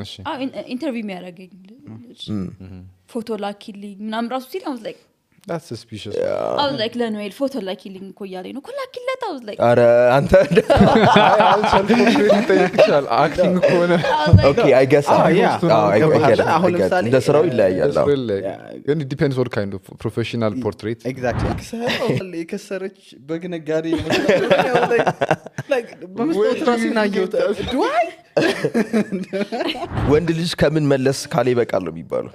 እሺ ኢንተርቪው የሚያደርገኝ ፎቶ ላኪልኝ ምናምን ራሱ ሲል I was like that's suspicious I was like ለኖኤል ፎቶ ላኪልኝ እኮ እያለኝ ነው ላኪለት I was like አረ አንተ ይጠይቅሻል acting ከሆነ okay I guess አሁን ለምሳሌ እንደ ስራው ይለያያል ግን it depends what kind of professional portrait exactly የከሰረች በግነጋዴ like በመስጠት ራስና ይወጣ do I ወንድ ልጅ ከምን መለስ ካለ ይበቃል ነው የሚባለው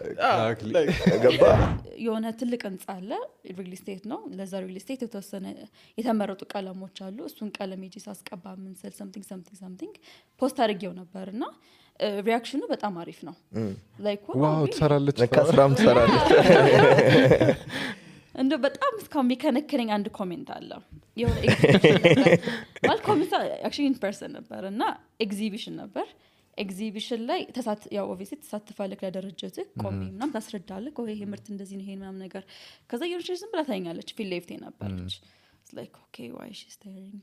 ገባ የሆነ ትልቅ ህንጻ አለ ሪል ስቴት ነው ለዛ ሪል ስቴት የተወሰነ የተመረጡ ቀለሞች አሉ እሱን ቀለም እጂ ሳስቀባ ምን ሰል something ፖስት አድርጌው ነበርና ሪአክሽኑ በጣም አሪፍ ነው like ዋው ተሰራለች ለካስራም ተሰራለች እንደ በጣም እስካሁን የሚከነከነኝ አንድ ኮሜንት አለ የሆነ ማለት ኮሜንት actually in person ነበርና ኤግዚቢሽን ነበር ኤግዚቢሽን ላይ ያው ኦብቪየስሊ ተሳትፋለህ ለደረጃትህ ቆሜ ምናምን ታስረዳለህ ይሄ ምርት እንደዚህ ነው ይሄ ምናምን ነገር ከዛ የሆነች ዝም ብላ ታኛለች ፊል ሌፍቴ ነበርች it's like okay why is she staring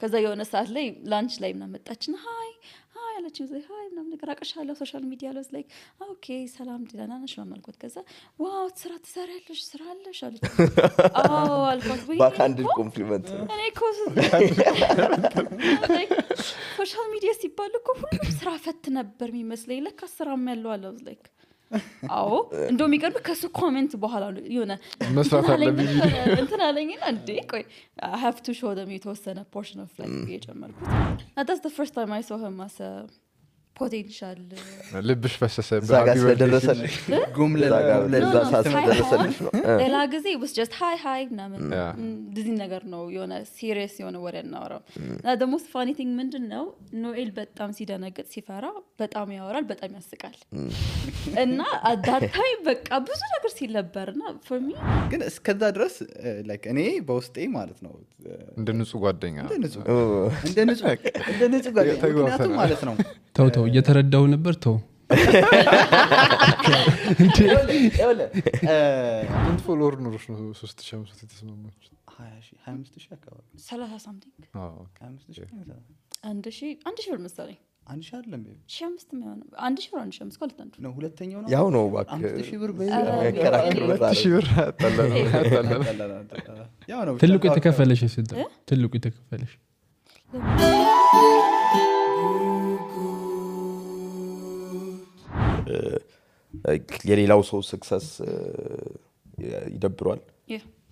ከዛ የሆነ ሰዓት ላይ ላንች ላይ ምናምን መጣችና ሃይ አለችኝ ዘይ ሃይ ምናምን ነገር አቀሻለሁ ሶሻል ሚዲያ ላይ like okay ሰላም ደህና ነሽ ማልኩት ከዛ ዋው ስራ ትሰሪያለሽ ስራ አለሽ አለች አልኳት ወይ ባካንድ ኮምፕሊመንት እኔ ኮስ ሶሻል ሚዲያ ሲባል እኮ ሁሉም ስራ ፈት ነበር የሚመስለኝ ለካ ስራም ያለው አለ like አዎ እንደው የሚቀርብ ከሱ ኮሜንት በኋላ የሆነ መስራት አለብኝ እንትን አለኝና እንዴ ቆይ I have to show them የተወሰነ portion of like የጨመርኩት that's the first time I saw him as a potential ልብሽ ፈሰሰ ዛጋ ስለደረሰልሽ ለዛ ስለደረሰልሽ ነው ሌላ ጊዜ was just hi ምናምን እንደዚህ ነገር ነው የሆነ serious የሆነ ወሬ እናወራው the most funny thing ምንድነው ኖኤል በጣም ሲደነግጥ ሲፈራ በጣም ያወራል በጣም ያስቃል እና at that time በቃ ብዙ ነገር ሲለበርና for me ግን እስከዛ ድረስ like እኔ በውስጤ ማለት ነው እንደ ንጹህ ጓደኛ እንደ ንጹህ ጓደኛ ማለት ነው ተው እየተረዳው ነበር ተው እንት ፎሎወር ኖርሽ ነው 3500 የተስማማች 25000 አካባቢ 30 something 25000 አንድ ሺህ ብር መሰለኝ አንድ ሺህ አይደለም 1500 ነው አንድ ሺህ ብር አንድ ሺህ አምስት አንዱ ነው ሁለተኛው ነው ያው ነው ባክ 5000 ብር ከራክሩ 2000 ብር አጣላላ ያው ነው ትልቁ የተከፈለሽ ስንት ትልቁ የተከፈለሽ የሌላው ሰው ሰክሰስ ይደብሯል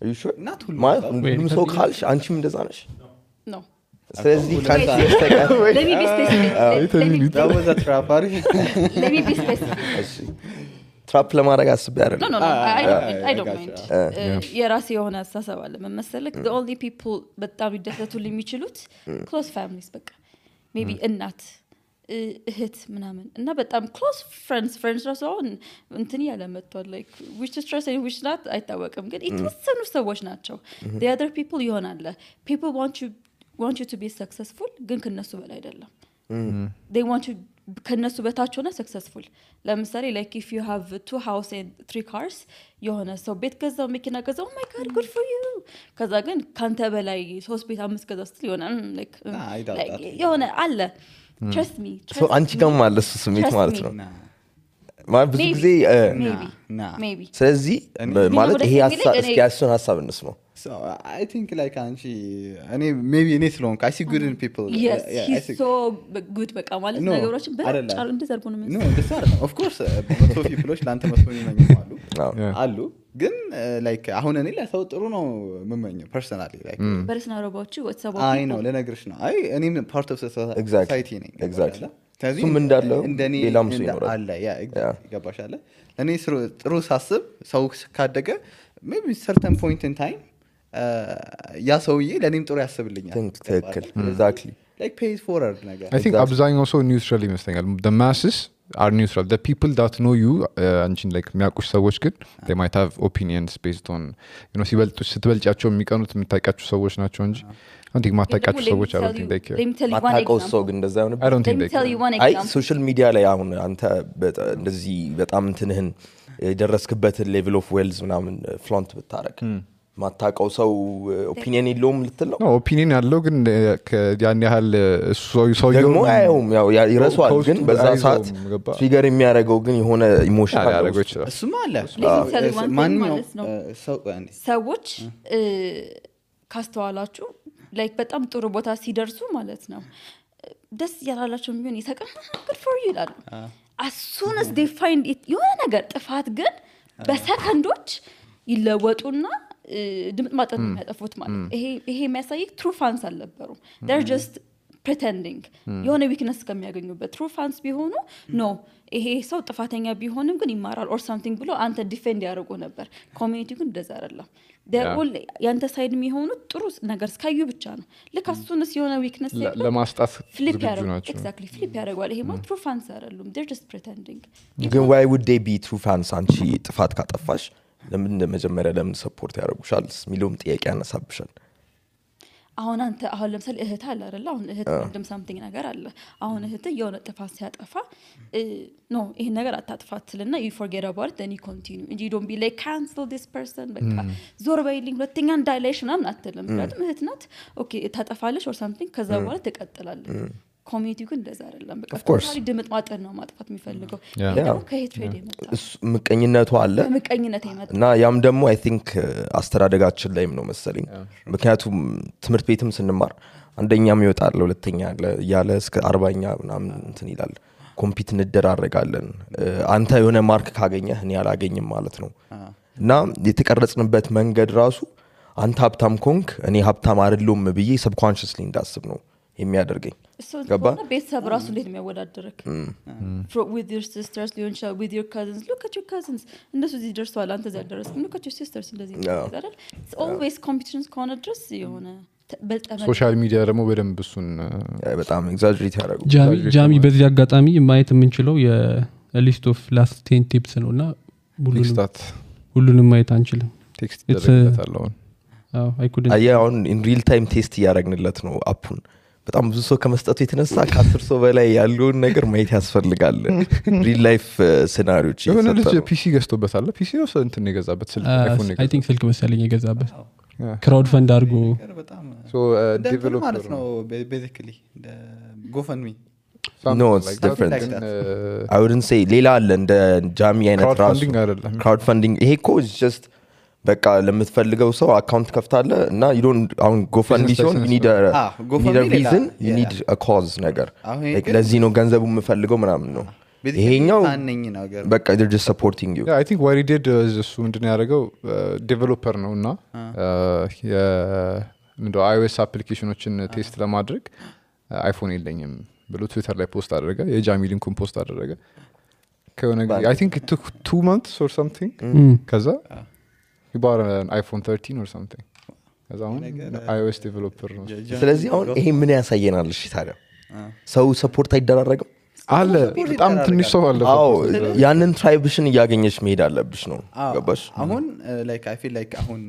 are you sure not ሁሉም ሰው ካልሽ አንቺም እንደዛ ነሽ no ስለዚህ ካልሽ ተቀር let me be specific that was a trap let me be specific እሺ ትራፕ ለማድረግ አስቤ አይደለም no I don't mind የራሴ የሆነ አስተሳሰብ አለ መመሰለክ the only people በጣም ይደሰቱልኝ የሚችሉት close families በቃ maybe እናት እህት ምናምን እና በጣም close friends ራሱ አሁን እንትን ያለ መጥቷል like which is trust and which not አይታወቅም ግን የተወሰኑ ሰዎች ናቸው the other people ይሆናል people want you to be successful ግን ከነሱ በላይ አይደለም they want you ከነሱ በታች ሆነ successful ለምሳሌ like if you have 2 house and 3 cars የሆነ ሰው ቤት ገዛው መኪና ገዛው oh my god good for you ከዛ ግን ካንተ በላይ 3 ቤት 5 ገዛው ስትል ይሆናል like የሆነ አለ trust me so አንቺ ጋር ማለት ስሜት ማለት ነው ማለት ብዙ ጊዜ maybe ስለዚህ ማለት ይሄ ሀሳብ እንስማው so I think like anchi ani maybe any slow I see good in people yes he's so good በቃ ማለት ነገሮችን በጫሉ እንደዘርጉ ነው no this are of course so people ላንተ መስሎኝ ነው አሉ ግን like አሁን እኔ ለሰው ጥሩ ነው መመኘው personally like personal about you what's about I know ለነገርሽ ነው አይ እኔም part of society ነኝ exactly ሱም እንዳለው ሌላም ሰው ይኖራል አለ ያ ይገባሻል እኔ ጥሩ ሳስብ ሰው ካደገ maybe certain point in time ያ ሰውዬ ለኔም ጥሩ ያስብልኛል ትክክል exactly like pays forward ነገር I think አብዛኛው ሰው neutral ይመስለኛል the masses are neutral the people that know you አንቺን like የሚያውቁሽ ሰዎች ግን they might have opinions based on ስትበልጫቸው የሚቀኑት የምታውቃቸው ሰዎች ናቸው እንጂ አንተ ማታውቃቸው ሰዎች I don't think they care ማታውቀው ሰው ግን እንደዛ ነው I don't think they care አይ ሶሻል ሚዲያ ላይ አሁን አንተ እንደዚህ በጣም እንትንህን የደረስክበትን level of wealth ምናምን flaunt ብታረግ ማታቀው ሰው ኦፒኒየን የለውም ልትል ነው ኦፒኒየን ያለው ግን ያን ያህል ሰው ደግሞ አይውም ያው ይረሳዋል ግን በዛ ሰዓት ትሪገር የሚያደርገው ግን የሆነ ኢሞሽን ያደርገው ይችላል እሱማ አለ ሰዎች ካስተዋላችሁ ላይክ በጣም ጥሩ ቦታ ሲደርሱ ማለት ነው ደስ ያላላቸው የሚሆን ይሰቀም good for you ይላሉ as soon as they find it የሆነ ነገር ጥፋት ግን በሰከንዶች ይለወጡና ድምጥ ማጠን የሚያጠፉት ማለት ይሄ የሚያሳይ true fans አልነበሩም they're just pretending የሆነ weakness ከሚያገኙበት true fans ቢሆኑ no ይሄ ሰው ጥፋተኛ ቢሆንም ግን ይማራል or something ብሎ አንተ ዲፌንድ ያደርጉ ነበር ኮሚኒቲ ግን እንደዛ አይደለም they're all ያንተ ሳይድ የሚሆኑት ጥሩ ነገር እስካዩ ብቻ ነው ለካሱንስ የሆነ weakness ለማስጣት flip ያደርጋሉ exactly flip ያደርጋሉ ይሄ ማለት true fans አይደሉም they're just pretending ግን why would they be true fans አንቺ ጥፋት ካጠፋሽ ለምን መጀመሪያ ለምን ሰፖርት ያደርጉሻል ሚሉም ጥያቄ ያነሳብሻል አሁን አንተ አሁን ለምሳሌ እህት አለ አይደል አሁን እህት ወንድም something ነገር አለ አሁን እህት የሆነ ጥፋት ሲያጠፋ ኖ ይሄ ነገር አታጥፋትልና you forget about it then you continue and you don't be like cancel this person በቃ ዞር በይልኝ ሁለተኛ እንዳይለሽ ምናምን አትልም ምክንያቱም እህት ናት ኦኬ ታጠፋለሽ or something ከዛ በኋላ ትቀጥላለች ኮሚኒቲው ግን እንደዛ አይደለም በቃ ቶታሊ ድምጥ ማጠን ነው ማጥፋት የሚፈልገው ያው ከሄትሬድ የመጣ ምቀኝነቱ አለ ምቀኝነት የመጣ እና ያም ደግሞ አይ ቲንክ አስተዳደጋችን ላይም ነው መሰለኝ ምክንያቱም ትምህርት ቤትም ስንማር አንደኛም ይወጣል ሁለተኛ ያለ እስከ 40ኛ ምናምን እንትን ይላል ኮምፒት እንደራረጋለን አንተ የሆነ ማርክ ካገኘህ እኔ አላገኝም ማለት ነው እና የተቀረጽንበት መንገድ ራሱ አንተ ሀብታም ኮንክ እኔ ሀብታም አይደለም ብዬ ሰብኮንሺየስሊ እንዳስብ ነው የሚያደርገኝ ገባ ቤተሰብ ራሱ እንዴት የሚያወዳድርክ with your sisters with your cousins look at your cousins እንደሱ እዚህ ደርሰዋል አንተ እዚህ ደረስክ look at your sisters እንደዚህ አይደል it's always competitions ከሆነ ድረስ የሆነ ሶሻል ሚዲያ ደግሞ በደንብ እሱን በጣም ኤግዛጀሬት ያደርጉ ጃሚ በዚህ አጋጣሚ ማየት የምንችለው የሊስት ኦፍ ላስት 10 ቲፕስ ነውና ሁሉንም ማየት አንችልም ቴክስት ይደረግበታል I couldn't አሁን in real time ቴስት ያደረግንለት ነው አፑን በጣም ብዙ ሰው ከመስጠቱ የተነሳ ከ10 ሰው በላይ ያለውን ነገር ማየት ያስፈልጋል ሪል ላይፍ ሲናሪዮች የሆነ ልጅ ፒሲ ገዝቶበታል ፒሲ ነው እንትን የገዛበት ስልክ አይፎን I think ስልክ መሰለኝ የገዛበት ክራውድ ፈንድ አድርጎ ሶ ዴቨሎፐር ማለት ነው basically the GoFundMe no it's different I wouldn't say ሌላ አለ እንደ ጃሚ አይነት ራሱ ክራውድ ፈንዲንግ ይሄ እኮ is just በቃ ለምትፈልገው ሰው አካውንት ከፍታለ እና you don't አሁን GoFundMe ሲሆን you need a reason you need a cause ነገር like ለዚህ ነው ገንዘቡ የምፈልገው ምናምን ነው ይሄኛው በቃ they're just supporting you yeah I think what he did is እሱ ምንድነው ያደረገው ዴቨሎፐር ነውና ምንድነው iOS አፕሊኬሽኖችን ቴስት ለማድረግ አይፎን የለኝም ብሎ ትዊተር ላይ ፖስት አደረገ የጃሚ ሊንኩን ፖስት አደረገ ከሆነ I think it took 2 months or something ከዛ he bought an iPhone 13 or something as on iOS developer ነው ስለዚህ አሁን ይሄ ምን ያሳየናል እሺ ታዲያ ሰው ሰፖርት አይደረግም አለ በጣም ትንሽ ሰው አለ አዎ ያንን ትራይብሽን ያገኘሽ መሄድ አለብሽ ነው ገባሽ አሁን like I feel like አሁን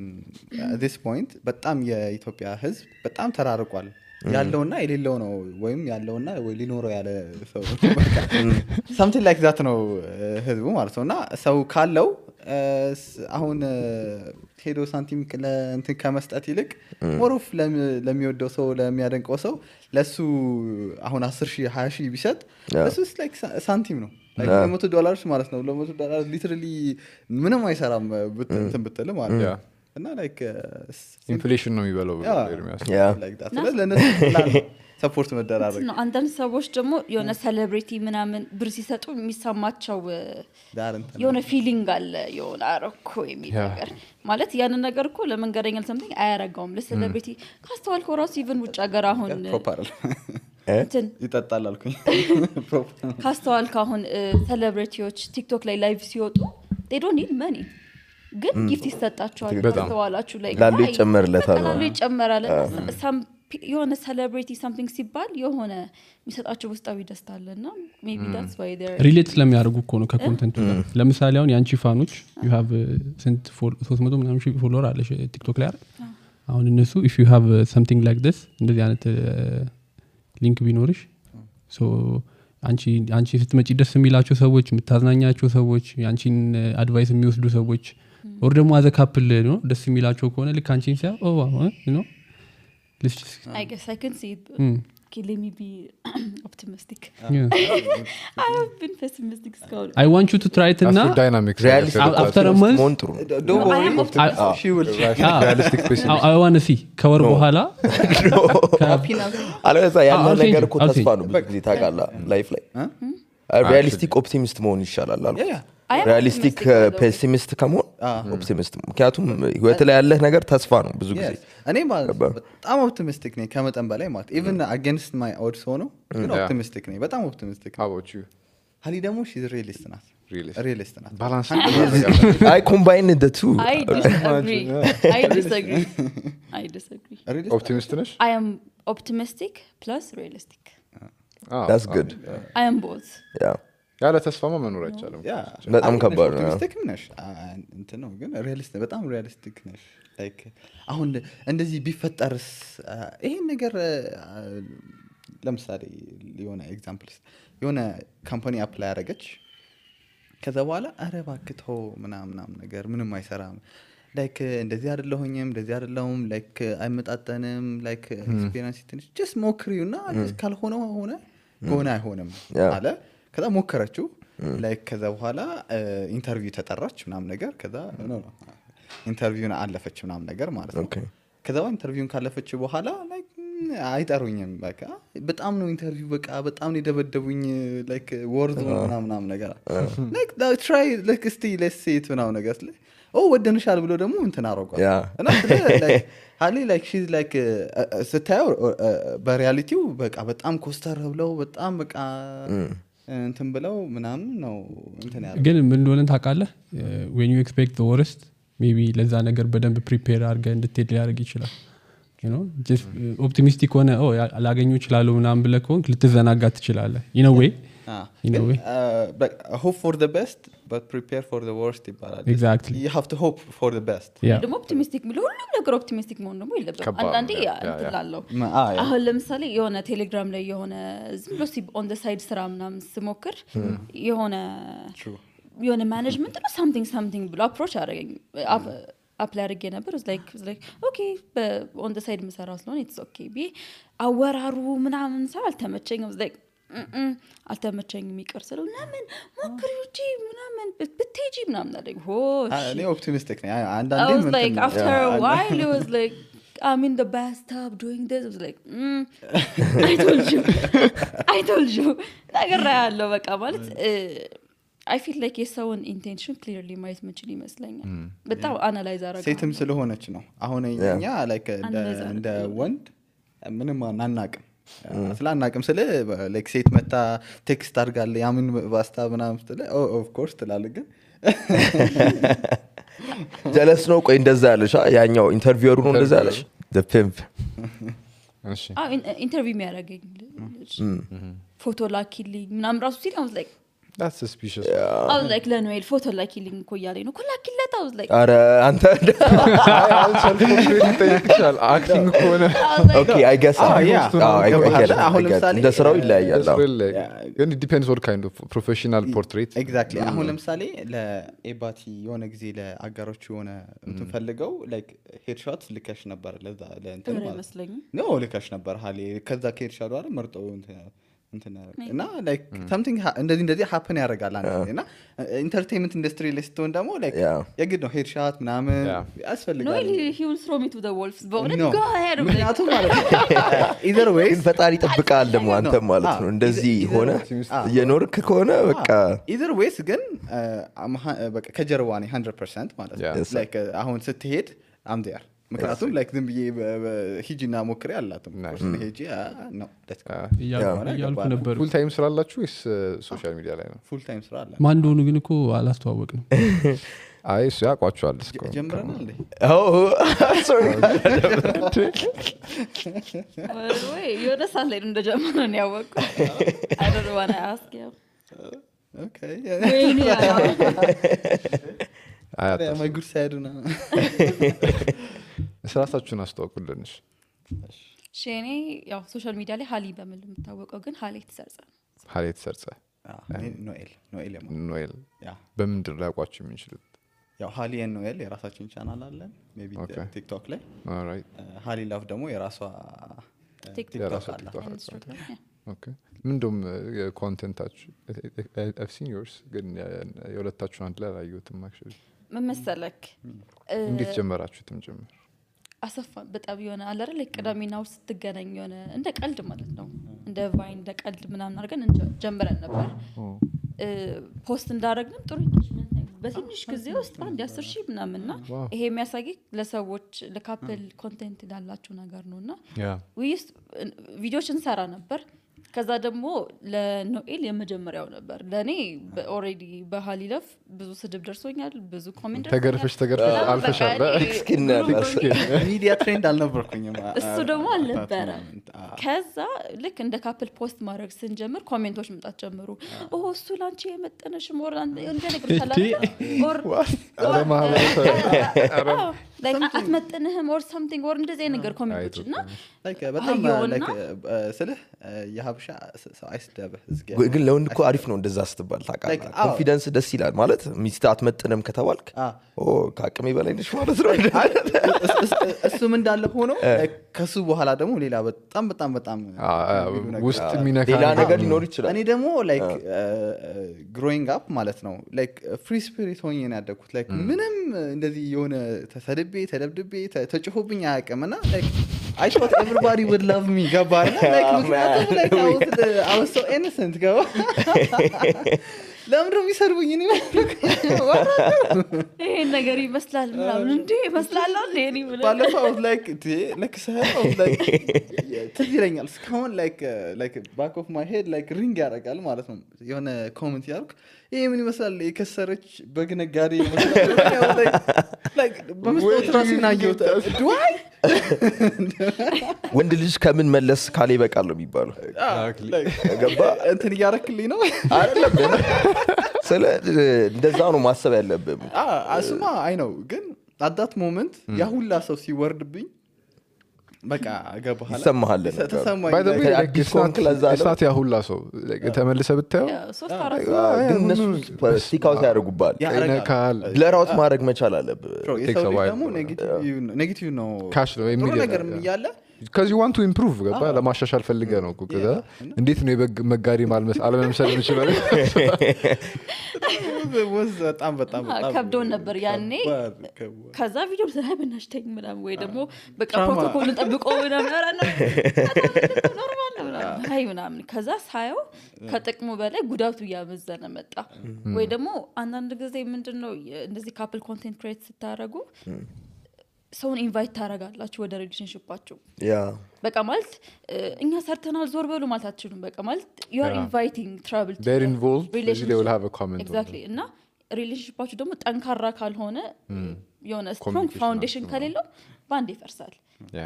at this point በጣም የኢትዮጵያ ህዝብ በጣም ተራርቋል ያለውና የሌለው ነው ወይም ያለውና ወይ ሊኖረው ያለ ሰው something like that ነው ህዝቡ ማለት ነውና ሰው ካለው አሁን ሄዶ ሳንቲም ለእንትን ከመስጠት ይልቅ ሞሮፍ ለሚወደው ሰው ለሚያደንቀው ሰው ለሱ አሁን 10,000 20,000 ቢሰጥ እሱስ like ሳንቲም ነው like $100 ማለት ነው $100 literally ምንም አይሰራም እንትን ብትል ማለት ነው እና like ኢንፍሌሽን ነው የሚበለው like that ለነሱ ሰፖርት መደራረግ ነው አንዳንድ ሰዎች ደግሞ የሆነ ሴሌብሪቲ ምናምን ብር ሲሰጡ የሚሰማቸው የሆነ ፊሊንግ አለ የሆነ አረኮ የሚል ነገር ማለት ያን ነገር እኮ ለመንገረኛል something አያረጋውም ለሴሌብሪቲ ካስተዋልከው ራሱ ኢቭን ውጭ ሀገር አሁን ይጠጣል አልኩኝ ካስተዋልከው አሁን ሴሌብሪቲዎች ቲክቶክ ላይ ላይቭ ሲወጡ they don't need money ግን ጊፍት ይሰጣቸዋል ካስተዋላችሁ ላይ ላሉ ይጨመርለታል ላሉ ይጨመራል የሆነ ሴሌብሪቲ something ሲባል የሆነ የሚሰጣቸው ውስጣዊ ደስታ አለና maybe that's why they're ሪሌት ስለሚያደርጉ እኮ ነው ከኮንተንቱ ጋር ለምሳሌ አሁን ያንቺ ፋኖች you have sent 300 ምናምን ሺህ ፎሎወር አለሽ ቲክቶክ ላይ አሁን እነሱ if you have something like this እንደዚህ አይነት ሊንክ ቢኖርሽ so አንቺ ስትመጪ ደስ የሚላቸው ሰዎች የምታዝናኛቸው ሰዎች ያንቺን አድቫይስ የሚወስዱ ሰዎች or ደግሞ as a couple ነው ደስ የሚላቸው ከሆነ ልክ አንቺን ሲያ you know let's just I guess I can see it. Okay, let me be optimistic. yeah. I have been pessimistic እስካሁን. I want you to try it እና dynamics after a month መሆን ጥሩ ነው Don't No, I worry, am optimistic. she will realistic pessimist I want to see ከወር በኋላ happy now. አለበዛ ያለ I'll ነገር change እኮ it. I'll ተስፋ change ነው ብዙ ጊዜ ታውቃለህ ላይፍ ላይ ሪያሊስቲክ ኦፕቲሚስት መሆን ይሻላል አልኩ Yeah. I am ሪያሊስቲክ optimistic, by the way. ፔሲሚስት ከመሆን ኦፕቲሚስት ምክንያቱም ህይወት ላይ ያለህ ነገር ተስፋ ነው ብዙ ጊዜ Yes. እኔ በጣም ኦፕቲሚስቲክ ነኝ ከመጠን በላይ ማለት ኢቭን አጌንስት ማይ ኦድስ ሆኖ ግን Yeah. ኦፕቲሚስቲክ ነኝ በጣም ኦፕቲሚስቲክ how about you ሀሊ ደግሞ ሺዝ ሪሊስት ናት Realist. ሪሊስት ናት balance I combine the two I disagree. I disagree. I disagree. Realist- optimist ነሽ I am optimistic plus realistic. that's good I am both. yeah ያለ ተስፋማ መኖር አይቻልም Yeah. በጣም አይ ከባድ ነው። ኦፕቲሚስቲክ ነሽ እንትን ነው ግን ሪያሊስት በጣም ሪያሊስቲክ ነሽ ላይክ አሁን እንደዚህ ቢፈጠርስ ይሄን ነገር ለምሳሌ የሆነ ኤግዛምፕልስ የሆነ ካምፓኒ አፕላይ ያደረገች ከዛ በኋላ አረ እባክህ ተው ምናምን ነገር ምንም አይሰራም ላይክ እንደዚህ አይደለሁኝም እንደዚህ አይደለሁም ላይክ አይመጣጠንም ላይክ ኤክስፒሪየንስ ትንሽ ጀስት ሞክሪውና ጀስት ካልሆነ ሆነ ከሆነ አይሆንም አለ ከዛ ሞከረችው ላይክ ከዛ በኋላ ኢንተርቪው ተጠራች ምናምን ነገር ከዛ ኢንተርቪውን አለፈች ምናምን ነገር ማለት ነው ከዛ ኢንተርቪውን ካለፈች በኋላ ላይክ አይጠሩኝም በቃ በጣም ነው ኢንተርቪው በቃ በጣም ነው የደበደቡኝ ላይክ ወርድ ምናምን ነገር ላይክ ትራይ ላይክ እስቲ ሌትስ ሲ ኢት ምናምን ነገር ወደንሻል ብሎ ደግሞ እንትን አረጋው እና ላይክ ሃሊ ላይክ ሺዝ ላይክ ስታየው በሪያሊቲው በቃ በጣም ኮስተር ብለው በጣም በቃ እንትን ብለው ምናምን ነው እንትን ያለው ግን ምን እንደሆነ ታውቃለህ when you expect the worst maybe ለዛ ነገር በደንብ ፕሪፔር አድርገህ እንድትሄድ ሊያደርግ ይችላል you know just optimistic ሆነ አላገኙ ይችላል ምናምን ብለህ ከሆንክ ልትዘናጋ ትችላለህ in a way in a way hope for the best but prepare for the worst ይባላል exactly you have to hope for the best ደግሞ ኦፕቲሚስቲክ ብሎ ሁሉም ነገር ኦፕቲሚስቲክ መሆን ደግሞ የለበትም አንዳንዴ እንትላለው yeah. አሁን ለምሳሌ የሆነ ቴሌግራም ላይ የሆነ ዝም ብሎ ኦን ዘ ሳይድ ስራ ምናምን ስሞክር የሆነ ማኔጅመንት ነው something ብሎ አፕሮች አደረገኝ አፕላይ አድርጌ ነበር was like okay on the side መሰራው ስለሆነ it's okay ቢ አወራሩ ምናምን ሰው አልተመቸኝም was like አልተመቸኝም ይቀር ስለው ለምን ሞክሪው እንጂ ምናምን ብትሄጂ ምናምን አለኝ እኔ ኦፕቲሚስቲክ ነኝ I አንዳንዴ was like after a while it was like I'm in the bathtub doing this I was like I told you ነገር ያለው በቃ ማለት I feel like የሰውን ኢንቴንሽን ክሊርሊ ማየት መችል ይመስለኛል በጣም አናላይዝ አረጋ ሴትም ስለሆነች ነው አሁን እኛ ላይክ እንደ ወንድ ምንም አናናቅም ስላናቅም ስለ ላይክ ሴት መታ ቴክስት አድርጋለ ያምን ባስታ ምናምን ስለ ኦፍ ኮርስ ትላለህ ግን ጀለስ ነው ቆይ እንደዛ ያለሽ ያኛው ኢንተርቪወሩ ነው እንደዛ ያለሽ the pimp እሺ ኢንተርቪው የሚያደርገኝ ፎቶ ላኪልኝ ምናምን ራሱ ሲል I was like that's suspicious I was like ለኖኤል ፎቶ ላኪልኝ እኮ እያለኝ ነው ላኪለት I was like አረ አንተ acting ከሆነ okay I guess አሁን ለምሳሌ እንደ ስራው ይለያያል ግን it depends what kind of professional portrait exactly አሁን ለምሳሌ ለኤባቲ የሆነ ጊዜ ለአጋሮቹ የሆነ እንትን ፈልገው ላይክ ሄድሾት ልከሽ ነበር ለዛ ለእንትን ማለት ነው ልከሽ ነበር ሃሊ ከዛ ከሄድሾት አይደል መርጠው እና ላይክ something እንደዚህ happen ያደርጋል አንዴና ኢንተርቴይንመንት ኢንደስትሪ ላይ ስትሆን ደግሞ ላይክ የግድ ነው ሄድሾት ምናምን ያስፈልጋል no he will throw me to the wolves but go ahead ምክንያቱም ማለት ነው either way ግን ፈጣሪ ይጠብቃል ደግሞ አንተ ማለት ነው እንደዚህ ሆነ የኖርክ ከሆነ በቃ either ways ግን በቃ ከጀርባ ነው 100% ማለት ነው ላይክ አሁን ስትሄድ I'm there ምክንያቱም ላይክ ዝም ብዬ ሂጂና ሞክሬ አላትም ሂጂ ነው ያልኩ ነበር ፉል ታይም ስራ አላችሁ ወይስ ሶሻል ሚዲያ ላይ ነው ፉል ታይም ስራ አለ ማን እንደሆኑ ግን እኮ አላስተዋወቅንም አይ እሱ ያውቋቸዋል እስኮ ጀምረናል sorry ወይ የሆነ ሰዓት ላይ እንደጀመረው ነው ያወቅኩት I don't want to ask you okay my good side ነው ስራታችሁን አስተዋውቁልንሽ ሼኔ ያው ሶሻል ሚዲያ ላይ ሃሊ በመል የምታወቀው ግን ሃሊ ሰርጸ ኖኤል በምንድን ላይ ያውቋችሁ የሚችሉት ያው ሃሊ ኤንድ ኖኤል የራሳችን ቻናል አለን ሜቢ ቲክቶክ ላይ ኦልራይት ሃሊ ላቭ ደግሞ የራሷ ቲክቶክ አለ ኦኬ ምንድነው የኮንቴንታችሁ I've seen yours ግን የሁለታችሁ አንድ ላይ አላየሁትም actually መመሰለክ እንዴት ጀመራችሁትም ጀመር አሰፋ በጣም የሆነ አለ አይደል ቅዳሜና እሑድ ስትገናኝ የሆነ እንደ ቀልድ ማለት ነው እንደ ቫይን እንደ ቀልድ ምናምን አድርገን ጀምረን ነበር ፖስት እንዳደረግንም ጥሩ ኢንጌጅመንት ነው በትንሽ ጊዜ ውስጥ አንድ 10,000 ምናምንና ይሄ የሚያሳይ ለሰዎች ለካፕል ኮንቴንት ላላችሁ ነገር ነውና ዊስ ቪዲዮዎች እንሰራ ነበር ከዛ ደግሞ ለኖኤል የመጀመሪያው ነበር ለኔ ኦሬዲ በሃሊለፍ ብዙ ስድብ ደርሶኛል ብዙ ኮሜንት ተገርፈሽ አልፈሻል ሚዲያ ትሬንድ አልነበርኩኝም እሱ ደግሞ አልነበረ ከዛ ልክ እንደ ካፕል ፖስት ማድረግ ስንጀምር ኮሜንቶች መምጣት ጀመሩ እሱ ላንቺ የመጠነሽ ሞር እንደ ነገር like አትመጥንህም or something or እንደዚህ ነገር ኮሜንቶችና like በጣም like ስልህ የሀበሻ ሰው አይስደብህ ግን ለወንድ እኮ አሪፍ ነው እንደዛ ስትባል ታውቃለህ ኮንፊደንስ ደስ ይላል ማለት ሚስት አትመጥንም ከተባልክ ከአቅሜ በላይ ነሽ ማለት ነው እሱም እንዳለ ሆኖ ከሱ በኋላ ደግሞ ሌላ በጣም ውስጥ ሚነካ ሌላ ነገር ሊኖር ይችላል እኔ ደግሞ like growing up ማለት ነው like free spirit ሆኜ ነው ያደኩት like ምንም እንደዚህ የሆነ ተደብድቤ ተጭሆብኝ አያውቅምና like I thought everybody would love me ገባና like I was so innocent ገባ ለምን ነው የሚሰርቡኝ እኔ ይሄ ነገር ይመስላል ምናምን እንዴ ይመስላል እኔ ባለፈው like ሰው like ትይረኛል እስካሁን like back of my head like ring ያደርጋል ማለት ነው የሆነ ኮሜንት ያርክ ይሄ ምን ይመስላል የከሰረች በግነጋዴ ይመስላል like በመስጠት ራስና ይወጣ ዱይ ወንድ ልጅ ከምን መለስ ካለ ይበቃል ነው የሚባለው ገባ እንትን ያረክልኝ ነው አይደለም ስለ እንደዛ ነው ማሰብ ያለብህ አስማ አይ ነው ግን at that moment ያ ሁላ ሰው ሲወርድብኝ በቃ ገባህ ይሰማሃል by the way like it's not ያ ሁላ ሰው ተመልሰ ብታየው ግን እነሱ ስቲካውት ያደርጉባል ለራውት ማድረግ መቻል አለብህ ደግሞ ኔጌቲቭ ነው ካሽ ነው የሚል ነገር ያለ because you want to improve ገባ ለማሻሻል ፈልገህ ነው እኮ ከዛ እንዴት ነው የመጋሪ ማልመስ አለመምሰል ይችላል was በጣም ከብዶን ነበር ያኔ ከዛ ቪዲዮ ስለበናሽ ተኝ ምናምን ወይ ደግሞ በቃ ፕሮቶኮልን ጠብቆ ምናምን ኖርማል ነው አይ ምናምን ከዛ ሳየው ከጥቅሙ በላይ ጉዳቱ ያመዘነ መጣ ወይ ደግሞ አንዳንድ ጊዜ ምንድነው እንደዚህ ካፕል ኮንቴንት ክሬት ስታረጉ ሰውን ኢንቫይት ታረጋላችሁ ወደ ሪሌሽንሺፓችሁ በቃ ማለት እኛ ሰርተናል ዞር በሉ ማለት አትችሉም በቃ ማለት you are inviting trouble to they're involved they will have a comment exactly እና ሪሌሽንሺፓችሁ ደግሞ ጠንካራ ካልሆነ የሆነ strong foundation ከሌለው ባንዴ ይፈርሳል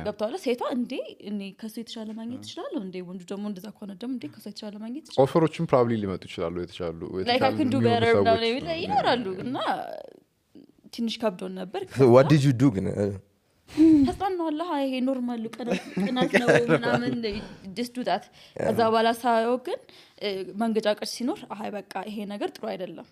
ገብቷል ሴቷ እንዴ እኔ ከሱ የተሻለ ማግኘት ይችላል እንዴ ወንዱ ደግሞ እንደዛ ከሆነ ደግሞ እንዴ ከሱ የተሻለ ማግኘት ይችላል ኦፈሮችን probably ሊመጡ ይችላሉ የተሻሉ like I can do better now ይኖራሉ እና ትንሽ ከብዶን ነበር what did you do ግን ተጣናለህ ይሄ ኖርማል ቀናት ነው ምናምን just do that ከዛ በኋላ ሳየው ግን መንገጫቀጭ ሲኖር አይ በቃ ይሄ ነገር ጥሩ አይደለም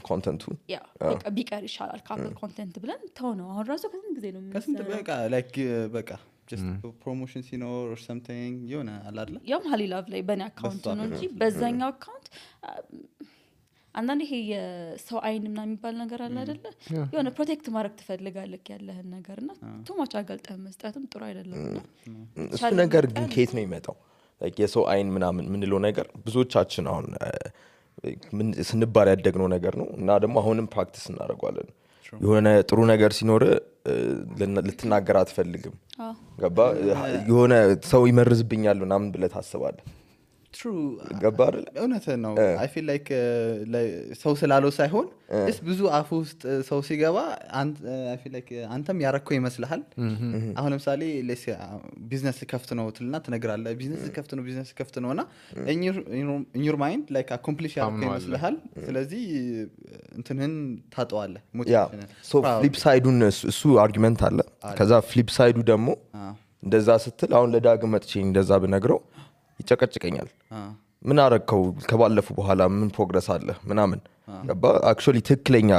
ኮንቴንቱ ያ በቃ ቢቀር ይሻላል ካፕል ኮንቴንት ብለን ተው ነው አሁን ራሱ ከስንት ጊዜ ነው ከስንት በቃ like በቃ just promotion ሲኖር or something የሆነ አላለ ያም ሃሊላቭ ላይ በኔ አካውንት ነው እንጂ በዛኛው አካውንት አንዳንዴ ይሄ የሰው አይን ምናምን የሚባል ነገር አለ አይደለ የሆነ ፕሮቴክት ማድረግ ትፈልጋለህ ያለህን ነገርና ቶማች አገልጠህ መስጠትም ጥሩ አይደለም እሱ ነገር ግን ከየት ነው የሚመጣው like የሰው አይን ምናምን ምንለው ነገር ብዙዎቻችን አሁን ምን ስንባል ያደግነው ነገር ነው እና ደግሞ አሁንም ፕራክቲስ እናደርጋለን የሆነ ጥሩ ነገር ሲኖር ልትናገር አትፈልግም ገባ የሆነ ሰው ይመርዝብኛል ምናምን ብለህ ታስባለህ true ገባር እውነት ነው I feel like ሰው ስላለው ሳይሆን እስ ብዙ አፍ ውስጥ ሰው ሲገባ I feel like አንተም ያረከው ይመስልሃል አሁን ለምሳሌ ቢዝነስ ከፍት ነው ትልና ትነግራለህ ቢዝነስ ከፍት ነውና in your mind like accomplish ያረከው ይመስልሃል ስለዚህ እንትንህን ታጠዋለህ ሞቲቬሽን so flip side እሱ አርጊመንት አለ ከዛ flip side ደግሞ እንደዛ ስትል አሁን ለዳግም መጥቼ እንደዛ ብነግረው ይጨቀጭቀኛል ምን አረከው ከባለፉ በኋላ ምን ፕሮግረስ አለ ምናምን ገባ አክቹሊ ትክክለኛ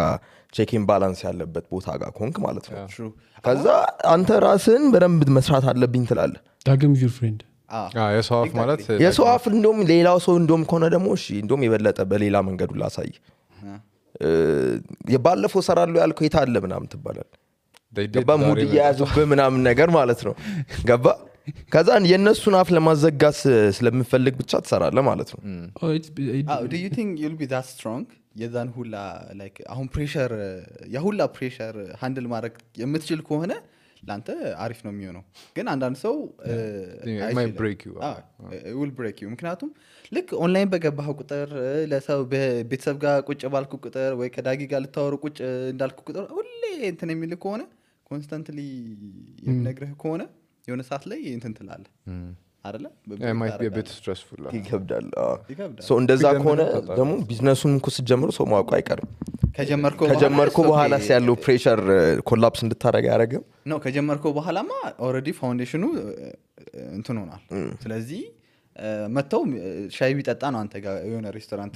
ቼኪን ባላንስ ያለበት ቦታ ጋር ኮንክ ማለት ነው ከዛ አንተ ራስን በደንብ መስራት አለብኝ ትላለህ ዳግም ዩር ፍሬንድ የሰው አፍ ማለት የሰው አፍ እንደውም ሌላው ሰው እንደውም ከሆነ ደግሞ እሺ እንደውም የበለጠ በሌላ መንገዱ ላሳይ የባለፈው ሰራለው ያልከው የታለ ምናምን ትባላል ገባ ሙድ ያያዙብህ ምናምን ነገር ማለት ነው ገባ ከዛ የነሱን አፍ ለማዘጋት ስለምፈልግ ብቻ ትሰራለህ ማለት ነው do you think you'll be that strong የዛን ሁላ like አሁን ፕሬሸር የሁላ ፕሬሸር ሃንድል ማድረግ የምትችል ከሆነ ላንተ አሪፍ ነው የሚሆነው ግን አንዳንድ ሰው it might break you it will break you ምክንያቱም ልክ ኦንላይን በገባህ ቁጥር ለሰው በቤተሰብ ጋር ቁጭ ባልኩ ቁጥር ወይ ከዳጊ ጋር ልታወሩ ቁጭ እንዳልኩ ቁጥር ሁሌ እንትን የሚል ከሆነ ኮንስታንትሊ የሚነግርህ ከሆነ የሆነ ሰዓት ላይ እንትን ትላለህ አይደለ it might be a bit stressful ይከብዳል ሶ እንደዛ ከሆነ ደግሞ ቢዝነሱን እኮ ስትጀምሩ ሰው ማውቀ አይቀርም ከጀመርኩ በኋላ ያለው ፕሬሸር ኮላፕስ እንድታረጋ ያረጋም ነው ከጀመርኩ በኋላማ ኦሬዲ ፋውንዴሽኑ እንትን ሆኗል ስለዚህ መተው ሻይ ቢጠጣ ነው አንተ ጋር የሆነ ሬስቶራንት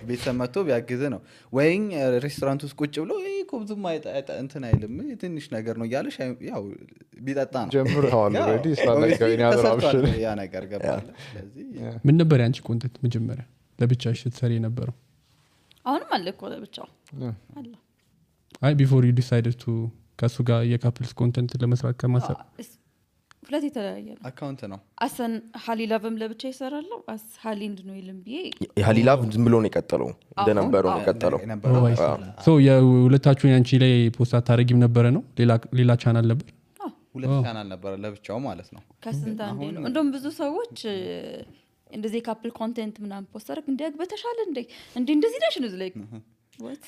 ቤተሰብ መተው ቢያግዝ ነው ወይን ሬስቶራንት ውስጥ ቁጭ ብሎ ኮብዙም እንትን አይልም ትንሽ ነገር ነው ያለ ሻይ ያው ቢጠጣ ነው ጀምረዋል ኦሬዲ ስላላገኝ ያደራብሽል ያ ነገር ገባለ ስለዚህ ምን ነበር ያንቺ ኮንተንት መጀመሪያ ለብቻሽ ስትሰሪ ነበረው አሁንም አለ እኮ ለብቻው አለ አይ ቢፎር ዩ ዲሳይድድ ቱ ከሱ ጋር የካፕልስ ኮንተንት ለመስራት ከማሰብ ሁለት የተለያየ ነው አካውንት ነው አሰን ሃሊላቭም ለብቻ ይሰራለው አስ ሃሊንድ ነው ይልምብዬ ሃሊላቭ ዝም ብሎ ነው የቀጠለው እንደነበረው ነው የቀጠለው ሶ የሁለታችሁን ያንቺ ላይ ፖስት አታረጊም ነበረ ነው ሌላ ቻናል ነበር ሁለት ቻናል ነበር ለብቻው ማለት ነው ከስንት አንዴ ነው እንደውም ብዙ ሰዎች እንደዚህ ካፕል ኮንቴንት ምናምን ፖስት አድርግ እንዲያግ በተሻለ እንደዚህ ዳሽ ነው ላይክ what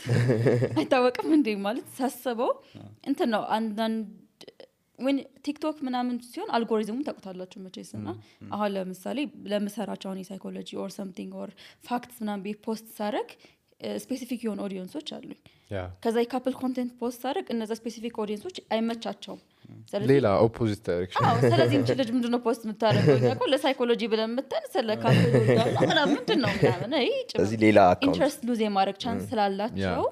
አይታወቅም እንዴ ማለት ሳስበው እንትን ነው አንዳንድ when TikTok ምናምን ሲሆን አልጎሪዝሙን ታውቁታላችሁ መቼስና አሁን ለምሳሌ ለምሰራቸው አሁን ሳይኮሎጂ or something or facts ምናምን ፖስት ሳረግ ስፔሲፊክ የሆነ ኦዲየንሶች አሉኝ ከዛ የካፕል ኮንቴንት ፖስት ሳረግ እነዛ ስፔሲፊክ ኦዲየንሶች አይመቻቸውም ሌላ ኦፖዚት ዳይሬክሽን ስለዚህ እንጂ ልጅ ምንድነው ፖስት የምታረገው ያቆ ለሳይኮሎጂ ብለን መተን ስለ ካፕል ወዳላ ምንድነው ምናምን ስለዚህ ሌላ አካውንት ኢንትረስት ሉዝ የማድረግ ቻንስ ስላላቸው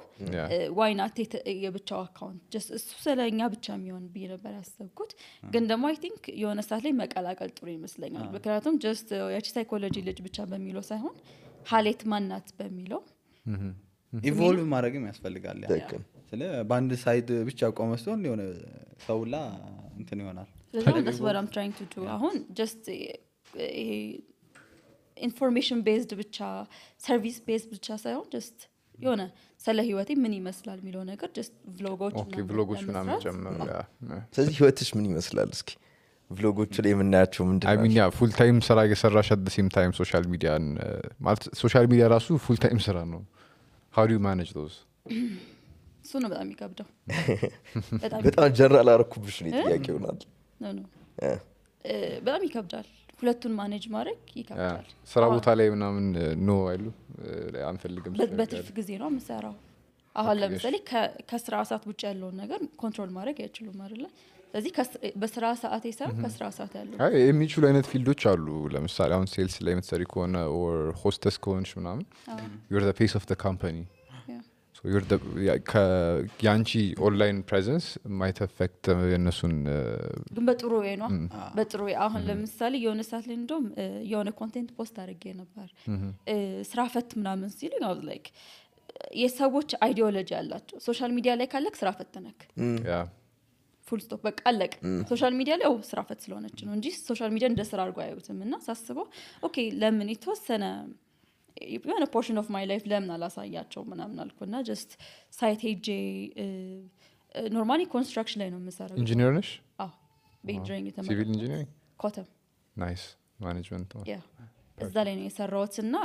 why not የብቻው አካውንት just እሱ ስለኛ ብቻ የሚሆን ብዬ ነበር ያሰብኩት ግን ደግሞ አይ ቲንክ የሆነ ሰዓት ላይ መቀላቀል ጥሩ ይመስለኛል ምክንያቱም just ያቺ ሳይኮሎጂ ልጅ ብቻ በሚለው ሳይሆን ሀሌት ማናት በሚለው ኢቮልቭ ማድረግም ያስፈልጋል ስለ ባንድ ሳይድ ብቻ ቆመስተው የሆነ ሰውላ እንትን ይሆናል that's what I'm trying to do አሁን just information based ብቻ service based ብቻ ሳይሆን just የሆነ ስለ ህይወቴ ምን ይመስላል የሚለው ነገር just vlogoች ምናምን ጀመር ስለዚህ ህይወትሽ ምን ይመስላል እስኪ vlogoች ላይ የምናያቸው ምንድነው I mean yeah full time ስራ እየሰራሽ at the same time social media ማለት social media ራሱ full time ስራ ነው how do you manage those እሱ ነው በጣም ይከብዳው በጣም ጀነራል አርኩብሽ ነው ጥያቄ ይሆናል ነው በጣም ይከብዳል ሁለቱን ማኔጅ ማድረግ ይከብዳል ስራ ቦታ ላይ ምናምን ነው አይሉ አንፈልግም በትርፍ ጊዜ ነው የምሰራው አሁን ለምሳሌ ከስራ ሰዓት ውጭ ያለውን ነገር ኮንትሮል ማድረግ አይችሉም አይደለ ስለዚህ በስራ ሰዓት ይሰራ ከስራ ሰዓት ያለው አይ የሚችሉ አይነት ፊልዶች አሉ ለምሳሌ አሁን ሴልስ ላይ የምትሰሪ ከሆነ or hostess ከሆንሽ ምናምን you're the face of the company so you're the ያንቺ ኦንላይን ፕሬዘንስ might affect የነሱን ግን በጥሩ ወይ ነው በጥሩ አሁን ለምሳሌ የሆነ ሰዓት ላይ እንደውም የሆነ ኮንቴንት ፖስት አድርጌ ነበር ስራ ፈት ምናምን ሲል ነው like የሰዎች አይዲዮሎጂ አላቸው ሶሻል ሚዲያ ላይ ካለክ ስራ ፈትነክ ፉል ስቶፕ በቃ አለቅ ሶሻል ሚዲያ ላይ ስራ ፈት ስለሆነች ነው እንጂ ሶሻል ሚዲያ እንደ ስራ አድርጎ አያዩትምና ሳስበው ኦኬ ለምን የተወሰነ የሆነ ፖርሽን ኦፍ ማይ ላይፍ ለምን አላሳያቸው ምናምን አልኩና just ሳይት ሄጄ ኖርማሊ ኮንስትራክሽን ላይ ነው የምሰራው ኢንጂነር ነሽ በኢንጂነሪንግ ተማሪ ሲቪል ኢንጂነሪንግ ኮተም ናይስ ማኔጅመንት እዛ ላይ ነው የሰራሁትና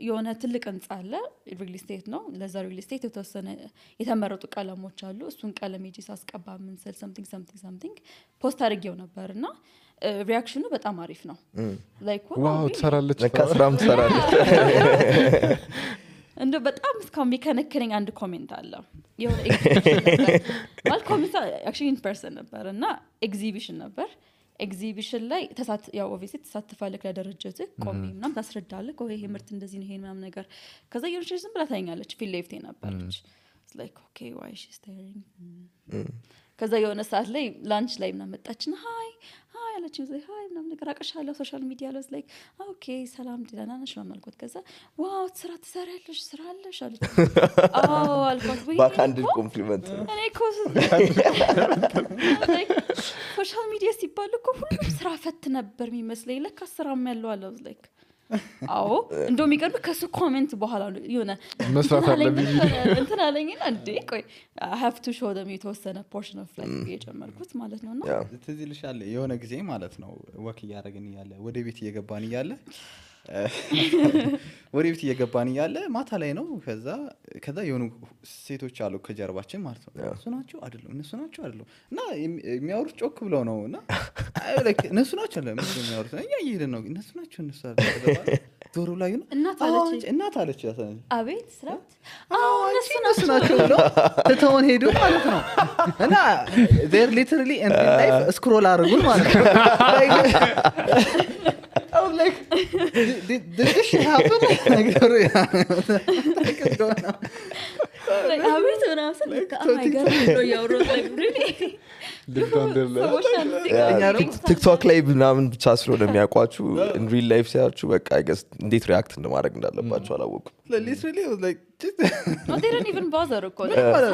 የሆነ ትልቅ ህንጻ አለ ሪል ስቴት ነው ለዛ ሪል ስቴት የተወሰነ የተመረጡ ቀለሞች አሉ እሱን ቀለም ሄጄ ሳስቀባ ምን ሰል something ፖስት አድርጌው ነበርና ሪአክሽኑ በጣም አሪፍ ነው ላይክ ዋው ተሰራለች ለካስራም ተሰራለች እንደ በጣም እስካሁን የሚከነክረኝ አንድ ኮሜንት አለ የሆነ ማለት ኮሜንት actually in person ነበርና ኤግዚቢሽን ነበር ኤግዚቢሽን ላይ ያው ኦብቪየስሊ ተሳትፋለህ ለደረጃት ቆሜ ምናምን ታስረዳለህ ይሄ ምርት እንደዚህ ነው ይሄ ምናምን ነገር ከዛ የሆነች ዝም ብላ ታኛለች ፊል ሌፍቴ ነበርች it's like okay why is she staring ከዛ የሆነ ሰዓት ላይ ላንች ላይ ምናምን መጣችና ሃይ አለችኝ ዘይ ሃይ ምናምን ነገር አቀሻለሁ ሶሻል ሚዲያ ላይ like ኦኬ ሰላም ደህና ነሽ ምናምን አልኳት ከዛ ዋው ስራ ትሰሪያለሽ ስራ አለሽ አለች አዎ አልኳት ወይ ባካንድ ኮምፕሊመንት እኔ ኮስ ሶሻል ሚዲያ ሲባል እኮ ሁሉም ስራ ፈት ነበር የሚመስለኝ ለካ ስራም ያለው አለ like አዎ እንደው የሚቀርብ ከሱ ኮሜንት በኋላ የሆነ መስራት አለብኝ እንትን አለኝና እንዴ ቆይ I have to show them የተወሰነ portion of life የጨመርኩት ማለት ነውና ትዝ ይልሻል የሆነ ጊዜ ማለት ነው ወክ እያደረግን እያለ ወደ ቤት እየገባን እያለ ወደ ቤት እየገባን እያለ ማታ ላይ ነው ከዛ የሆኑ ሴቶች አሉ ከጀርባችን ማለት ነው እነሱ ናቸው አይደለም እና የሚያወሩት ጮክ ብለው ነውና እነሱ ናቸው አይደለም የሚያወሩት እኛ እየሄድን ነው እነሱ አይደለም ዶሮ ላይ ነው እናት አለች ያሰነ አቤት ስራት እነሱ ናቸው ብለው ተተውን ሄዱ ማለት ነው እና they literally in life scroll አድርጉን ማለት ነው I was like did this happen like like አቤት ምናምን like oh my god you're like really ቲክቶክ ላይ ምናምን ብቻ ስለሆነ የሚያውቋችሁ in real life ሲያችሁ በቃ I guess እንዴት ሪአክት እንደማድረግ እንዳለባችሁ አላወኩም literally was like no they didn't even bother እኮ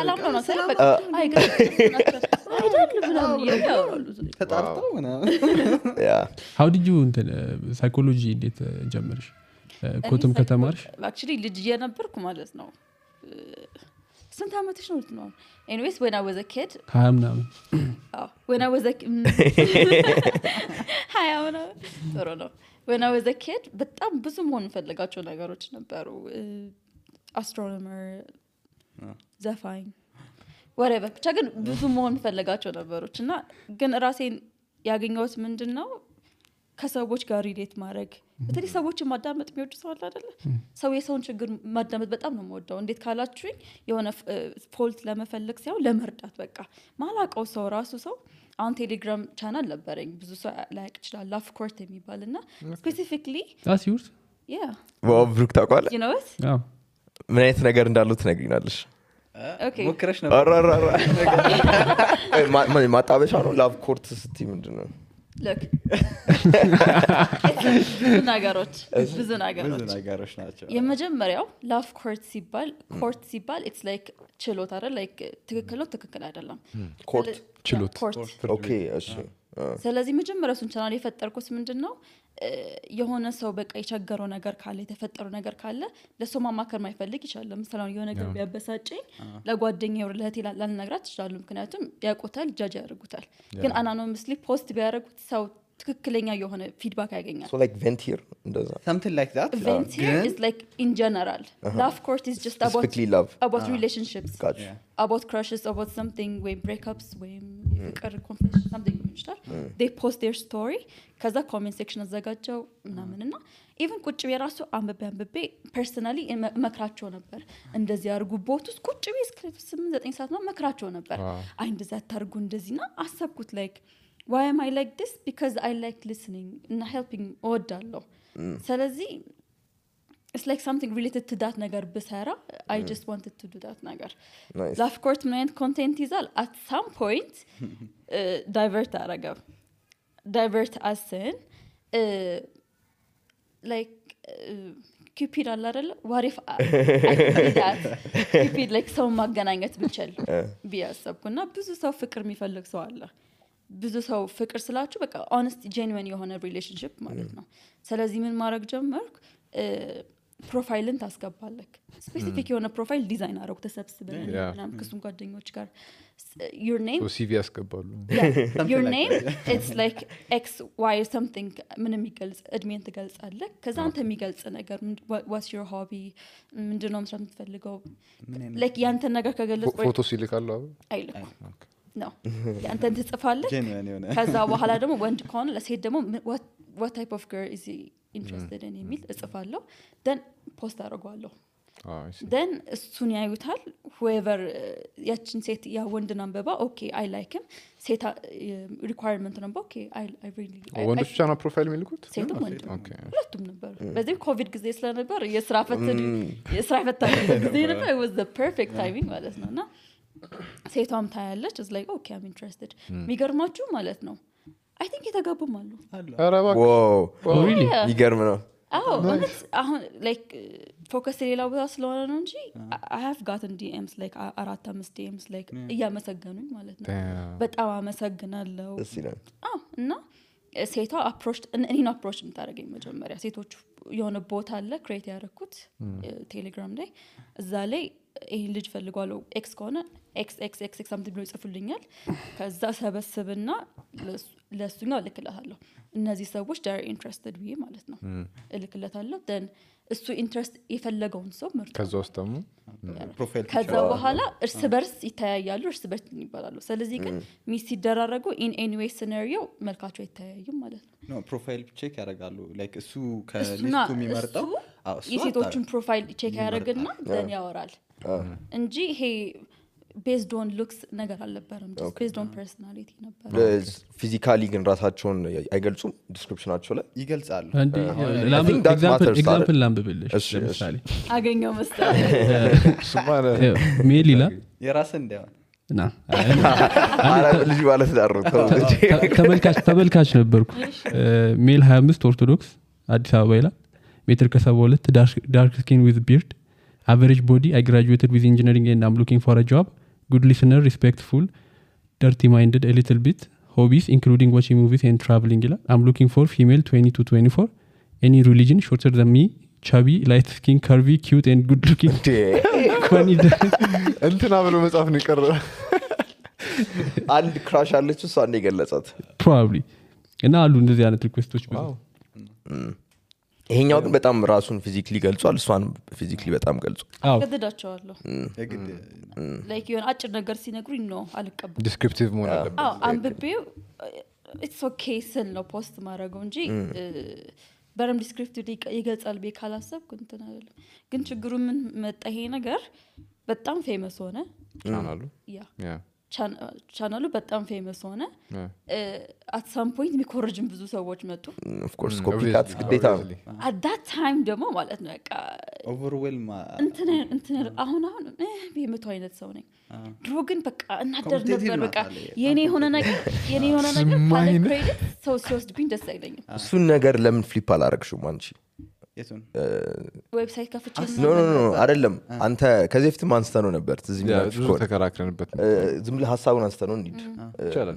ሰላም ነው ሰላም በቃ አይ አይደለም ምናምን ያወራሉ ተጣርተው ምናምን how did you ሳይኮሎጂ እንዴት ጀመርሽ ኮትም ከተማርሽ actually ልጅ የነበርኩ ማለት ነው ስንት አመትሽ ነው anyways when I was a kid when I was a when I was a kid በጣም ብዙ መሆን ፈልጋቸው ነገሮች ነበሩ astronomer ዘፋኝ whatever ብቻ ግን ብዙ መሆን ፈልጋቸው ነበሮች እና ግን ራሴን ያገኘሁት ምንድነው ከሰዎች ጋር ሪሌት ማድረግ በተለይ ሰዎችን ማዳመጥ የሚወድ ሰው አለ አይደለ ሰው የሰውን ችግር ማዳመጥ በጣም ነው የምወደው እንዴት ካላችሁኝ የሆነ ፎልት ለመፈለግ ሳይሆን ለመርዳት በቃ ማላቀው ሰው ራሱ ሰው አሁን ቴሌግራም ቻናል ነበረኝ ብዙ ሰው ላይክ ይችላል ላፍ ኮርት የሚባልና ስፔሲፊካሊ that's yours ዋው ብሩክ ታውቃለህ you know what ምን አይነት ነገር እንዳለው ትነግሪናለሽ okay ሞክረሽ ነበር ማጣበሻ ነው ላቭ ኮርት ስቲ ምንድነው look ብዙ ነገሮች ናቸው የመጀመሪያው ላፍ ኮርት ሲባል it's like ችሎት አይደል like ትክክል አይደለም ኮርት ችሎት ኦኬ እሺ ስለዚህ መጀመሪያው እሱን ቻናል የፈጠርኩት ምንድነው የሆነ ሰው በቃ የቸገረው ነገር ካለ የተፈጠረው ነገር ካለ ለሰው ማማከር ማይፈልግ ይችላል ለምሳሌ የሆነ ነገር ቢያበሳጨኝ ለጓደኛዬ ለህቴ ላልነግራት ይችላል ምክንያቱም ያቆታል ጃጅ ያደርጉታል ግን አናኖመስሊ ፖስት ቢያደርጉት ሰው ትክክለኛ የሆነ ፊድባክ ያገኛል so like vent here እንደዛ something like that vent here is like in general love court is just about relationships about crushes about something we breakups we ፍቅር confession something they post their story ከዛ comment section አዘጋጀው ምናምንና even ቁጭ በራሱ አንበቤ personally መክራቸው ነበር እንደዚህ አርጉ ቦቱስ ቁጭ በስከ 8-9 ሰዓት ነው መክራቸው ነበር አይ እንደዛ ታርጉ እንደዚህና አሰብኩት like why am I like this because I like listening and helping እወዳለሁ ስለዚህ it's like something related to that ነገር በሰራ I just wanted to do that ነገር of course my content ይዛል at some point divert as in like cupid አለ አይደል what if I did that cupid like ሰው ማገናኘት ብቻል ቢያሰብኩና ብዙ ሰው ፍቅር የሚፈልግ ሰው አለ ብዙ ሰው ፍቅር ስላችሁ በቃ honest genuine የሆነ relationship ማለት ነው ስለዚህ ምን ማድረግ ጀመርኩ ፕሮፋይልን ታስገባለክ ስፔሲፊክ የሆነ ፕሮፋይል ዲዛይን አረኩ ተሰብስበን ምናምን ከሱም ጓደኞች ጋር your name so CV ያስገባሉ your name it's like xy something ምንም ይገልጽ እድሜን ትገልጻለህ ከዛ አንተ የሚገልጽ ነገር what's your hobby ምንድነው መስራት የምትፈልገው like ያንተ ነገር ከገለጽ ፎቶ ሲልካሉ አይልኩ ነው ያንተን ትጽፋለህ ከዛ በኋላ ደግሞ ወንድ ከሆነ ለሴት ደግሞ what type of girl is he interested in የሚል እጽፋለሁ then post አደርጋለሁ then እሱን ያዩታል whoever ያችን ሴት ያ ወንድን አንበባ okay I like him ሴት requirement ነው okay I really ወንዶች ብቻ ነው ፕሮፋይል የሚልኩት ሴትም ወንድ ሁለቱም ነበር በዚህ ኮቪድ ጊዜ ስለነበር የስራ ፈታ ጊዜ ነበር it was the perfect timing ማለት ነውና ሴቷም ታያለች is like okay I'm interested የሚገርማችሁ ማለት ነው I think የተጋቡም አሉ ዋው ይገርም ነው አሁን like focus ሌላው ቦታ ስለሆነ ነው እንጂ I have gotten DMs like 4-5 DMs like እያመሰገኑኝ ማለት ነው በጣም አመሰግናለሁ እና ሴቷ approach እኔን approach እንታረገኝ መጀመሪያ ሴቶች የሆነ ቦታ አለ ክሬት ያደረኩት ቴሌግራም ላይ እዛ ላይ ይሄን ልጅ ፈልጓለው ኤክስ ከሆነ ኤክስ something ብሎ ይጽፉልኛል ከዛ ሰበስብና ለሱኛው ልክላታለሁ እነዚህ ሰዎች they are interested ብዬ ማለት ነው ልክላታለሁ then እሱ ኢንትረስት የፈለገውን ሰው ምርጥ ከዛ ውስጥ ደግሞ ፕሮፋይል ከዛ በኋላ እርስ በርስ ይተያያሉ እርስ በርስ ይባላሉ ስለዚህ ግን ሚስ ሲደራረጉ in any way scenario መልካቸው ይተያያዩም ማለት ነው ፕሮፋይል ቼክ ያደርጋሉ ላይክ እሱ ከሊስቱ የሚመርጠው የሴቶችን ፕሮፋይል ቼክ ያደርግና then ያወራል እንጂ ይሄ based on looks ነገር አልነበረም just based on personality ነበር ፊዚካሊ ግን ራሳቸውን አይገልጹም ዲስክሪፕሽናቸው ላይ ይገልጻሉ ኤግዛምፕል ላምብልሽ ለምሳሌ አገኘው መስጠት ሜል ይላል የራስ እንደሆነ ና ልጅ ማለት ዳሩ ተመልካች ነበርኩ ሜል 25 ኦርቶዶክስ አዲስ አበባ ይላል ሜትር ከ72 ዳርክ ስኪን ዊዝ ቢርድ average body I graduated with engineering and I'm looking for a job good listener respectful dirty minded a little bit hobbies including watching movies and traveling I'm looking for female 20 to 24 any religion shorter than me chubby light skin curvy cute and good looking funny እንትና ብሎ መጻፍ ነው ቀረ አንድ ክራሽ አለች እሷ አንዴ ገለጻት probably እና አሉ እንደዚህ አይነት ሪኩዌስቶች ብዙ ይሄኛው ግን በጣም ራሱን ፊዚካሊ ገልጿል እሷን ፊዚካሊ በጣም ገልጿል ገድዳቸዋለሁ like የሆነ አጭር ነገር ሲነግሩኝ ነው አልቀበል ዲስክሪፕቲቭ መሆን አለበት አንብቤው it's okay ስል ነው ፖስት ማድረገው እንጂ በረም ዲስክሪፕቲቭ ይገልጻል በካላሰብኩ እንትን አይደለም ግን ችግሩ ምን መጣ ይሄ ነገር በጣም ፌመስ ሆነ ያ ቻናሉ በጣም ፌመስ ሆነ at some point የሚኮርጅም ብዙ ሰዎች መጡ of course ኮፒካት ግዴታ at that time ደግሞ ማለት ነው በቃ overwhelm እንትን አሁን በመቶ አይነት ሰው ነኝ ድሮ ግን በቃ እናደር ነበር በቃ የኔ ሆነ ነገር ካለ ክሬዲት ሰው ሲወስድብኝ ደስ አይለኝም እሱን ነገር ለምን ፍሊፕ አላረግሽም አንቺ የቱን ዌብሳይት ከፍቼ ኖ አይደለም አንተ ከዚህ በፊት ማንስተህ ነው ነበር ትዝ የሚላችሁ ብዙ ተከራክረንበት ዝም ብለህ ሐሳቡን አንስተህ ነው እንዴ ይቻላል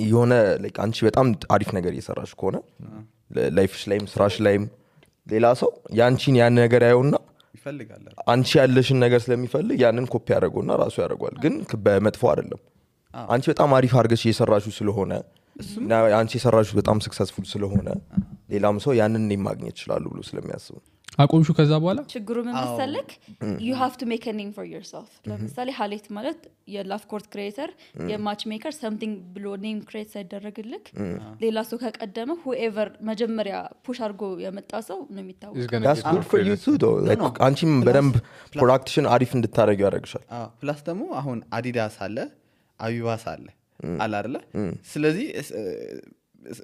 የሆነ ላይክ አንቺ በጣም አሪፍ ነገር እየሰራሽ ከሆነ ላይፍሽ ላይም ስራሽ ላይም ሌላ ሰው ያንቺን ያን ነገር ያየውና ይፈልጋል አንቺ ያለሽን ነገር ስለሚፈልግ ያንን ኮፒ ያደርገውና ራሱ ያደርጋል ግን በመጥፎ አይደለም አንቺ በጣም አሪፍ አድርገሽ እየሰራሽው ስለሆነ አንቺ የሰራሽው በጣም ሰክሰስፉል ስለሆነ ሌላም ሰው ያንን ማግኘት ይችላል ብሎ ስለሚያስቡ አቆምሹ ከዛ በኋላ ችግሩ ምን መሰለክ you have to make a name for yourself ለምሳሌ ሀሌት ማለት የላፍ ኮርት ክሬተር የማች ሜከር something ብሎ ኔም ክሬት ሳይደረግልክ ሌላ ሰው ከቀደመ whoever መጀመሪያ ፑሽ አድርጎ የመጣ ሰው ነው የሚታወቀው that's good for you too though like አንቺም በደንብ ፕሮዳክሽን አሪፍ እንድታረጊ ያደርግሻል ፕላስ ደግሞ አሁን አዲዳስ አለ አቢባስ አለ አይደለ ስለዚህ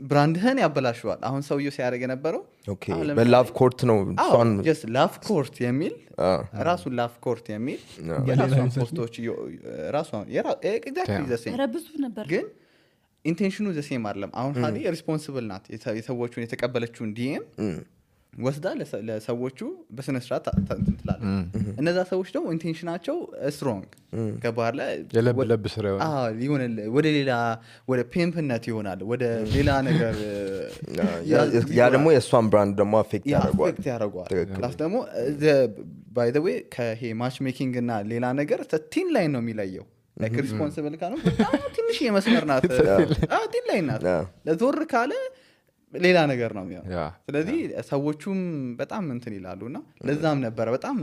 ብራንድህን ያበላሽዋል አሁን ሰውየው ሲያደርግ የነበረው ኦኬ በላቭ ኮርት ነው ሷን just love court የሚል ራሱ love court የሚል የራሱን ፖስቶች ራሱ exactly the same ረብዙ ነበር ግን ኢንቴንሽኑ the same አይደለም አሁን ሀዲ ሪስፖንሲብል ናት የሰዎቹን የተቀበለችውን ዲኤም ወስዳ ለሰዎቹ በስነ ስርዓት እንትላለ እነዛ ሰዎች ደግሞ ኢንቴንሽናቸው ስትሮንግ ከባህር ላይ የለብ ስራ ይሆናል ወደ ሌላ ወደ ፔምፕነት ይሆናል ወደ ሌላ ነገር ያ ደግሞ የሷን ብራንድ ደግሞ አፌክት ያደርጋል ፕላስ ደግሞ by the way ከሄ ማች ሜኪንግ እና ሌላ ነገር ቲን ላይን ነው የሚለየው like responsible ካለው በጣም ትንሽ የመስመር ናት ቲን ላይን ናት ለዞር ካለ ሌላ ነገር ነው የሚሆነው ስለዚህ ሰዎቹም በጣም እንትን ይላሉና ለዛም ነበር በጣም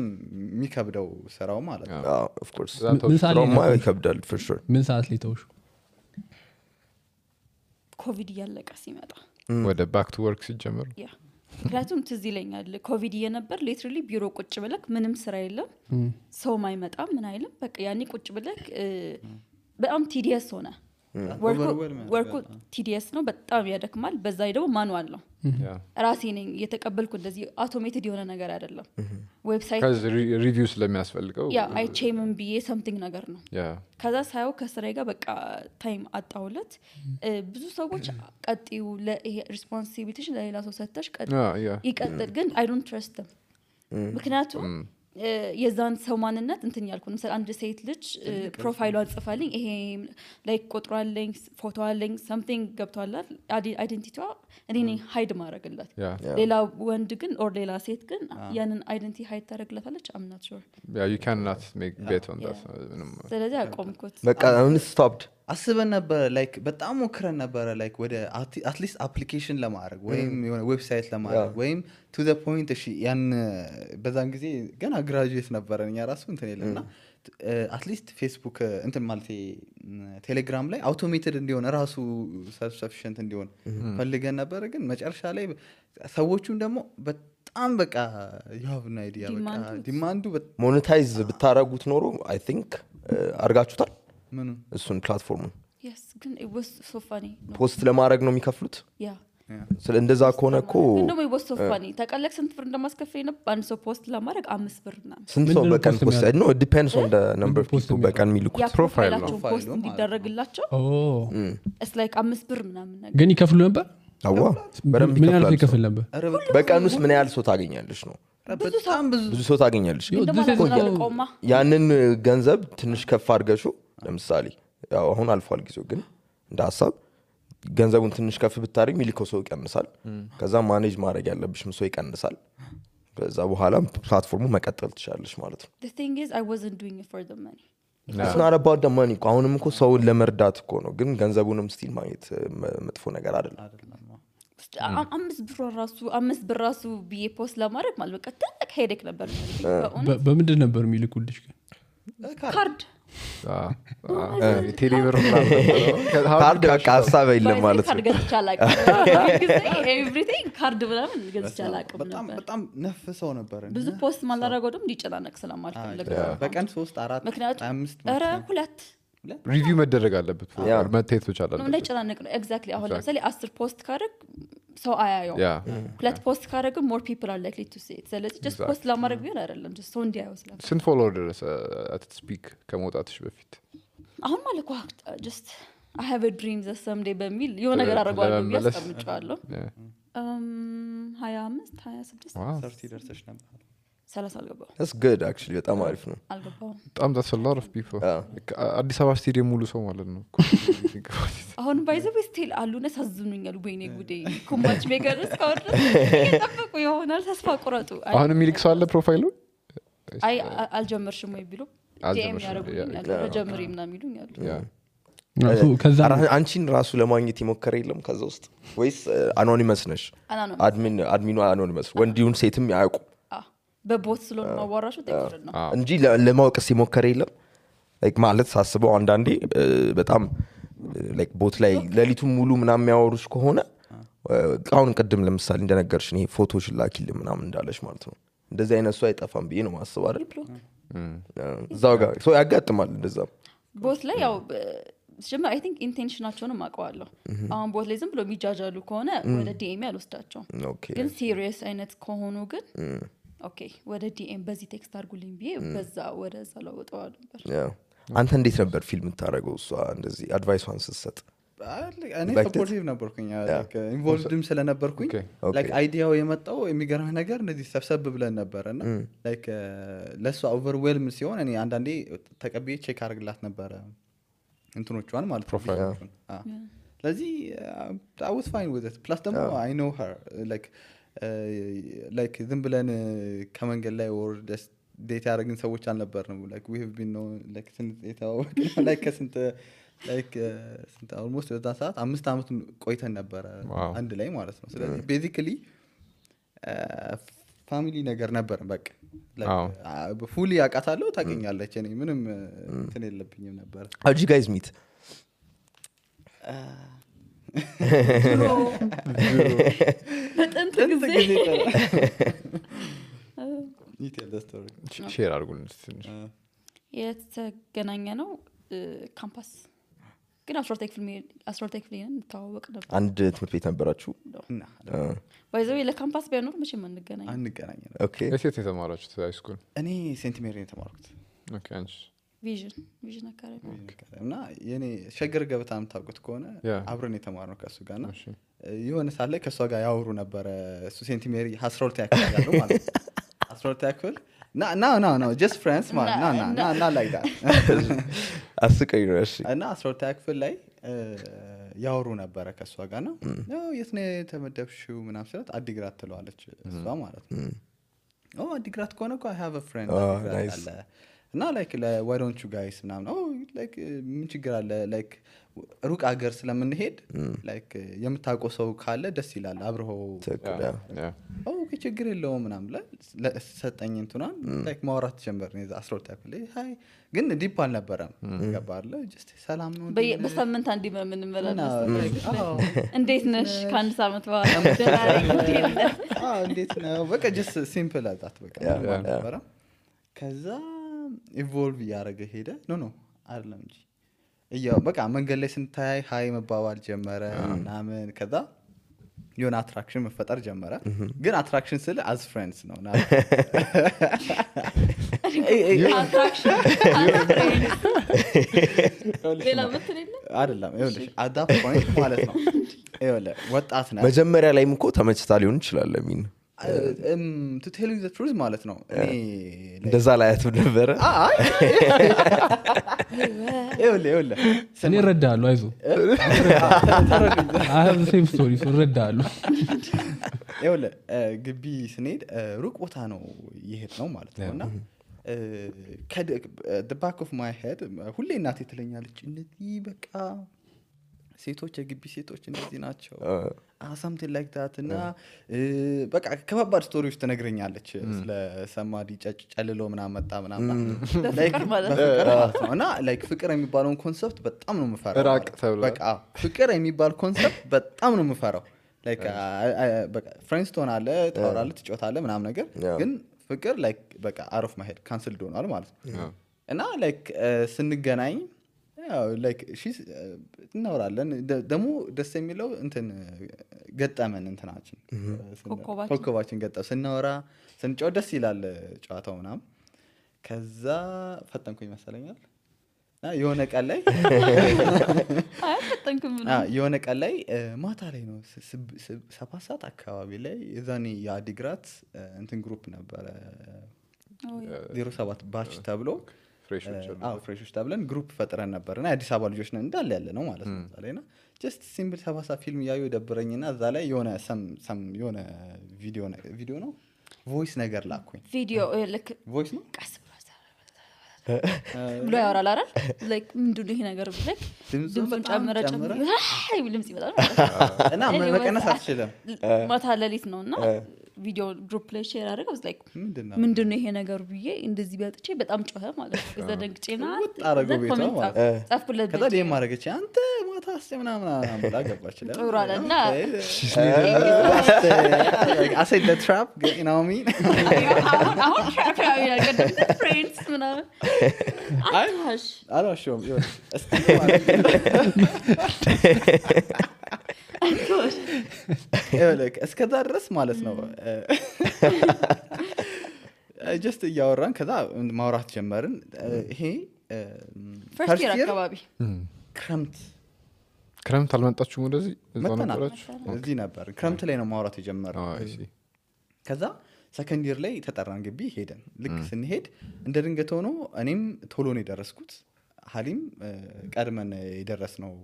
የሚከብደው ስራው ማለት ነው of course ስራውማ ይከብዳል for sure ምን ሰዓት ላይ ተውሽ ኮቪድ ያለቀ ሲመጣ ወደ ባክ ቱ ወርክ ሲጀምር ምክንያቱም ትዝ ይለኛል ኮቪድ እየነበር ሊትራሊ ቢሮ ቁጭ ብለክ ምንም ስራ የለም ሰው ማይመጣም ምን አይልም በቃ ያኔ ቁጭ ብለክ በጣም ቲዲየስ ሆነ ወርኩ ቲዲየስ ነው በጣም ያደክማል በዛ ላይ ደግሞ ማኑዋል ነው ራሴ ነኝ የተቀበልኩ እንደዚህ አውቶሜትድ የሆነ ነገር አይደለም ዌብሳይት ከዚ ሪቪው ስለሚያስፈልገው ያ አይ ቼምን ቢዬ something ነገር ነው ከዛ ሳይው ከስራዬ ጋር በቃ ታይም አጣውለት ብዙ ሰዎች ቀጥዩ ለሪስፖንሲቢሊቲሽ ለሌላ ሰው ሰጥተሽ ይቀጥል ግን I don't trust them ምክንያቱም የዛን ሰው ማንነት እንትን ያልኩ ነው አንድ ሴት ልጅ ፕሮፋይሏን ጽፋልኝ ይሄ ላይክ ቁጥሯለኝ ፎቶዋለኝ something ገብቷላል አይደንቲቲዋ እኔ ነኝ ሃይድ ማድረግላት ሌላ ወንድ ግን ኦር ሌላ ሴት ግን ያንን አይደንቲቲ ሃይድ ታደርግላታለች I'm not sure you cannot make bet on that ስለዚህ አቆምኩት በቃ አሁን stopped አስበን ነበር ላይክ በጣም ሞክረን ነበር ላይክ ወደ አትሊስት አፕሊኬሽን ለማድረግ ወይም የሆነ ዌብሳይት ለማድረግ ወይም to the point እሺ ያን በዛን ጊዜ ገና ግራጁዌት ነበረን ያ ራሱ እንትን ይለና አትሊስት ፌስቡክ እንትን ማለት ቴሌግራም ላይ አውቶሜትድ እንዲሆን ራሱ ሰልፍ ሰፊሽንት እንዲሆን ፈልገን ነበር ግን መጨረሻ ላይ ሰዎቹን ደግሞ በጣም በቃ you have no idea በቃ ዲማንዱ ሞኔታይዝ ብታረጉት ኖሮ I think አርጋችሁታል ምን እሱን ፕላትፎርሙን yes ግን it was so funny ፖስት ለማድረግ ነው የሚከፍሉት ስለ እንደዛ ከሆነ እኮ እንደውም it was so funny ተቀለክ ስንት ብር እንደማስከፈል ነው አንድ ሰው ፖስት ለማድረግ 5 ብር እና ስንት ሰው በቀን ፖስት no it depends on the number of people በቀን የሚልኩት ፕሮፋይል ነው ፖስት እንዲደረግላቸው it's like 5 ብር ምናምን ነገር ግን ይከፍሉ ነበር አዋ በደንብ ምን ያህል ይከፍል ነበር በቀን ውስጥ ምን ያህል ሰው ታገኛለሽ ነው በጣም ብዙ ሰው ታገኛለሽ ያንን ገንዘብ ትንሽ ከፍ አድርገሹ ለምሳሌ ያው አሁን አልፏል ጊዜው ግን እንደ ሐሳብ ገንዘቡን ትንሽ ከፍ ብታረግ ሚሊኮ ሰው ይቀንሳል ከዛ ማኔጅ ማድረግ ያለብሽም ሰው ይቀንሳል ከዛ በኋላ ፕላትፎርሙ መቀጠል ትችላለሽ ማለት ነው the thing is I wasn't doing it for the money it's not about the money አሁንም እኮ ሰውን ለመርዳት እኮ ነው ግን ገንዘቡንም ስቲል ማግኘት መጥፎ ነገር አይደለም አምስት ብር ራሱ ቢዬ ፖስት ለማድረግ ማለት በቃ ትልቅ ሄዴክ ነበር በምንድን ነበር የሚልኩልሽ ግን ካርድ ቴሌብር ካርድ በቃ ሀሳብ የለም ማለት ነው ካርድ ገዝቻላቅ ኤቭሪቲንግ ካርድ ምናምን ገዝቻላቅ በጣም ነፍ ሰው ነበር ብዙ ፖስት ማላረገው ደግሞ ሊጨናነቅ ስለማልፈልግ በቀን 3 4 5 ኧረ 2 ሪቪው መደረግ አለበት መታየት ብቻ አለበት ነው ጨናነቅ ነው ኤግዛክትሊ አሁን ለምሳሌ 10 ፖስት ካረግ ሰው አያየው 2 ፖስት ካረግ more people are likely to see it ስለዚህ just ፖስት ለማድረግ ቢሆን አይደለም just ሰው እንዲያየው ስለዚህ ስንት ፎሎወር ደረሰ at speak ከመውጣትሽ በፊት አሁን ማለት just I have a dream that someday በሚል የሆነ ነገር አደርጋለሁ ያስቀምጫለሁ 25 26 30 ደርሰሽ ነበር 30 አልገባው that's good actually በጣም አሪፍ ነው አልገባው በጣም that's a lot of people አዲስ አበባ ስቴዲየም ሙሉ ሰው ማለት ነው አሁን ባይዘው ስቲል አሉነ ሳዝኑኛል ወይኔ ጉዴ ኩማች ሜጋርስ ካወር ተጠብቁ ይሆናል ተስፋ ቁረጡ አሁን የሚልክ ሰው አለ ፕሮፋይሉ አይ አልጀመርሽም ወይ ቢሉ ዲኤም ያረጉኛል ጀምሪ ምናምን ይሉኛል ከዛ አንቺን ራሱ ለማግኘት ይሞከረ የለም ከዛ ውስጥ ወይስ አኖኒመስ ነሽ አድሚኑ አኖኒመስ ወንዲውን ሴትም ያውቁ በቦት ስለሆነ ማዋራሹ ተቀር ነው እንጂ ለማወቅስ ይሞከረ የለም ላይክ ማለት ሳስበው አንዳንዴ በጣም ላይክ ቦት ላይ ለሊቱን ሙሉ ምናምን የሚያወሩሽ ከሆነ አሁን ቀደም ለምሳሌ እንደነገርሽ ነው ፎቶሽ ላኪል ምናምን እንዳለሽ ማለት ነው እንደዚህ አይነት ሰው አይጠፋም ብዬ ነው ማስብ አይደል እዛው ጋር ሰው ያጋጥማል እንደዛ ቦት ላይ ያው ጀመር አይ ቲንክ ኢንቴንሽናቸውን ማቀዋለሁ አሁን ቦት ላይ ዝም ብሎ የሚጃጃሉ ከሆነ ወደ ዲኤም ያልወስዳቸው ግን ሲሪየስ አይነት ከሆኑ ግን ኦኬ ወደ ዲኤም በዚህ ቴክስት አድርጉልኝ ቢዬ በዛ ወደዛ ለውጠው ነበር አንተ እንዴት ነበር ፊልም ታረገው እሷ እንደዚህ አድቫይሷን ስትሰጥ እኔ ሰፖርቲቭ ነበርኩኝ ላይክ ኢንቮልቭድም ስለነበርኩኝ ላይክ አይዲያው የመጣው የሚገርም ነገር እንደዚህ ሰብሰብ ብለን ነበርና ላይክ ለሷ ኦቨርዌልም ሲሆን እኔ አንዳንዴ ተቀብዬ ቼክ አድርግላት ነበር እንትኖቿን ማለት ፕሮፋይሎቹን ስለዚህ I was fine with it plus ደግሞ I know her like ዝም ብለን ከመንገድ ላይ or just ዴት ያደረግን ሰዎች አልነበርንም like we have been known like ስንት ስንት almost በዛ ሰዓት 5 አመት ቆይተን ነበር አንድ ላይ ማለት ነው ስለዚህ basically ፋሚሊ ነገር ነበር በቃ like fully ያቃታለሁ ታገኛለች እኔ ምንም እንትን የለብኝም ነበር how did you guys meet በጥንት ጊዜ ሼር አድርጉን ትንሽ የተገናኘ ነው ካምፓስ ግን አስራ ሁለተኛ ክፍል እንተዋወቅ ነበር አንድ ትምህርት ቤት ነበራችሁ ባይዘው ለካምፓስ ቢያኖር መቼም አንገናኝ ነው ኦኬ የት የተማራችሁት ሃይ ስኩል እኔ ሴንት ሜሪ የተማርኩት ኦኬ አንቺ ቪዥን አካባቢ እና የኔ ሸገር ገበታ የምታውቁት ከሆነ አብረን የተማርነው ከሱ ጋር ነው የሆነ ሰዓት ላይ ከሷ ጋር ያወሩ ነበረ እሱ ሴንት ሜሪ 12 ያክል ያለው ማለት 12 ያክል no just friends man not like that አስቀኝ ነው እሺ እና 12 ያክል ላይ ያወሩ ነበረ ከሷ ጋር ነው የት ነው የተመደብሽው ምናምን ስላት አዲግራት ትለዋለች እሷ ማለት ነው አዲግራት ከሆነ እኮ I have a friend አዲግራት አለ እና like why don't you guys ምናምን like ምን ችግር አለ like ሩቅ ሀገር ስለምንሄድ like የምታውቀው ሰው ካለ ደስ ይላል አብረው ኦኬ ችግር የለውም ምናምን ለሰጠኝ እንቱናን like ማውራት ጀመርን 12 ያክል ሃይ ግን ዲፕ አልነበረም ገባለ just ሰላም ነው በሳምንት አንዴ ምን መላለስ እንዴት ነሽ ከአንድ ሳምንት በኋላ እንዴት ነው በቃ just simple አዛት በቃ ነበረ ከዛ ኢቮልቭ ያረገ ሄደ ኖ አይደለም እንጂ ያው በቃ መንገድ ላይ ስንታይ ሃይ መባባል ጀመረ ምናምን ከዛ የሆነ አትራክሽን መፈጠር ጀመረ ግን አትራክሽን ስለ as friends ነው ና አትራክሽን ሌላ ምትለኝ አይደለም ይኸውልሽ at that point ማለት ነው ይኸውልህ ወጣት ነህ መጀመሪያ ላይም እኮ ተመችታ ሊሆን ይችላል ለሚን to tell you the truth ማለት ነው እኔ እንደዛ ላይ አትነበረ ይኸውልህ እኔ እረዳለሁ አይዞህ I have the same story so እረዳለሁ ይኸውልህ ግቢ ስንሄድ ሩቅ ቦታ ነው ይሄድ ነው ማለት ነውና the back of my head ሁሌ እናቴ ትለኛለች እንደዚህ በቃ ሴቶች የግቢ ሴቶች እንደዚህ ናቸው something like that እና በቃ ከባባድ ስቶሪዎች ተነግረኛለች ስለ ሰማዲ ጨልሎ ምናምን መጣ ምናምን ፍቅር ማለት ነው እና like ፍቅር የሚባለውን ኮንሰፕት በጣም ነው የምፈራው በቃ ፍቅር የሚባል ኮንሰፕት በጣም ነው የምፈራው like በቃ ፍሬንድስ ትሆናለህ ታወራለህ ትጫወታለህ ምናምን ነገር ግን ፍቅር like በቃ out of my head cancelled ሆኗል ማለት ነው እና like ስንገናኝ like she's እናወራለን ደግሞ ደስ የሚለው እንትን ገጠመን እንትናችን ኮኮባችን ገጠ ስናወራ ስንጫወት ደስ ይላል ጨዋታው ምናምን ከዛ ፈጠንኩኝ መሰለኛል የሆነ ቀን ላይ የሆነ ቀን ላይ ማታ ላይ ነው 7 ሰዓት አካባቢ ላይ የዛኔ የአዲግራት እንትን ግሩፕ ነበረ 07 ባች ተብሎ ፍሬሾች ተብለን ግሩፕ ፈጥረን ነበርና አዲስ አበባ ልጆች ነን እንዳለ ያለ ነው ማለት ነው ዛሬና just simple 7 ፊልም ያዩ ደብረኝና እዛ ላይ የሆነ የሆነ ቪዲዮ ነው ቮይስ ነገር ላኩኝ ቪዲዮ ልክ ቮይስ ነው ቀስ ብሎ ያወራል አይደል like ምንድነው ይሄ ነገር like ድምፁን ጨመረ አይ ድምጽ ይመጣል እና መቀነስ አትችልም ማታ ሌሊት ነውና ቪዲዮ ግሩፕ ላይ ሼር አደረገው like ምንድነው ይሄ ነገር ብዬ እንደዚህ ቢያጥቼ በጣም ጮኸ ማለት ነው ከዛ ደንግጬና አረገው ቤቷ ጻፍኩለት ከዛ ደም ማረገች አንተ ማታ አስጨምናምና ብላ ገባች ላይ ጥሩ አለና I said the trap you know what I mean አሁን trap ያው ያገደ friends ምናምን አልዋሽም እስከዛ ድረስ ማለት ነው just እያወራን ከዛ ማውራት ጀመርን ይሄ ፈርስት ይር አካባቢ ክረምት አልመጣችሁም ወደዚህ እዛው ነበራችሁ እዚህ ነበር ክረምት ላይ ነው ማውራት የጀመረው ከዛ ሰከንድ ይር ላይ ተጠራን ግቢ ሄደን ልክ ስንሄድ እንደ ድንገት ሆኖ እኔም ቶሎ ነው የደረስኩት ሀሊም ቀድመን የደረስነው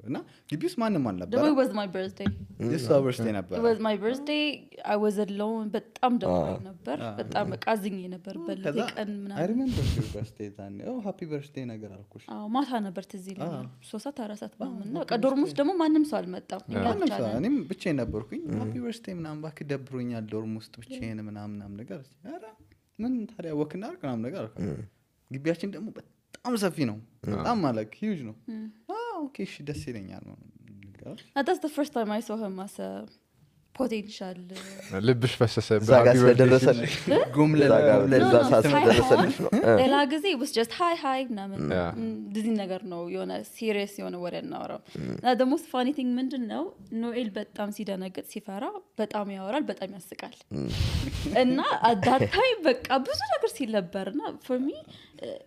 እና ግቢውስ ማንንም አልነበረ it was my birthday this birthday ነበር it was my birthday I was alone በጣም ደብሮኝ ነበር በጣም ቃዝኝ ነበር በለቀን ምናምን I remember your birthday then happy birthday ነገር አልኩሽ ማታ ነበር ትዝ ይለኛል 3 4 ምናምን ነው በቃ ዶርም ውስጥ ደግሞ ማንም ሰው አልመጣም እኔም ብቻዬን ነበርኩኝ happy birthday ምናምን ባክ ደብሮኛል ዶርም ውስጥ ብቻዬን ምናምን ነገር ኧረ ምን ታዲያ ወክና ምናምን ነገር አልኩ ግቢያችን ደግሞ በጣም ሰፊ ነው በጣም ማለት ሂውጅ ነው ኦኬ እሺ ደስ ይለኛል that's the first time I saw him as a potential ልብሽ ፈሰሰ እዛ ጋር ስለደረሰልሽ ለዛ ሳስደረሰልሽ ነው ሌላ ጊዜ it was just hi ምናምን እንደዚህ ነገር ነው የሆነ ሲሪየስ የሆነ ወሬ እናወራው እና the most funny thing ምንድነው ኖኤል በጣም ሲደነግጥ ሲፈራ በጣም ያወራል በጣም ያስቃል እና at that time በቃ ብዙ ነገር ሲል ነበርና for me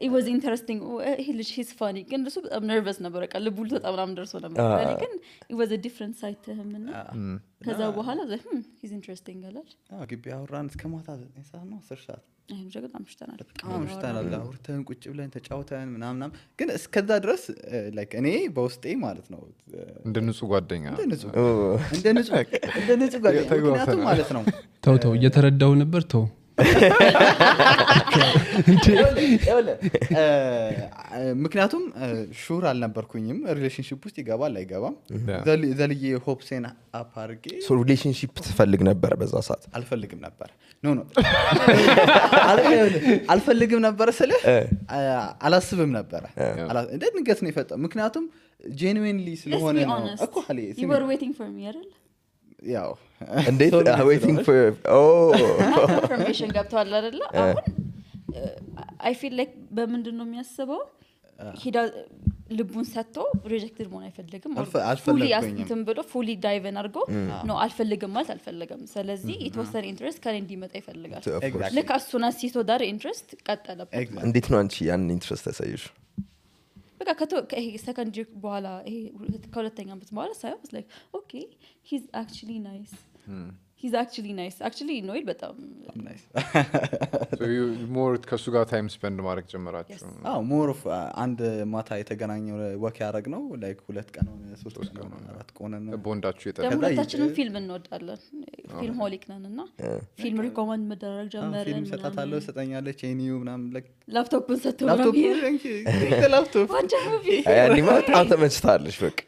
it was interesting he's funny ግን እሱ በጣም nervous ነበር በቃ ልቡ በጣም ደርሶ ነበር ግን it was a different side to him እና ከዛ በኋላ he's interesting አላል ግቢ አወራን እስከ ማታ 9 ሰዓት ነው 10 ሰዓት አይም ጀግና አምሽተናል አምሽተናል አውርተን ቁጭ ብለን ተጫውተን ምናምን ግን እስከዛ ድረስ like እኔ በውስጤ ማለት ነው እንደ ንጹህ ጓደኛ እንደ ንጹህ ጓደኛ ምክንያቱም ማለት ነው ተው እየተረዳው ነበር ተው ምክንያቱም ሹር አልነበርኩኝም ሪሌሽንሺፕ ውስጥ ይገባል አይገባም ዘልዬ ሆፕሴን አፓርጌ ሶ ሪሌሽንሺፕ ትፈልግ ነበር በዛ ሰዓት አልፈልግም ነበር ኖ አልፈልግም ነበር ስለ አላስብም ነበር እንደንገት ነው የፈጠው ምክንያቱም genuinely ስለሆነ ነው እኮ አለ you were waiting for me አይደል ያው እንዴት waiting for information ገብቷል አይደል አሁን I feel like በምንድነው የሚያስበው ልቡን ሰጥቶ ሪጀክትድ መሆን አይፈልግም fully አስንተም ብሎ fully dive in አድርጎ ነው አልፈልግም ማለት አልፈልግም ስለዚህ የተወሰነ ኢንትረስት ካለ እንዲመጣ ይፈልጋል ልክ እሱና ሲቶ ዳር ኢንትረስት ቀጠለበት እንዴት ነው አንቺ ያን ኢንትረስት ተሳይሽ በቃ ይሄ ሰከንድ ጂክ በኋላ ይሄ ከሁለተኛ አመት በኋላ ሳይሆን was like okay he's actually nice actually ኖኤል በጣም nice so you more ከሱ ጋር ታይም ስፔንድ ማድረግ ጀመራችሁ more of አንድ ማታ የተገናኘው ወክ ያደረግ ነው like 2 ቀን ሆነ 3 ቀን ሆነ 4 ቀን ሆነ ቦንዳችሁ ሁለታችንም ፊልም እንወዳለን ፊልም ሆሊክ ነንና ፊልም ሪኮመንድ መደረግ ጀመረን ፊልም ሰጣታለሁ ሰጠኛለች ኤኒዩ ምናምን like ላፕቶፕን ሰጥተው ላፕቶፕ ያኔ በጣም ተመችታለሽ በቃ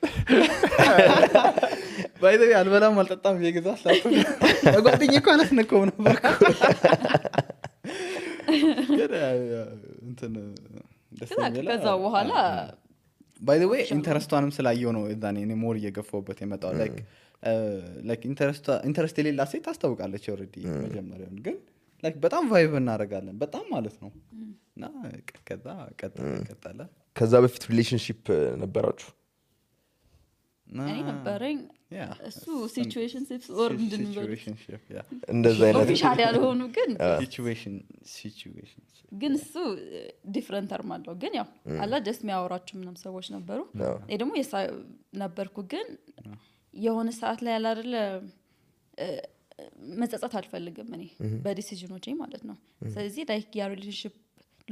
by the way አልበላም አልጠጣም የገዛት ላፕቶፕ ጓደኛዬ እኮ አላስነካውም ነበር እንትን ከዛ በኋላ by the way ኢንተረስቷንም ስላየው ነው እዛኔ እኔ ሞር እየገፋውበት የመጣው like ኢንተረስት የሌላ ሴት ታስታውቃለች already መጀመሪያውን ግን like በጣም ቫይብ እናደርጋለን በጣም ማለት ነው እና ከዛ ቀጠለ ከዛ በፊት ሪሌሽንሺፕ ነበራችሁ እኔ ነበረኝ እሱ ሲቹዌሽንሺፕስ ኦር ሲቹዌሽንሺፕ ያ እንደዛ አይነት ኦፊሻል ያልሆኑ ግን ሲቹዌሽን ግን እሱ ዲፈረንት ተርም አለው ግን ያው አላ ጀስት የሚያወራችሁ ምንም ሰዎች ነበሩ እኔ ደግሞ ነበርኩ ግን የሆነ ሰዓት ላይ አይደለ መጸጸት አልፈልግም እኔ በዲሲዥኖቼ ማለት ነው ስለዚህ ላይክ ያ ሪሌሽንሺፕ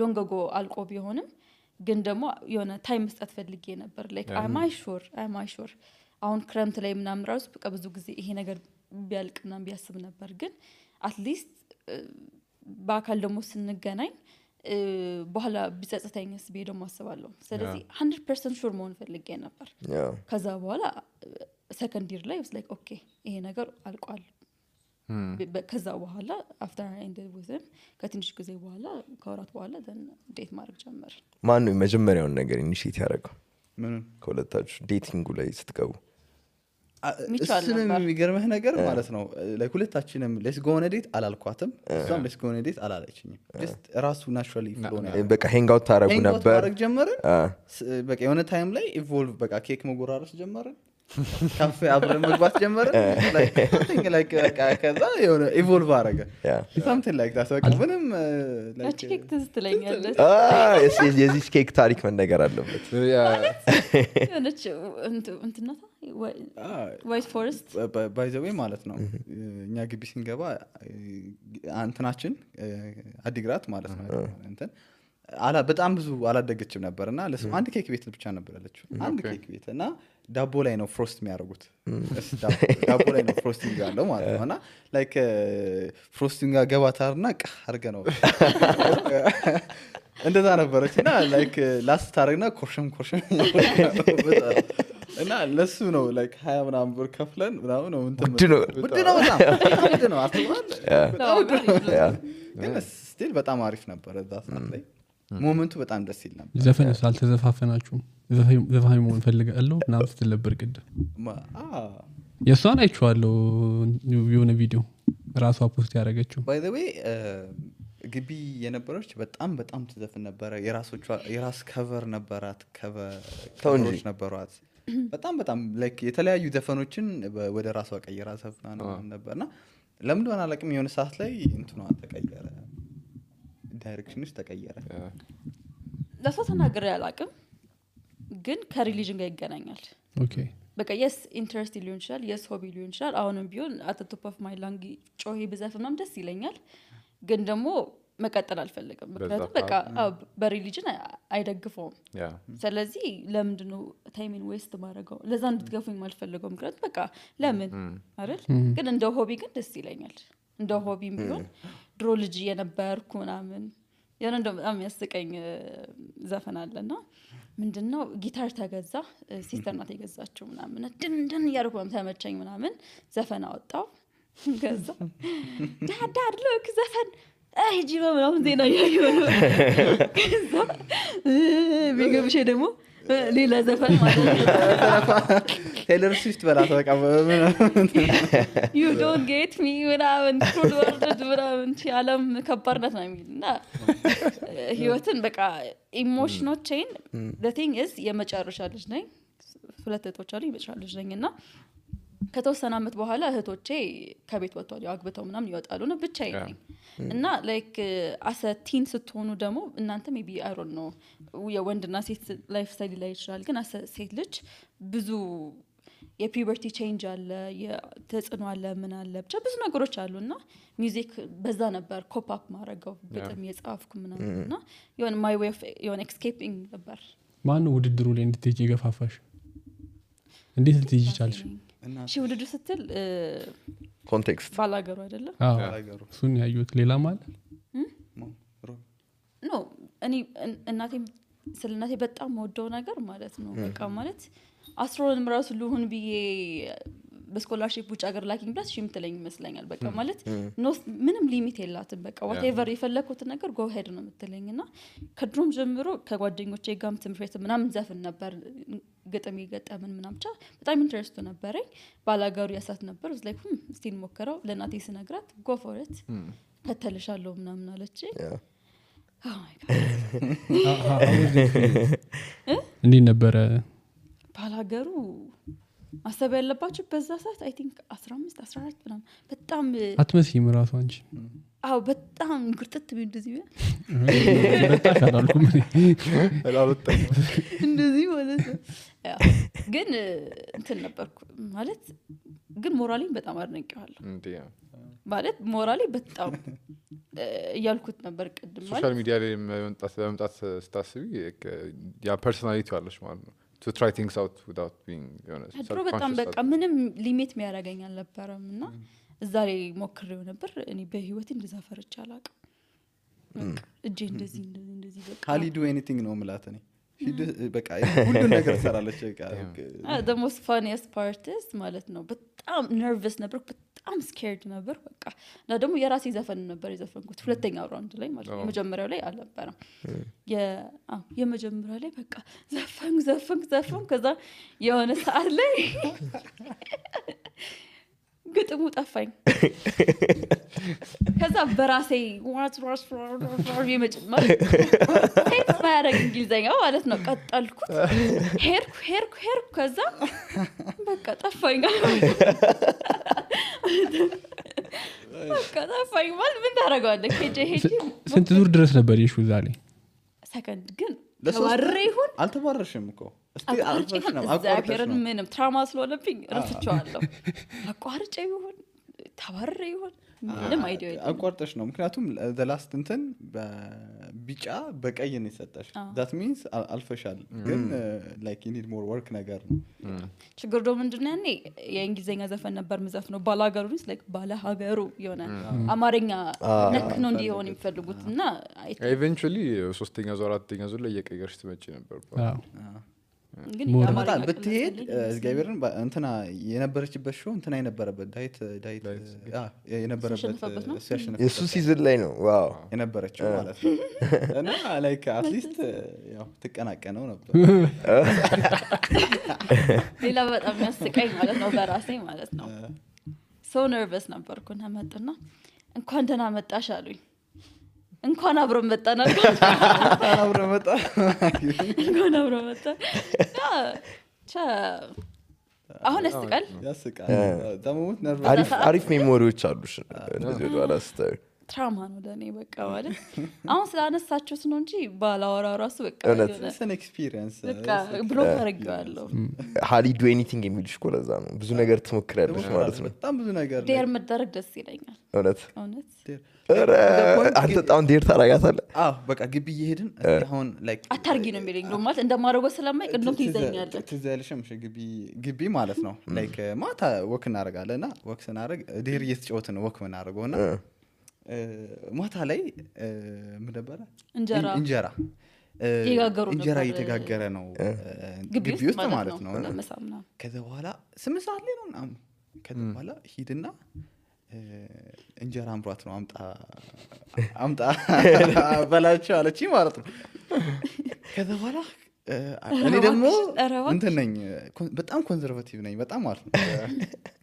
ሎንግ አጎ አልቆ ቢሆንም ግን ደግሞ የሆነ ታይም መስጠት ፈልጌ ነበር ላይክ am I sure አሁን ክረምት ላይ ምናምን ራሱ በቃ ብዙ ጊዜ ይሄ ነገር ቢያልቅና ቢያስብ ነበር ግን አትሊስት በአካል ደግሞ ስንገናኝ በኋላ ቢጸጸተኝስ ደግሞ አስባለሁ ስለዚህ 100% ሹር መሆን ፈልጌ ነበር ከዛ በኋላ ሰከንድ ይር ላይ was like okay ይሄ ነገር አልቋል ከዛ በኋላ after I ended with him ከትንሽ ጊዜ በኋላ ከወራት በኋላ then ዴት ማድረግ ጀመር ማን ነው መጀመሪያውን ነገር ኢኒሺየት ያደረገው ምን ከሁለታችሁ ዴቲንጉ ላይ ስትገቡ እሱንም የሚገርምህ ነገር ማለት ነው like ሁለታችንም let's go on a date አላልኳትም እሷም let's go on a date አላለችኝም just ራሱ naturally flow ነው በቃ hang out ታረጉ ነበር ማድረግ ጀመርን በቃ የሆነ ታይም ላይ ኢቮልቭ በቃ ኬክ መጎራረስ ጀመርን ካፌ አብረን መግባት ጀመርን like ከዛ የሆነ ኢቮልቭ አረገ something like that በቃ ምንም like ኬክ ትዝትለኛለች የዚህ ኬክ ታሪክ መነገር አለበት የሆነች እንትናታ ዋይት ፎረስት by the way ማለት ነው እኛ ግቢ ስንገባ እንትናችን አዲግራት ማለት ነው እንትን በጣም ብዙ አላደገችም ነበርና ለሱ አንድ ኬክ ቤት ብቻ ነበር ያለችው አንድ ኬክ ቤት እና ዳቦ ላይ ነው ፍሮስት የሚያደርጉት ዳቦ ላይ ነው ፍሮስቲንግ ያለው ማለት ነውና ላይክ ፍሮስቲንግ ገባታርና አርገ ነው እንደዛ ነበረችና ላይክ ላስት ታረግና ኮርሽም እና ለሱ ነው ላይክ 20 ምናምን ብር ከፍለን ምናምን ነው እንትን ውድ ነው አትባል ግን ስቲል በጣም አሪፍ ነበር እዛ ሰዓት ላይ ሞመንቱ በጣም ደስ ይል ነበር ዘፈንስ አልተዘፋፈናችሁም ዘፋኝ መሆን ፈልጋለሁ ምናምን ስትል ነበር ቅድም የእሷን አይቼዋለሁ የሆነ ቪዲዮ ራሷ ፖስት ያደረገችው ባይ ዘ ዌይ ግቢ የነበረች በጣም ትዘፍን ነበረ የራስ ከቨር ነበራት ከቨሮች ነበሯት በጣም ላይክ የተለያዩ ዘፈኖችን ወደ ራሷ ቀይራ ዘፍና ነበርና ለምን እንደሆነ አላውቅም የሆነ ሰዓት ላይ እንትኗ ተቀየረ ዳይሬክሽንሽ ተቀየረ ለሰው ተናግሬ አላውቅም ግን ከሪሊጅን ጋር ይገናኛል ኦኬ በቃ የስ ኢንትረስት ሊሆን ይችላል የስ ሆቢ ሊሆን ይችላል አሁንም ቢሆን አት ቶፕ ኦፍ ማይ ላንግ ጮሄ ብዘፍናም ደስ ይለኛል ግን ደግሞ መቀጠል አልፈልግም ምክንያቱም በቃ በሪሊጅን አይደግፈውም ስለዚህ ለምንድነው ታይሚን ዌስት ማድረገው ለዛ እንድትገፉኝ ማልፈልገው ምክንያቱም በቃ ለምን አይደል ግን እንደ ሆቢ ግን ደስ ይለኛል እንደ ሆቢም ቢሆን ድሮ ልጅ የነበርኩ ምናምን ያን እንደው በጣም ያስቀኝ ዘፈን አለና ምንድነው ጊታር ተገዛ ሲስተር ናት የገዛችው ምናምን ድንድን ያርኩም ተመቸኝ ምናምን ዘፈን አወጣው ገዛ ዳድ ሎክ ዘፈን ጂባ ምናምን ዜና ያየው ከዛ ቢገብሽ ደግሞ ሌላ ዘፈን ማለት ነው ቴይለር ስዊፍት በላት በቃ you don't get me ምናምን ፕሮዳክት ምናምን ዓለም ከባድነት ነው የሚልና ህይወትን በቃ ኢሞሽኖቼን the thing is የመጨረሻ ልጅ ነኝ ሁለት እህቶች አሉኝ የመጨረሻ ልጅ ነኝና ከተወሰነ አመት በኋላ እህቶቼ ከቤት ወጥተዋል ያግብተው ምናምን ይወጣሉ ነው ብቻዬን ነኝ እና ላይክ አሰ ቲን ስትሆኑ ደግሞ እናንተ ሜቢ አይ ዶንት ኖ የወንድና ሴት ላይፍ ስታይል ላይ ይችላል ግን አሰ ሴት ልጅ ብዙ የፒዩበርቲ ቼንጅ አለ የተጽዕኖ አለ ምን አለ ብቻ ብዙ ነገሮች አሉና ሚውዚክ በዛ ነበር ኮፕ አፕ ማድረገው በጣም የጻፍኩ ምናምንና የሆነ ማይ ዌይ ኦፍ የሆነ ኤስኬፒንግ ነበር ማን ውድድሩ ላይ እንድትሄጂ ገፋፋሽ እንዴት ልትሄጂ ቻልሽ እሺ ውድድር ስትል ኮንቴክስት ባላገሩ አይደለም ባላገሩ እሱን ያዩት ሌላ ማለት ኖ እኔ እናቴም ስለናቴ በጣም ወደው ነገር ማለት ነው በቃ ማለት አስትሮኖም ራሱ ልሁን ብዬ በስኮላርሺፕ ውጭ ሀገር ላኪንግ ብላስ ሽም ትለኝ ይመስለኛል በቃ ማለት ምንም ሊሚት የላትም በቃ whatever የፈለኩት ነገር go ahead ነው የምትለኝና ከድሮም ጀምሮ ከጓደኞቼ ጋርም ትምህርት ቤት ምናምን ዘፈን ነበር ገጠም ይገጠምን ምናምን ብቻ በጣም ኢንትረስት ነበረኝ ባላገሩ ያሳት ነበር was like እስቲ እንሞክረው ለናቴ ስነግራት go for it ከተልሻለሁ ምናምን አለች oh my god እንዴ ነበር ባላገሩ ማሰብ ያለባችሁ በዛ ሰዓት አይ ቲንክ 15 14 ምናምን በጣም አትመስይም ራሱ አንቺ አው በጣም ግርጥት ቢል እንደዚህ በጣም አላልኩም እንደዚህ ማለት ነው ግን እንትን ነበርኩ ማለት ግን ሞራሊን በጣም አድንቄዋለሁ እንዴ ማለት ሞራሊ በጣም ያልኩት ነበር ቀድም ማለት ሶሻል ሚዲያ ላይ መምጣት ስታስቢ ያ ፐርሰናሊቲ አለሽ ማለት ነው to try things out without being ድሮ በጣም በቃ ምንም ሊሚት የሚያደርገኝ አልነበረምና እዛ ላይ ሞክሬው ነበር እኔ በህይወቴ እንደዛ ፈርቻ አላውቅም እጄ እንደዚህ በቃ ካሊ ዱ ኤኒቲንግ ነው ማለት ነው በቃ ሁሉ ነገር ሰራለች በቃ the most funniest part is ማለት ነው በጣም ነርቨስ ነበር በጣም ስኬርድ ነበር በቃ እና ደግሞ የራሴ ዘፈን ነበር የዘፈንኩት ሁለተኛው ራውንድ ላይ ማለት ነው መጀመሪያው ላይ አልነበረም የመጀመሪያው ላይ በቃ ዘፈን ከዛ የሆነ ሰዓት ላይ ግጥሙ ጠፋኝ ከዛ በራሴ ዋስ የመጀመር ሴት ባያረግ እንግሊዘኛ ማለት ነው ቀጠልኩት ሄርኩ ከዛ በቃ ጠፋኝ በቃ ጠፋኝ ማለት ምን ታረጋለህ ሄጄ ስንት ዙር ድረስ ነበር ይሹ ዛሬ ሰከንድ ግን ተባረረ ይሁን አልተባረረሽም እኮ እስቲ አልተባረረሽም ምንም ትራውማ ስለሆነብኝ ረስቼዋለሁ አቋርጬ ይሁን ተባረረ ይሁን ምንም አይዲያ የለም አቋርጠሽ ነው ምክንያቱም the last እንትን በቢጫ በቀይ ነው የሰጠሽ that means አልፈሻል ግን like you need more work ነገር ነው ችግሩ ደግሞ ምንድነው ያኔ የእንግሊዘኛ ዘፈን ነበር መዘፍነው ባላገሩስ like ባላሀገሩ የሆነ አማርኛ ነክ ነው እንዲሆን የሚፈልጉትና eventually ሶስተኛ ዙር አራተኛ ዙር ላይ እየቀየርሽ ትመጪ ነበር ግን ሞር የአማርኛ ብትሄድ ቅልል ስለኝ እግዚአብሔርን እንትና የነበረችበት ሾው እንትና የነበረበት ዳዊት የነበረበት ያሸነፈበት ነው? እሱ ያሸነፈበት የእሱ ሲዝን ላይ ነው ዋው የነበረችው ማለት ነው እና ላይክ አትሊስት ያው ትቀናቀነው ነበር ሌላ በጣም የሚያስቀኝ ማለት ነው በራሴ ማለት ነው ሶ ነርቨስ ነበርኩና መጡና እንኳን ደህና መጣሽ አሉኝ እንኳን አብረን መጣን አብረ መጣ እንኳን አብረን መጣን አሁን ያስቃል ደሞት አሪፍ ሜሞሪዎች አሉሽ እንደዚህ ወደ ኋላ ስታዩ ትራማ ነው ለኔ በቃ ማለት አሁን ስላነሳችሁት ነው እንጂ ባላወራ ራሱ በቃ ሰን ኤክስፒሪየንስ በቃ ብሎክ አድርጌዋለሁ ሃሊ ዱ ኤኒቲንግ የሚልሽ እኮ ለዛ ነው ብዙ ነገር ትሞክሪያለሽ ማለት ነው በጣም ብዙ ነገር ዴር መደረግ ደስ ይለኛል እውነት እውነት አንተ በጣም ዴር ታረጋታለህ በቃ ግቢ እየሄድን አሁን ላይክ አታርጊ ነው የሚለኝ ነው ማለት እንደማደርገው ስለማይቅ እንደውም ትይዘኛለህ ትዝ ያለሽም ግቢ ማለት ነው ላይክ ማታ ወክ እናደርጋለን እና ወክ ስናደርግ ዴር እየተጫወትን ነው ወክ ምናደርገው እና ማታ ላይ ምን ነበረ እንጀራ እየተጋገረ ነው ግቢ ውስጥ ማለት ነው ከዛ በኋላ 8 ሰዓት ላይ ነው ምናምን ከዛ በኋላ ሂድና እንጀራ አምሯት ነው አምጣ በላቸው አለች ማለት ነው ከዛ በኋላ እኔ ደግሞ እንትን ነኝ በጣም ኮንዘርቫቲቭ ነኝ በጣም ማለት ነው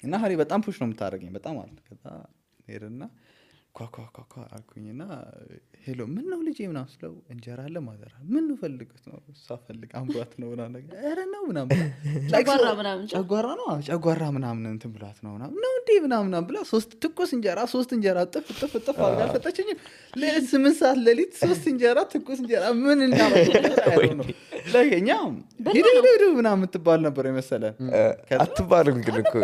እና ሀሪ በጣም ፑሽ ነው የምታደርገኝ በጣም ማለት ከዛ ሄድና ኳኳኳኳ አልኩኝና ሄሎ ምን ነው ልጄ ምናምን ስለው እንጀራ አለ ማዘራ ምን ነው ፈልገት ነው እሷ ፈልግ አምሯት ነው ምናምን ነገር ኧረ ነው ምናምን ጨጓራ ምናምን እንትን ብሏት ነው ምናምን ነው እንዴ ምናምን ብላ ትኩስ እንጀራ 3 እንጀራ ጥፍ አድርጋ ሰጠችኝ ለ8 ሰዓት ሌሊት 3 እንጀራ ትኩስ እንጀራ ምን እናረጋለን ነው ለኛ ሂዱ ምናምን የምትባል ነበር የመሰለን አትባልም ግን እኮ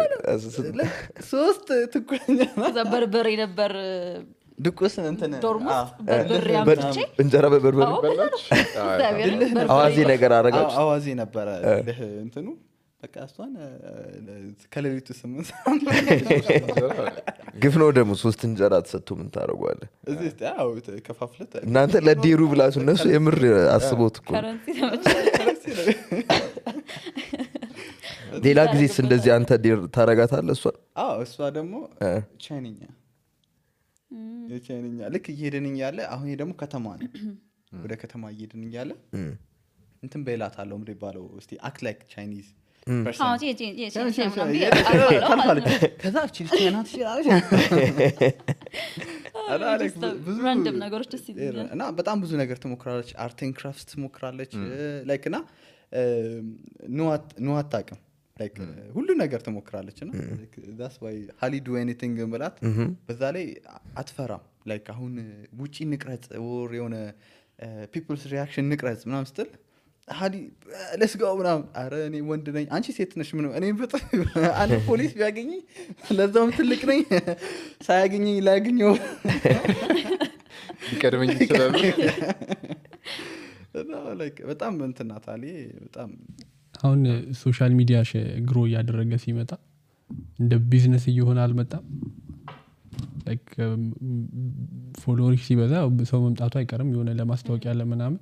3 ትኩስ እንጀራ በርበሬ ነበር ድቁስ እንትን ዶርሞስ በርበሬ አምጥቼ እንጀራ በበርበሬ በላች አዋዜ ነገር አረጋች አዋዜ ነበረ እንትኑ በቃ እሷን ከሌሊቱ 8 ግፍ ነው ደግሞ 3 እንጀራ ተሰጥቶ ምን ታደርጓለህ እዚህ ያው ከፋፍለት እናንተ ለዴሩ ብላችሁ እነሱ የምር አስቦት እኮ ሌላ ጊዜስ እንደዚህ አንተ ዴር ታረጋታለህ እሷ ደግሞ ቻይንኛ ልክ እየሄድን እያለ አሁን ደግሞ ከተማ ነው ወደ ከተማ እየሄድን እያለ እንትን በላታለው ምንድን ይባለው እስቲ አክት ላይክ ቻይኒዝ ከዛ ቻይናት ራንደም ነገሮች ደስ ይላል እና በጣም ብዙ ነገር ትሞክራለች አርት ኤንድ ክራፍት ትሞክራለች ላይክ እና ኖ አታውቅም ላይክ ሁሉ ነገር ትሞክራለች እና that's why Hali do anything ማለት በዛ ላይ አትፈራም ላይክ አሁን ውጪ ንቅረጽ or የሆነ people's reaction ንቅረጽ ምናምን ስትል Hali let's go ምናምን አረ እኔ ወንድ ነኝ አንቺ ሴት ነሽ ምን እኔ በጣም አንድ ፖሊስ ቢያገኝ ለዛውም ትልቅ ነኝ ሳያገኘኝ ላያገኘው ይቀድመኝ ይችላል ላይክ በጣም እንትናት አሊ በጣም አሁን ሶሻል ሚዲያ ግሮ እያደረገ ሲመጣ እንደ ቢዝነስ እየሆነ አልመጣም ላይክ ፎሎወር ሲበዛ ሰው መምጣቱ አይቀርም የሆነ ለማስታወቂያ ለምናምን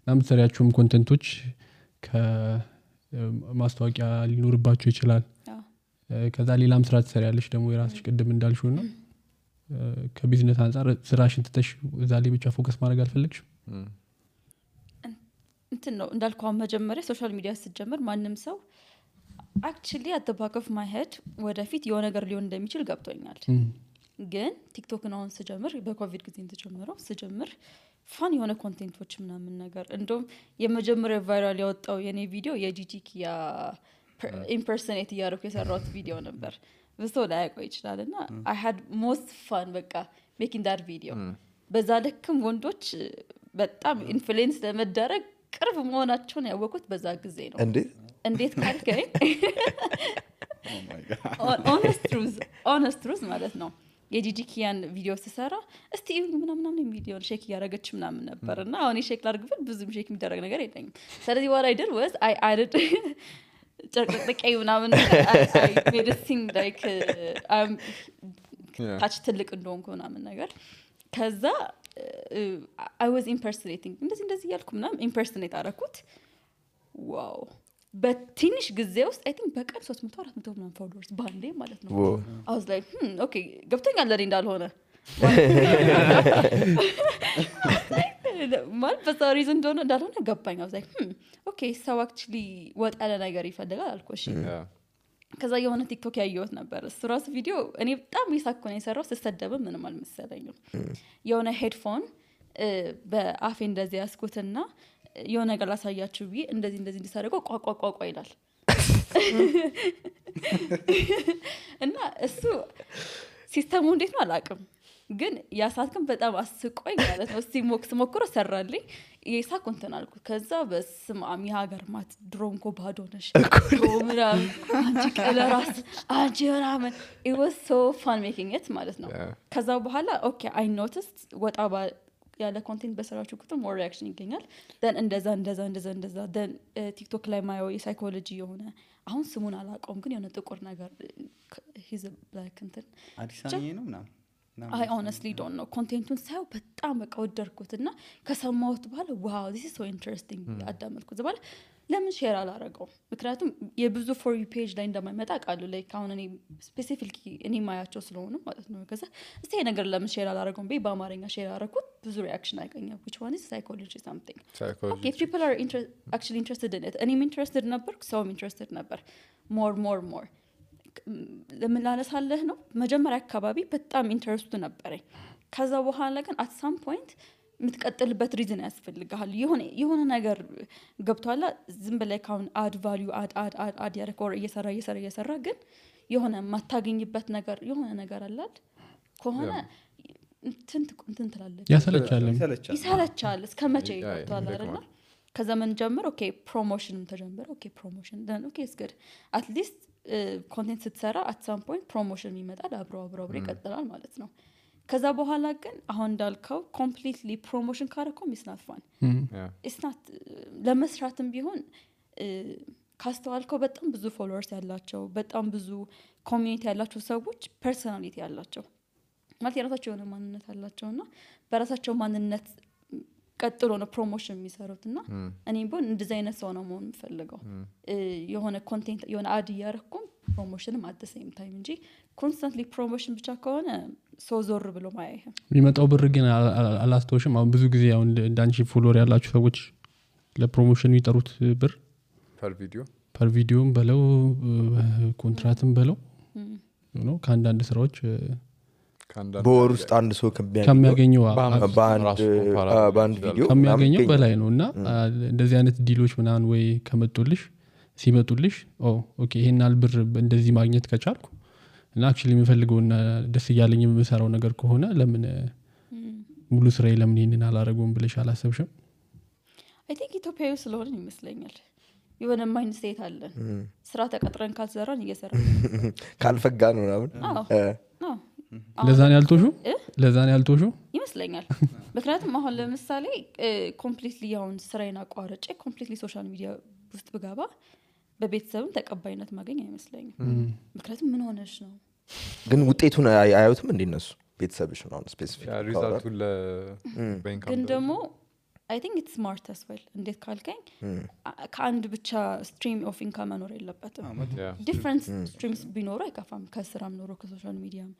ለምሳሌያችሁም ኮንቴንቶች ከማስታወቂያ ሊኖርባችሁ ይችላል ከዛ ሌላም ስራ ትሰሪያለሽ ደግሞ የራስሽ ቅድም እንዳልሽው ነው ከቢዝነስ አንፃር ስራሽን ትተሽ እዛ ላይ ብቻ ፎከስ ማድረግ አልፈለግሽም እንትን ነው እንዳልኳው መጀመሪያ ሶሻል ሚዲያ ስትጀምር ማንም ሰው actually at the back of my head ወደፊት የሆነ ነገር ሊሆን እንደሚችል ገብቶኛል ግን ቲክቶክ ነው ስጀምር በኮቪድ ጊዜ ተጀመረው ስጀምር ፋን የሆነ ኮንቴንቶች ምናምን ነገር እንደውም የመጀመሪያ ቫይራል ያወጣው የኔ ቪዲዮ የጂጂኪያ ኢምፐርሰኔት ያደረኩ የሰራሁት ቪዲዮ ነበር ብዙ ላይ ያቆይ ይችላልና I had most fun በቃ making that video በዛ ልክም ወንዶች በጣም ኢንፍሉዌንስ ለመደረግ ቅርብ መሆናቸውን ያወቁት በዛ ጊዜ ነው እንዴት ካልከኝ honest truth ማለት ነው የጂጂኪያን ቪዲዮ ተሰራ እስቲ ምናምን ቪዲዮ ሼክ ያረጋች ምናምን ነበርና አሁን ሼክ ላርግበት ብዙም ሼክ የሚደረግ ነገር የለኝም ስለዚህ what I did was I added ጨርቅጥቀይ ምናምን I made it seem like ታች ትልቅ እንደሆንኩ ምናምን ነገር ከዛ I was impersonating እንደዚህ ያልኩ ምናምን impersonate አረኩት ዋው በትንሽ ጊዜ ውስጥ አይ ቲንክ በቀን 300 400 ምናምን ፎሎወርስ ባንዴ ማለት ነው I was like ኦኬ ገብቶኛል ለኔ እንዳልሆነ ማለት በዛ ሪዝን እንዳልሆነ ገባኝ I was like ኦኬ ሰው actually ወጣ ያለ ነገር ይፈልጋል አልኩሽ ከዛ የሆነ ቲክቶክ ያየሁት ነበር እሱ ራሱ ቪዲዮ እኔ በጣም ይሳኩ ነው የሰራው ሲስተደብ ምንም አልመሰለኝም የሆነ ሄድፎን በአፌ እንደዚህ ያስኩትና የሆነ ነገር ላሳያችሁ ቢ እንደዚህ እንዲሳደርገው ቋቋቋቋ ይላል እና እሱ ሲስተሙ እንዴት ነው አላውቅም ግን ያሳትከም በጣም አስቆኝ ማለት ነው ሲሞክስ ሞክሮ ሰራልኝ የሳኩንተን አልኩት ከዛ በስማም የሀገር ማት ድሮንኮ ባዶ ነሽ ድሮምራም አንቺ ቀለራስ አንቺ ምናምን it was so fun making it ማለት ነው ከዛ በኋላ ኦኬ I noticed ወጣ ያለ ኮንቴንት በሰራችሁ ቁጥር more reaction ይገኛል then እንደዛ then ቲክቶክ ላይ ማየው የሳይኮሎጂ የሆነ አሁን ስሙን አላውቀውም ግን የሆነ ጥቁር ነገር he's a black እንትን አዲሳኒ ነው ምናምን I honestly don't know ኮንቴንቱን ሳይው በጣም በቃ ወደድኩትና ከሰማሁት በኋላ wow this is so interesting አዳመጥኩት በኋላ ለምን ሼር አላረገው ምክንያቱም የብዙ for you page ላይ እንደማይመጣ ቃሉ ላይ አሁን እኔ ስፔሲፊካሊ እኔ ማያቸው ስለሆነ ማለት ነው ከዛ እስቲ ነገር ለምን ሼር አላረገው በአማርኛ ሼር አረኩት ብዙ ሪአክሽን አገኘሁ which one is psychology something okay if people are actually interested in it እኔም interested ነበር ሰውም interested ነበር more ለምን ላነሳለህ ነው መጀመሪያ አካባቢ በጣም ኢንተረስቱ ነበረኝ ከዛ በኋላ ግን at some point ምትቀጥልበት ሪዝን ያስፈልጋል የሆነ ነገር ገብቷላ ዝም ብለህ ካውን አድ ቫልዩ አድ ያረከው እየሰራ ግን የሆነ ማታገኝበት ነገር የሆነ ነገር አላል ከሆነ እንትን ትላለች ይሰለቻል እስከመቼ ገብቷላ አይደል ከዛ ምን ጀምር ኦኬ ፕሮሞሽንም ተጀመረ ኦኬ ፕሮሞሽን then okay it's good at least ኮንቴንት ስትሰራ at some point ፕሮሞሽን ይመጣል አብሮ ይቀጥላል ማለት ነው ከዛ በኋላ ግን አሁን እንዳልከው completely promotion ካረከው is not fun it's not ለመስራትም ቢሆን ካስተዋልከው በጣም ብዙ ፎሎወርስ ያላቸው በጣም ብዙ ኮሚኒቲ ያላቸው ሰዎች ፐርሰናሊቲ ያላቸው ማለት የራሳቸው የሆነ ማንነት አላቸውና በራሳቸው ማንነት ቀጥሎ ነው ፕሮሞሽን የሚሰሩትና እኔም ቢሆን እንደዚህ አይነት ሰው ነው መሆን የምፈልገው የሆነ ኮንቴንት የሆነ አድ ያረኩም ፕሮሞሽንም at the same time እንጂ constantly ፕሮሞሽን ብቻ ከሆነ ሰው ዞር ብሎ ማያየህ የሚመጣው ብር ግን አላስተውሽም አሁን ብዙ ጊዜ አሁን ዳንቺ ፎሎወር ያላችሁ ሰዎች ለፕሮሞሽን የሚጠሩት ብር ፐር ቪዲዮም በለው ኮንትራትም በለው ነው ከአንዳንድ ስራዎች በወር ውስጥ አንድ ሰው ከሚያገኘው በአንድ ቪዲዮ ከሚያገኘው በላይ ነው እና እንደዚህ አይነት ዲሎች ምናምን ወይ ሲመጡልሽ ኦኬ ይሄን አልብር እንደዚህ ማግኘት ከቻልኩ እና actually የምፈልገውና ደስ እያለኝ የምሰራው ነገር ከሆነ ለምን ሙሉ ስራዬ ለምን ይሄንን አላረገውም ብለሽ አላሰብሽም I think ኢትዮጵያዊ ስለሆነ ይመስለኛል የሆነ ማይንድ ስቴት አለ ስራ ተቀጥረን ካልሰራን እየሰራን ካልፈጋን ምናምን ለዛን ያልቶሹ ይመስለኛል ምክንያቱም አሁን ለምሳሌ ኮምፕሊትሊ አሁን ስራዬን አቋርጬ ኮምፕሊትሊ ሶሻል ሚዲያ ውስጥ ብገባ በቤተሰብም ተቀባይነት ማገኝ አይመስለኝም ምክንያቱም ምን ሆነሽ ነው ግን ውጤቱን አያዩትም እንደነሱ ቤተሰብሽ ነው ስፔሲፊክ ሪዛልቱ ለባንክ ግን ደግሞ I think it's smart as well እንዴት ካልከኝ ከአንድ ብቻ ስትሪም ኦፍ ኢንካም መኖር የለበትም ዲፈረንት ስትሪምስ ቢኖሩ አይከፋም ከስራም ኖሮ ከሶሻል ሚዲያም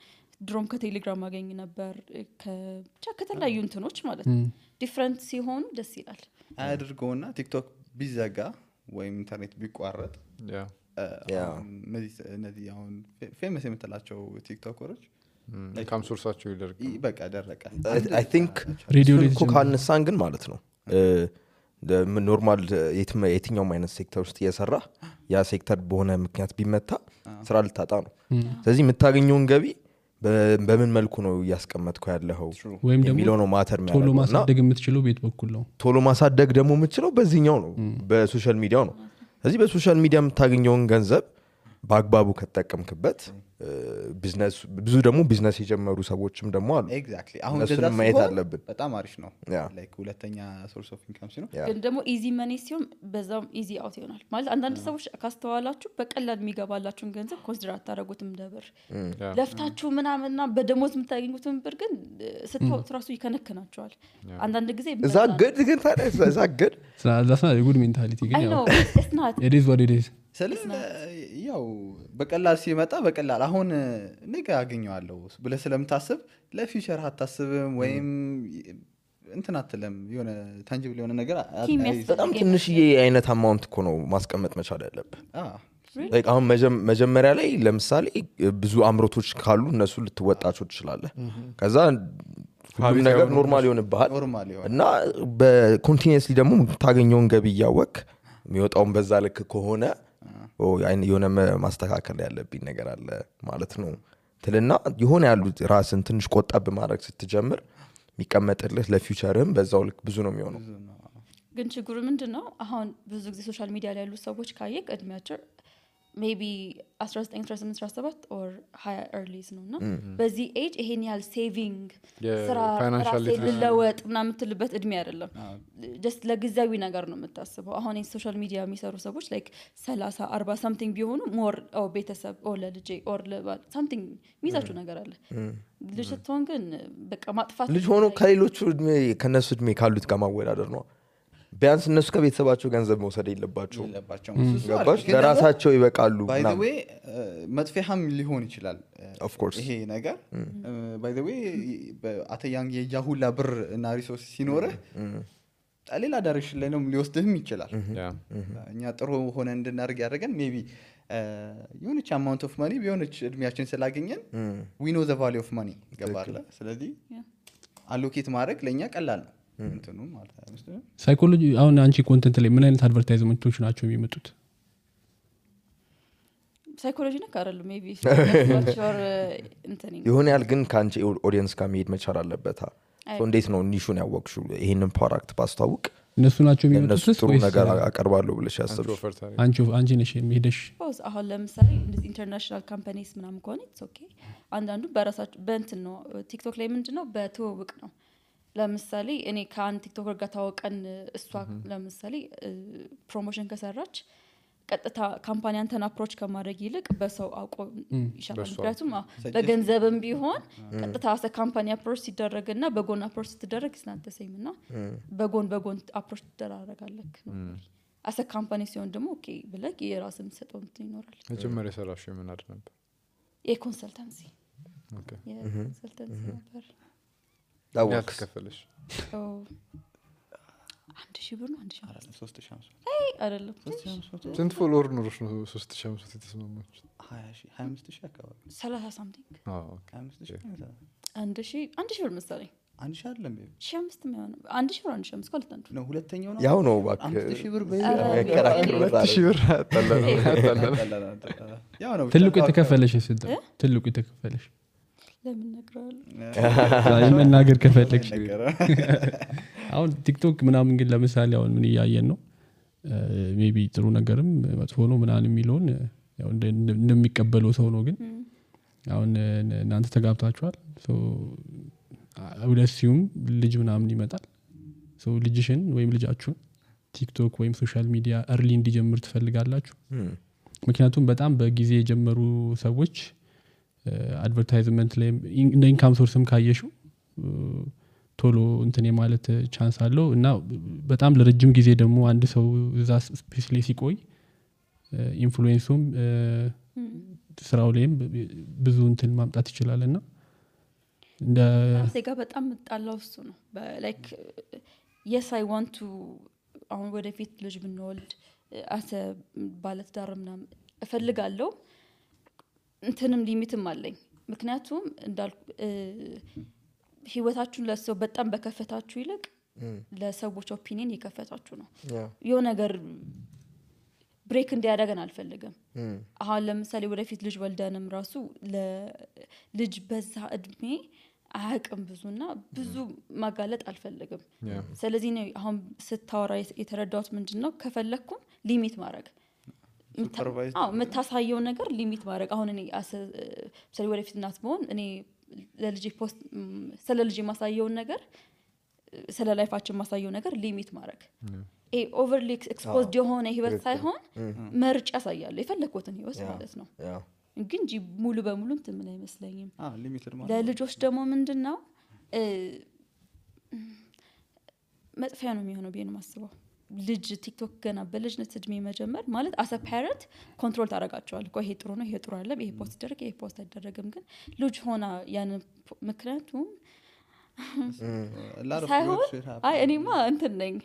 ድሮም ከቴሌግራም ማገኝ ነበር ብቻ ከተለያዩ እንትኖች ማለት ዲፈረንት ሲሆኑ ደስ ይላል አያድርገውና ቲክቶክ ቢዘጋ ወይም ኢንተርኔት ቢቋረጥ እነዚህ አሁን ፌመስ የምትላቸው ቲክቶከሮች ኢንካም ሶርሳቸው ይደርግ በቃ ደረቀ I think ሬዲዮ ላይ ካነሳን ግን ማለት ነው ኖርማል የትኛውም አይነት ሴክተር ውስጥ እየሰራ ያ ሴክተር በሆነ ምክንያት ቢመታ ስራ ልታጣ ነው ስለዚህ የምታገኘውን ገቢ በምን መልኩ ነው ያስቀመጥከው ያለኸው ወይም ደግሞ ነው ማተር ቶሎ ማሳደግ የምትችለው ቤት በኩል ነው ቶሎ ማሳደግ ደግሞ የምትችለው በዚህኛው ነው በሶሻል ሚዲያው ነው ስለዚህ በሶሻል ሚዲያ የምታገኘውን ገንዘብ በአግባቡ ከተጠቀምክበት ቢዝነስ ብዙ ደግሞ ቢዝነስ የጀመሩ ሰዎችም ደግሞ አሉ ኤግዛክትሊ አሁን እነሱንም እንደዛ ማየት ሲሆን አለብን በጣም አሪፍ ነው Yeah. ላይክ ሁለተኛ ሶርስ ኦፍ ኢንካም ሲሆን ግን ደግሞ ኢዚ መኒ ሲሆን በዛም ኢዚ አውት ይሆናል ማለት አንዳንድ ሰዎች ካስተዋላችሁ በቀላል የሚገባላችሁን ገንዘብ ኮንሲደር አታደርጉትም ደብር ለፍታችሁ ምናምንና በደሞዝ የምታገኙትን ብር ግን ስትወጡ ራሱ ይከነከናቸዋል አንዳንድ ጊዜ እዛ ግድ ግን ታዲያ እዛ ግድ that's not a good mentality ግን I know ያው it's not it is what it is ያው በቀላል ሲመጣ በቀላል አሁን ነገ አገኘዋለሁ ብለህ ስለምታስብ ለፊውቸር አታስብም ወይም እንትን አትልም የሆነ ታንጂብል የሆነ ነገር በጣም ትንሽዬ አይነት አማውንት እኮ ነው ማስቀመጥ መቻል ያለብህ like አሁን መጀመሪያ ላይ ለምሳሌ ብዙ አምሮቶች ካሉ እነሱ ልትወጣቸው ትችላለህ ከዛ ሁሉም ነገር ኖርማል ይሆንብሃል እና በኮንቲኒየስሊ ደግሞ ታገኘውን ገቢ እያወቅ የሚወጣውን በዛ ልክ ከሆነ የሆነ ማስተካከል ያለብኝ ነገር አለ ማለት ነው ትልና የሆነ ያሉ ራስን ትንሽ ቆጠብ ማድረግ ስትጀምር የሚቀመጥልህ ለፊውቸርም በዛው ልክ ብዙ ነው የሚሆነው ግን ችግሩ ምንድነው አሁን ብዙ ጊዜ ሶሻል ሚዲያ ላይ ያሉ ሰዎች ካየክ እድሜያቸው maybe 19 18 17 or higher earlies ነውና በዚህ ኤጅ ይሄን ያህል ሴቪንግ ስራ ራሴ ለወጥ ምናምን የምትልበት እድሜ አይደለም just ለጊዜያዊ ነገር ነው የምታስበው አሁን ሶሻል ሚዲያ የሚሰሩ ሰዎች like 30 40 something ቢሆኑ more ቤተሰብ or ለልጄ or something ሚዛችሁ ነገር አለ ልጅ ስትሆን ግን በቃ ማጥፋት ልጅ ሆኖ ከሌሎቹ እድሜ ከነሱ እድሜ ካሉት ጋር ማወዳደር ነው ቢያንስ እነሱ ከቤተሰባቸው ገንዘብ መውሰድ የለባቸው ገባሽ ለራሳቸው ይበቃሉ by the way መጥፊያም ሊሆን ይችላል of course ይሄ ነገር by the way አተያንግ የጃሁላ ብር እና ሪሶርስ ሲኖር ሌላ ዳይሬክሽን ላይ ነው ሊወስድህም ይችላል እኛ ጥሩ ሆነ እንድናርግ ያደረገን ሜቢ የሆነች አማውንት ኦፍ ማኒ ቢሆነች እድሜያችን ስላገኘን we know the value of money ገባለ ስለዚህ አሎኬት ማድረግ ለኛ ቀላል ነው እንትኑ ማለት ነው ሳይኮሎጂ አሁን አንቺ ኮንተንት ላይ ምን አይነት አድቨርታይዝመንቶች ናቸው የሚመጡት ሳይኮሎጂ ነው ካረሉ ሜቢ ይሆን ያል ግን ካንቺ ኦዲየንስ ጋር መሄድ መቻል አለበት እንዴት ነው ኒሹን ያወቅሽው ይሄንን ፕሮዳክት ባስተዋውቅ እነሱ ናቸው የሚመጡት ጥሩ ነገር አቀርባለሁ ብለሽ ያሰብሽ አንቺ ነሽ የሚሄደሽ አሁን ለምሳሌ እንደዚህ ኢንተርናሽናል ካምፓኒስ ምናምን ከሆነ ኢትስ ኦኬ አንዳንዱ በራሳቸው በእንትን ነው ቲክቶክ ላይ ምንድነው በትውውቅ ነው ለምሳሌ እኔ ከአንድ ቲክቶከር ጋር ታወቀን እሷ ለምሳሌ ፕሮሞሽን ከሰራች ቀጥታ ካምፓኒ አንተን አፕሮች ከማድረግ ይልቅ በሰው አውቆ ይሻላል ምክንያቱም በገንዘብም ቢሆን ቀጥታ አሰ ካምፓኒ አፕሮች ሲደረግና በጎን አፕሮች ሲደረግ ስናተሰይምና በጎን አፕሮች ትደራረጋለህ ነው አሰ ካምፓኒ ሲሆን ደግሞ ኦኬ ብለህ የራስን ሰጠው ይኖራል መጀመሪያ ሰራሽ ምን አድ ነበር የኮንሰልታንሲ ኦኬ የኮንሰልታንሲ ነበር ዳውክ ከፈለሽ 1000 ብር ነው 3500 አይ አይደለም ስንት ፎሎወር ኖርሽ ነው 3500 የተስማማች 25000 አካባቢ 30 something ኦኬ 1000 ብር መሰለኝ 1000 አይደለም 1500 ነው 1000 ብር 1500 ማለት ነው ነው ሁለተኛው ነው ያው ነው ባክ 5000 ብር ያከራክሩ 2000 ብር አጣላላ ያው ነው ትልቁ የተከፈለሽ ስንት ትልቁ የተከፈለሽ ለምን ነግራለሁ መናገር ከፈለግሽ አሁን ቲክቶክ ምናምን ግን ለምሳሌ አሁን ምን ያያየን ነው ሜቢ ጥሩ ነገርም መጥፎ ነው ምናምን የሚለውን ያው እንደሚቀበለው ሰው ነው ግን አሁን እናንተ ተጋብታችኋል ሶ አውለሲዩም ልጅ ምናምን ይመጣል ሶ ልጅሽን ወይም ልጃችሁን ቲክቶክ ወይም ሶሻል ሚዲያ early እንዲጀምር ትፈልጋላችሁ ምክንያቱም በጣም በጊዜ የጀመሩ ሰዎች አድቨርታይዝመንት ላይ እንደ ኢንካም ሶርስም ካየሽው ቶሎ እንትን የማለት ቻንስ አለው እና በጣም ለረጅም ጊዜ ደግሞ አንድ ሰው እዛ ስፔስ ላይ ሲቆይ ኢንፍሉዌንሱም ስራው ላይም ብዙ እንትን ማምጣት ይችላልና እንደ ሴጋ በጣም ጣላው እሱ ነው ላይክ yes I want to አሁን ወደፊት ልጅ ብንወልድ አሰ ባለትዳር ምናምን እፈልጋለሁ እንትንም ሊሚትም አለኝ ምክንያቱም እንዳልኩ ህይወታችሁን ለሰው በጣም በከፈታችሁ ይልቅ ለሰዎች ኦፒኒየን የከፈታችሁ ነው የሆነ ነገር ብሬክ እንዲያደርገን አልፈልግም አሁን ለምሳሌ ወደፊት ልጅ ወልደንም ራሱ ለልጅ በዛ እድሜ አያቅም ብዙና ብዙ ማጋለጥ አልፈልግም ስለዚህ ነው አሁን ስታወራ የተረዳሁት ምንድነው ከፈለኩም ሊሚት ማድረግ ሱፐርቫይዝ የምታሳየው ነገር ሊሚት ማድረግ አሁን እኔ ስለ ወደፊት እናት መሆን እኔ ለልጅ ፖስት ስለ ልጅ ማሳየውን ነገር ስለ ላይፋችን ማሳየው ነገር ሊሚት ማድረግ ኦቨርሊ ኤክስፖዝድ የሆነ ህይወት ሳይሆን መርጫ ያሳያል የፈለኩትን ህይወት ማለት ነው ግን እንጂ ሙሉ በሙሉ እንትን ምን አይመስለኝም ሊሚትድ ማለት ለልጆች ደግሞ ምንድነው መጥፊያ ነው የሚሆነው ቢሆን ማስበው ልጅ ቲክቶክ ገና በልጅነት እድሜ መጀመር ማለት አሰ ፓረንት ኮንትሮል ታረጋቸዋል እኮ ይሄ ጥሩ ነው ይሄ ጥሩ አይደለም ይሄ ፖስት ይደረግ ይሄ ፖስት አይደረግም ግን ልጅ ሆና ያን ምክንያቱም ሳይሆን አይ እኔማ እንትን ነኝ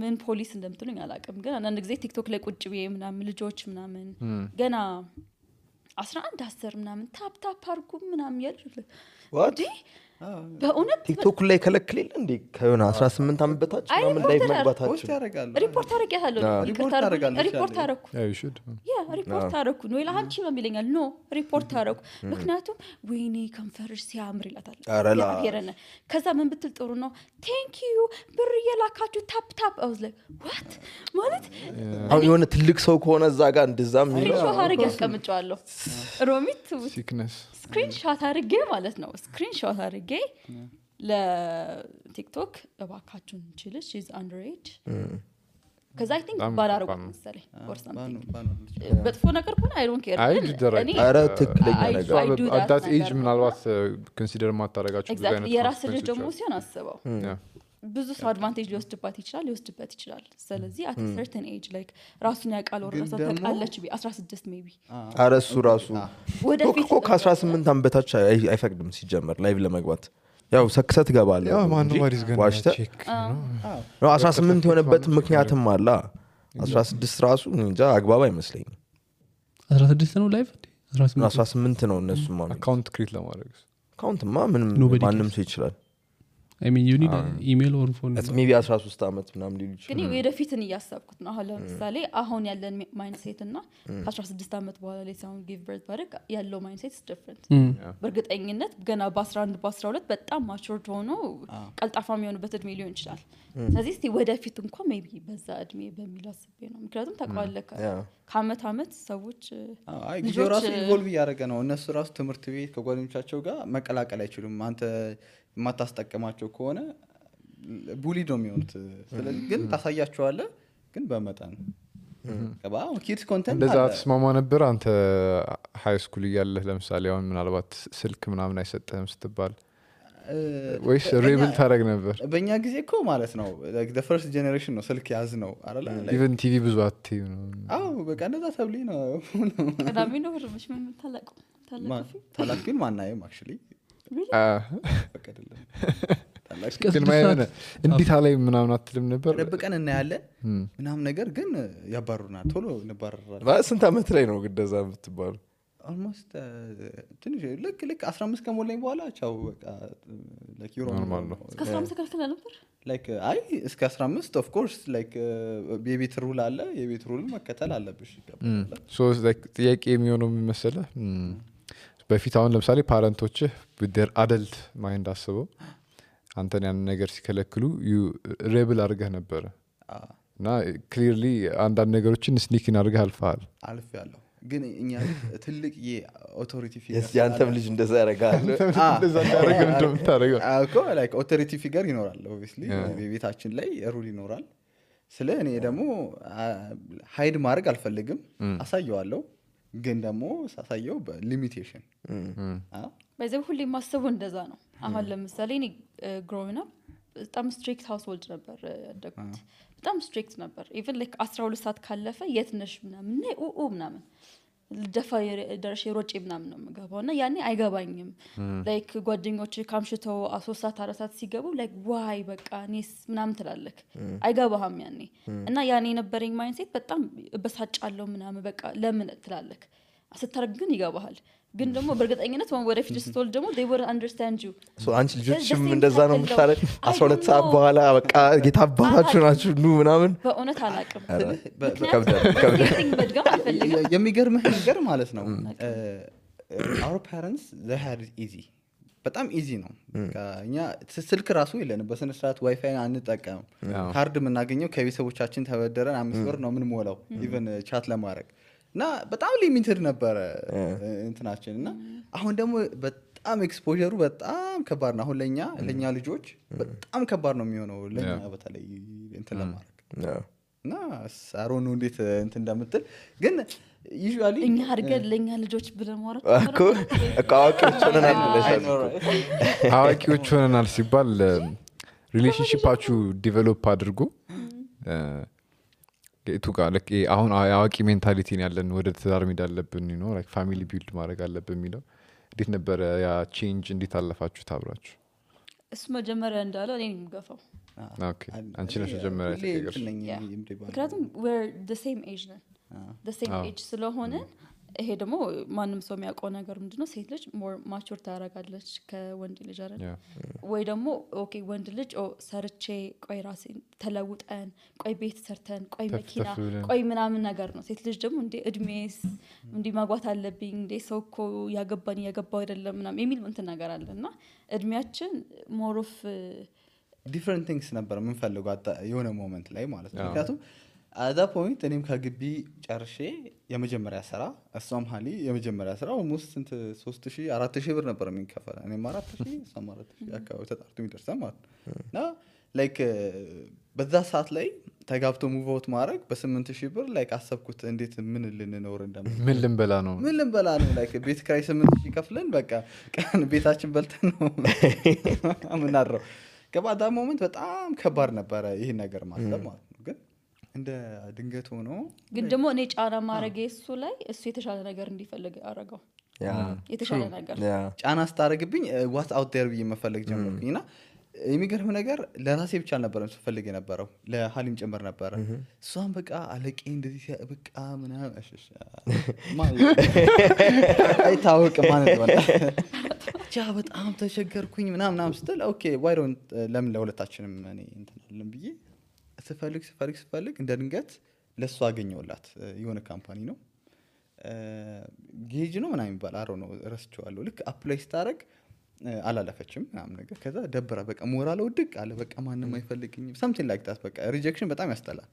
ምን ፖሊስ እንደምትሉኝ አላውቅም ግን አንዳንድ ጊዜ ቲክቶክ ላይ ቁጭ ብዬ ምናምን ልጆች ምናምን ገና 11 10 ምናምን ታፕ ታፕ አርጉ ምናምን ያልኩት what በእውነት ቲክቶክ ላይ ከለክልል እንዴ ከሆነ 18 አመት በታች ምናምን ላይ መግባታችሁ ፖስት ያደርጋሉ ሪፖርት አረጋለሁ ሪፖርት አረኩ yeah you should ሪፖርት አረኩ ነው ይላንቺ ነው የሚለኛል ኖ ሪፖርት አረኩ ምክንያቱም ወይኔ ከንፈርሽ ሲያምር ይላታል ያረነ ከዛ ምን ብትል ጥሩ ነው ቴንክ ዩ ብር የላካችሁ ታፕ ታፕ I was like what ማለት አሁን የሆነ ትልቅ ሰው ከሆነ እዛ ጋር እንደዛም ስክሪንሾት አረግ ያስቀምጫለሁ ሮሚት sickness ስክሪንሾት አረግ ማለት ነው ስክሪንሾት አረግ ለቲክቶክ እባካችሁን እንችልሽ is underage cuz I think ባላረጉ መሰለኝ or something በጥፎ ነገር ከሆነ I don't care አረ ትክክለኛ ነገር at that age ምናልባት ኮንሲደር ማታረጋችሁ ብዙ አይነት የራስ ልጅ ደግሞ ሲሆን አስበው ብዙ ሰው አድቫንቴጅ ሊወስድባት ይችላል ስለዚህ at a certain age like ራሱን ያቃል ወራሳ ተቃለች 16 maybe አረ እሱ ራሱ ወደፊት ከ18 አመት በታች አይፈቅድም ሲጀመር ላይቭ ለመግባት ያው ሰክሰት ገባለ ያው ማን ወሪስ ገና ቼክ ነው 18 የሆነበት ምክንያትም አለ 16 ራሱ እንጃ አግባብ አይመስለኝም 16 ነው ላይቭ 18 ነው እነሱ ማለት አካውንት ክሬት ለማድረግ አካውንት ማንም ሰው ይችላል I mean you need an email or phone it's maybe 13 አመት ምናምን ሊሉ ይችላል ግን ወደፊትን እያሰብኩት ነው አሁን ለምሳሌ አሁን ያለን ማይንድሴት እና 16 አመት በኋላ ላይ ሳውን ጊቭ በርዝ ባረክ ያለው ማይንድሴት is different በርግጠኝነት ገና በ11 በ12 በጣም ማቹርድ ሆኖ ቀልጣፋ የሚሆንበት እድሜ ሊሆን ይችላል ስለዚህ እስቲ ወደፊት እንኳን maybe በዛ እድሜ በሚል አስቤ ነው ምክንያቱም ታቋለከ ከአመት አመት ሰዎች ልጆች ራሱ ኢቮልቭ ያደረገ ነው እነሱ ራሱ ትምህርት ቤት ከጓደኞቻቸው ጋር መቀላቀል አይችሉም አንተ ማታስጠቀማቸው ከሆነ ቡሊ ነው የሚሆኑት ስለዚህ ግን ታሳያቸዋለህ ግን በመጠን ከባው ኪድስ ኮንተንት እንደዛ ተስማማ ነበር አንተ ሃይ ስኩል እያለህ ለምሳሌ አሁን ምናልባት ስልክ ምናምን አይሰጥህም ስትባል ወይስ ሬብል ታረግ ነበር በእኛ ጊዜ እኮ ማለት ነው like the first generation ነው ስልክ ያዝ ነው አይደል even ቲቪ ብዙ አትዩ ነው በቃ እንደዛ ተብሊ ነው ቀዳሚ ነው ወርምሽ ምን ታላቅ ግን ማናየም actually ግን ማየነ እንዴት ላይ ምናምን አትልም ነበር ደብቀን እናያለን ምናምን ነገር ግን ያባሩናል ቶሎ እንባረራለን በስንት አመት ላይ ነው ግደዛ የምትባሉ almost ትንሽ ልክ 15 ከሞላኝ በኋላ ቻው በቃ like you know እስከ 15 ከልከለ ነበር like አይ እስከ 15 of course like የቤት ሩል አለ የቤት ሩል መከተል አለብሽ ይገባል so like ጥያቄ የሚሆነው መሰለህ በፊት አሁን ለምሳሌ ፓረንቶችህ with their adult mind አስበው አንተን ያን ነገር ሲከለክሉ you rebel አድርገህ ነበር እና clearly አንዳንድ ነገሮችን ስኒኪን አድርገህ አልፈሃል ግን እኛ ትልቅ የኦቶሪቲ ፊገር ያንተም ልጅ እንደዛ ያረጋል እንደዛ ያረጋል እንደምታረጋው እኮ like ኦቶሪቲ ፊገር ይኖራል obviously በቤታችን ላይ ሩል ይኖራል ስለ እኔ ደግሞ ሃይድ ማድረግ አልፈልግም አሳየዋለሁ ግን ደግሞ ሳሳየው በሊሚቴሽን በዚህ ሁሉ ማሰቡ እንደዛ ነው አሁን ለምሳሌ እኔ growing up በጣም ስትሪክት ሃውስሆልድ ነበር ያደግኩት በጣም ስትሪክት ነበር even like 12 ሰዓት ካለፈ የት ነሽ ምናምን ምናምን ደፋ ደረሽ ሮጬ ምናምን ነው የምገባውና ያኔ አይገባኝም like ጓደኞች ካምሽተው 3 ሰዓት 4 ሰዓት ሲገቡ like why በቃ እኔስ ምናምን ትላለክ አይገባህም ያኔ እና ያኔ የነበረኝ ማይንድሴት በጣም በሳጫለው ምናምን በቃ ለምን ትላለክ አስተርግ ግን ይገባሃል ግን ደግሞ በርግጠኝነት ወደፊት ስትወልድ ደግሞ they will understand you so አንቺ ልጆችም እንደዛ ነው የምታረግ 12 ሰዓት በኋላ በቃ ጌታባታችሁ ናችሁ ኑ ምናምን በእውነት አላቅም የሚገርምህ ነገር ማለት ነው our parents they had it easy በጣም ኢዚ ነው እኛ ስልክ ራሱ የለንም በስነ ስርዓት ዋይፋይ አንጠቀምም ካርድ የምናገኘው ከቤተሰቦቻችን ተበደረን 5 ብር ነው የምንሞላው ኢቨን ቻት ለማድረግ እና በጣም ሊሚትድ ነበረ እንትናችን እና አሁን ደግሞ በጣም ኤክስፖዠሩ በጣም ከባድ ነው አሁን ለኛ ልጆች በጣም ከባድ ነው የሚሆነው ለኛ በተለይ እንትን ለማድረግ እና ሳሮኑ እንዴት እንትን እንደምትል ግን ዩዥዋሊ እኛ አድርገን ለኛ ልጆች ብለን ማውራት አዋቂዎች ሆነናል ሲባል ሪሌሽንሺፓችሁ ዲቨሎፕ አድርጎ ቱ ጋር አሁን አዋቂ ሜንታሊቲን ያለን ወደ ትዳር ሜዳ አለብን ነው ላይክ ፋሚሊ ቢልድ ማድረግ አለብን የሚለው እንዴት ነበረ ያ ቼንጅ እንዴት አለፋችሁ ታብራችሁ እሱ መጀመሪያ እንዳለው እኔ የምገፋው ኦኬ አንቺ ነሽ መጀመሪያ ተቀየርሽ ምክንያቱም we're the same age ነን the same age ስለሆነ ይሄ ደግሞ ማንም ሰው የሚያውቀው ነገር ምንድነው ሴት ልጅ more mature ታረጋለች ከወንድ ልጅ አይደል ወይ ደግሞ ኦኬ ወንድ ልጅ ሰርቼ ቆይ ራሴን ተለውጠን ቆይ ቤት ሰርተን ቆይ መኪና ቆይ ምናምን ነገር ነው ሴት ልጅ ደግሞ እንዴ እድሜስ እንዴ ማግባት አለብኝ እንዴ ሰው እኮ ያገባው አይደለም ምናምን የሚል እንትን ነገር አለና እድሜያችን more of different things ነበር ምን ፈልገው የሆነ ሞመንት ላይ ማለት ነው ምክንያቱም at that point እኔም ከግቢ ጨርሼ የመጀመሪያ ስራ እሷም ሀሊ የመጀመሪያ ስራ almost 3000 4000 ብር ነበር የሚከፈል እኔም 4000 እሷም 4000 አካባቢ ተጣርቶ የሚደርሰን ማለት ነው ላይክ በዛ ሰዓት ላይ ተጋብቶ ሙቭ አውት ማድረግ በ8000 ብር ላይክ አሰብኩት እንዴት ምን ልንኖር ምን ልንበላ ነው ላይክ ቤት ክራይ 8000 ከፍለን በቃ ቀን ቤታችን በልተን ነው ምናድረው ገባዳ ሞመንት በጣም ከባድ ነበረ ይሄ ነገር ማሰብ ማለት ነው ግን እንደ ድንገት ሆኖ ግን ደግሞ እኔ ጫና ማረግ እሱ ላይ እሱ የተሻለ ነገር እንዲፈልግ አረጋው የተሻለ ነገር ጫና ስታረግብኝ what out there ብዬ መፈለግ ጀመርኩኝና የሚገርም ነገር ለራሴ ብቻ አልነበረም ስፈልግ የነበረው ለሐሊም ጭምር ነበረ እሷን በቃ አለቄ እንደዚህ በቃ ምናምን እሺ አይታወቅ ማለት ነው ቻ በጣም ተቸገርኩኝ ምናምን ስትል ኦኬ why don't ለምን ለሁለታችንም እኔ እንተናለን ብዬ ስፈልግ እንደ ድንገት ለሷ አገኘውላት የሆነ ካምፓኒ ነው ጌጅ ነው ምናምን ይባል አሮ ነው ረስቼዋለሁ ልክ አፕላይ ስታረግ አላለፈችም ምናምን ነገር ከዛ ደብራ በቃ ሞራል ወድቅ አለ በቃ ማንንም አይፈልግኝም something like that በቃ ሪጀክሽን በጣም ያስጠላል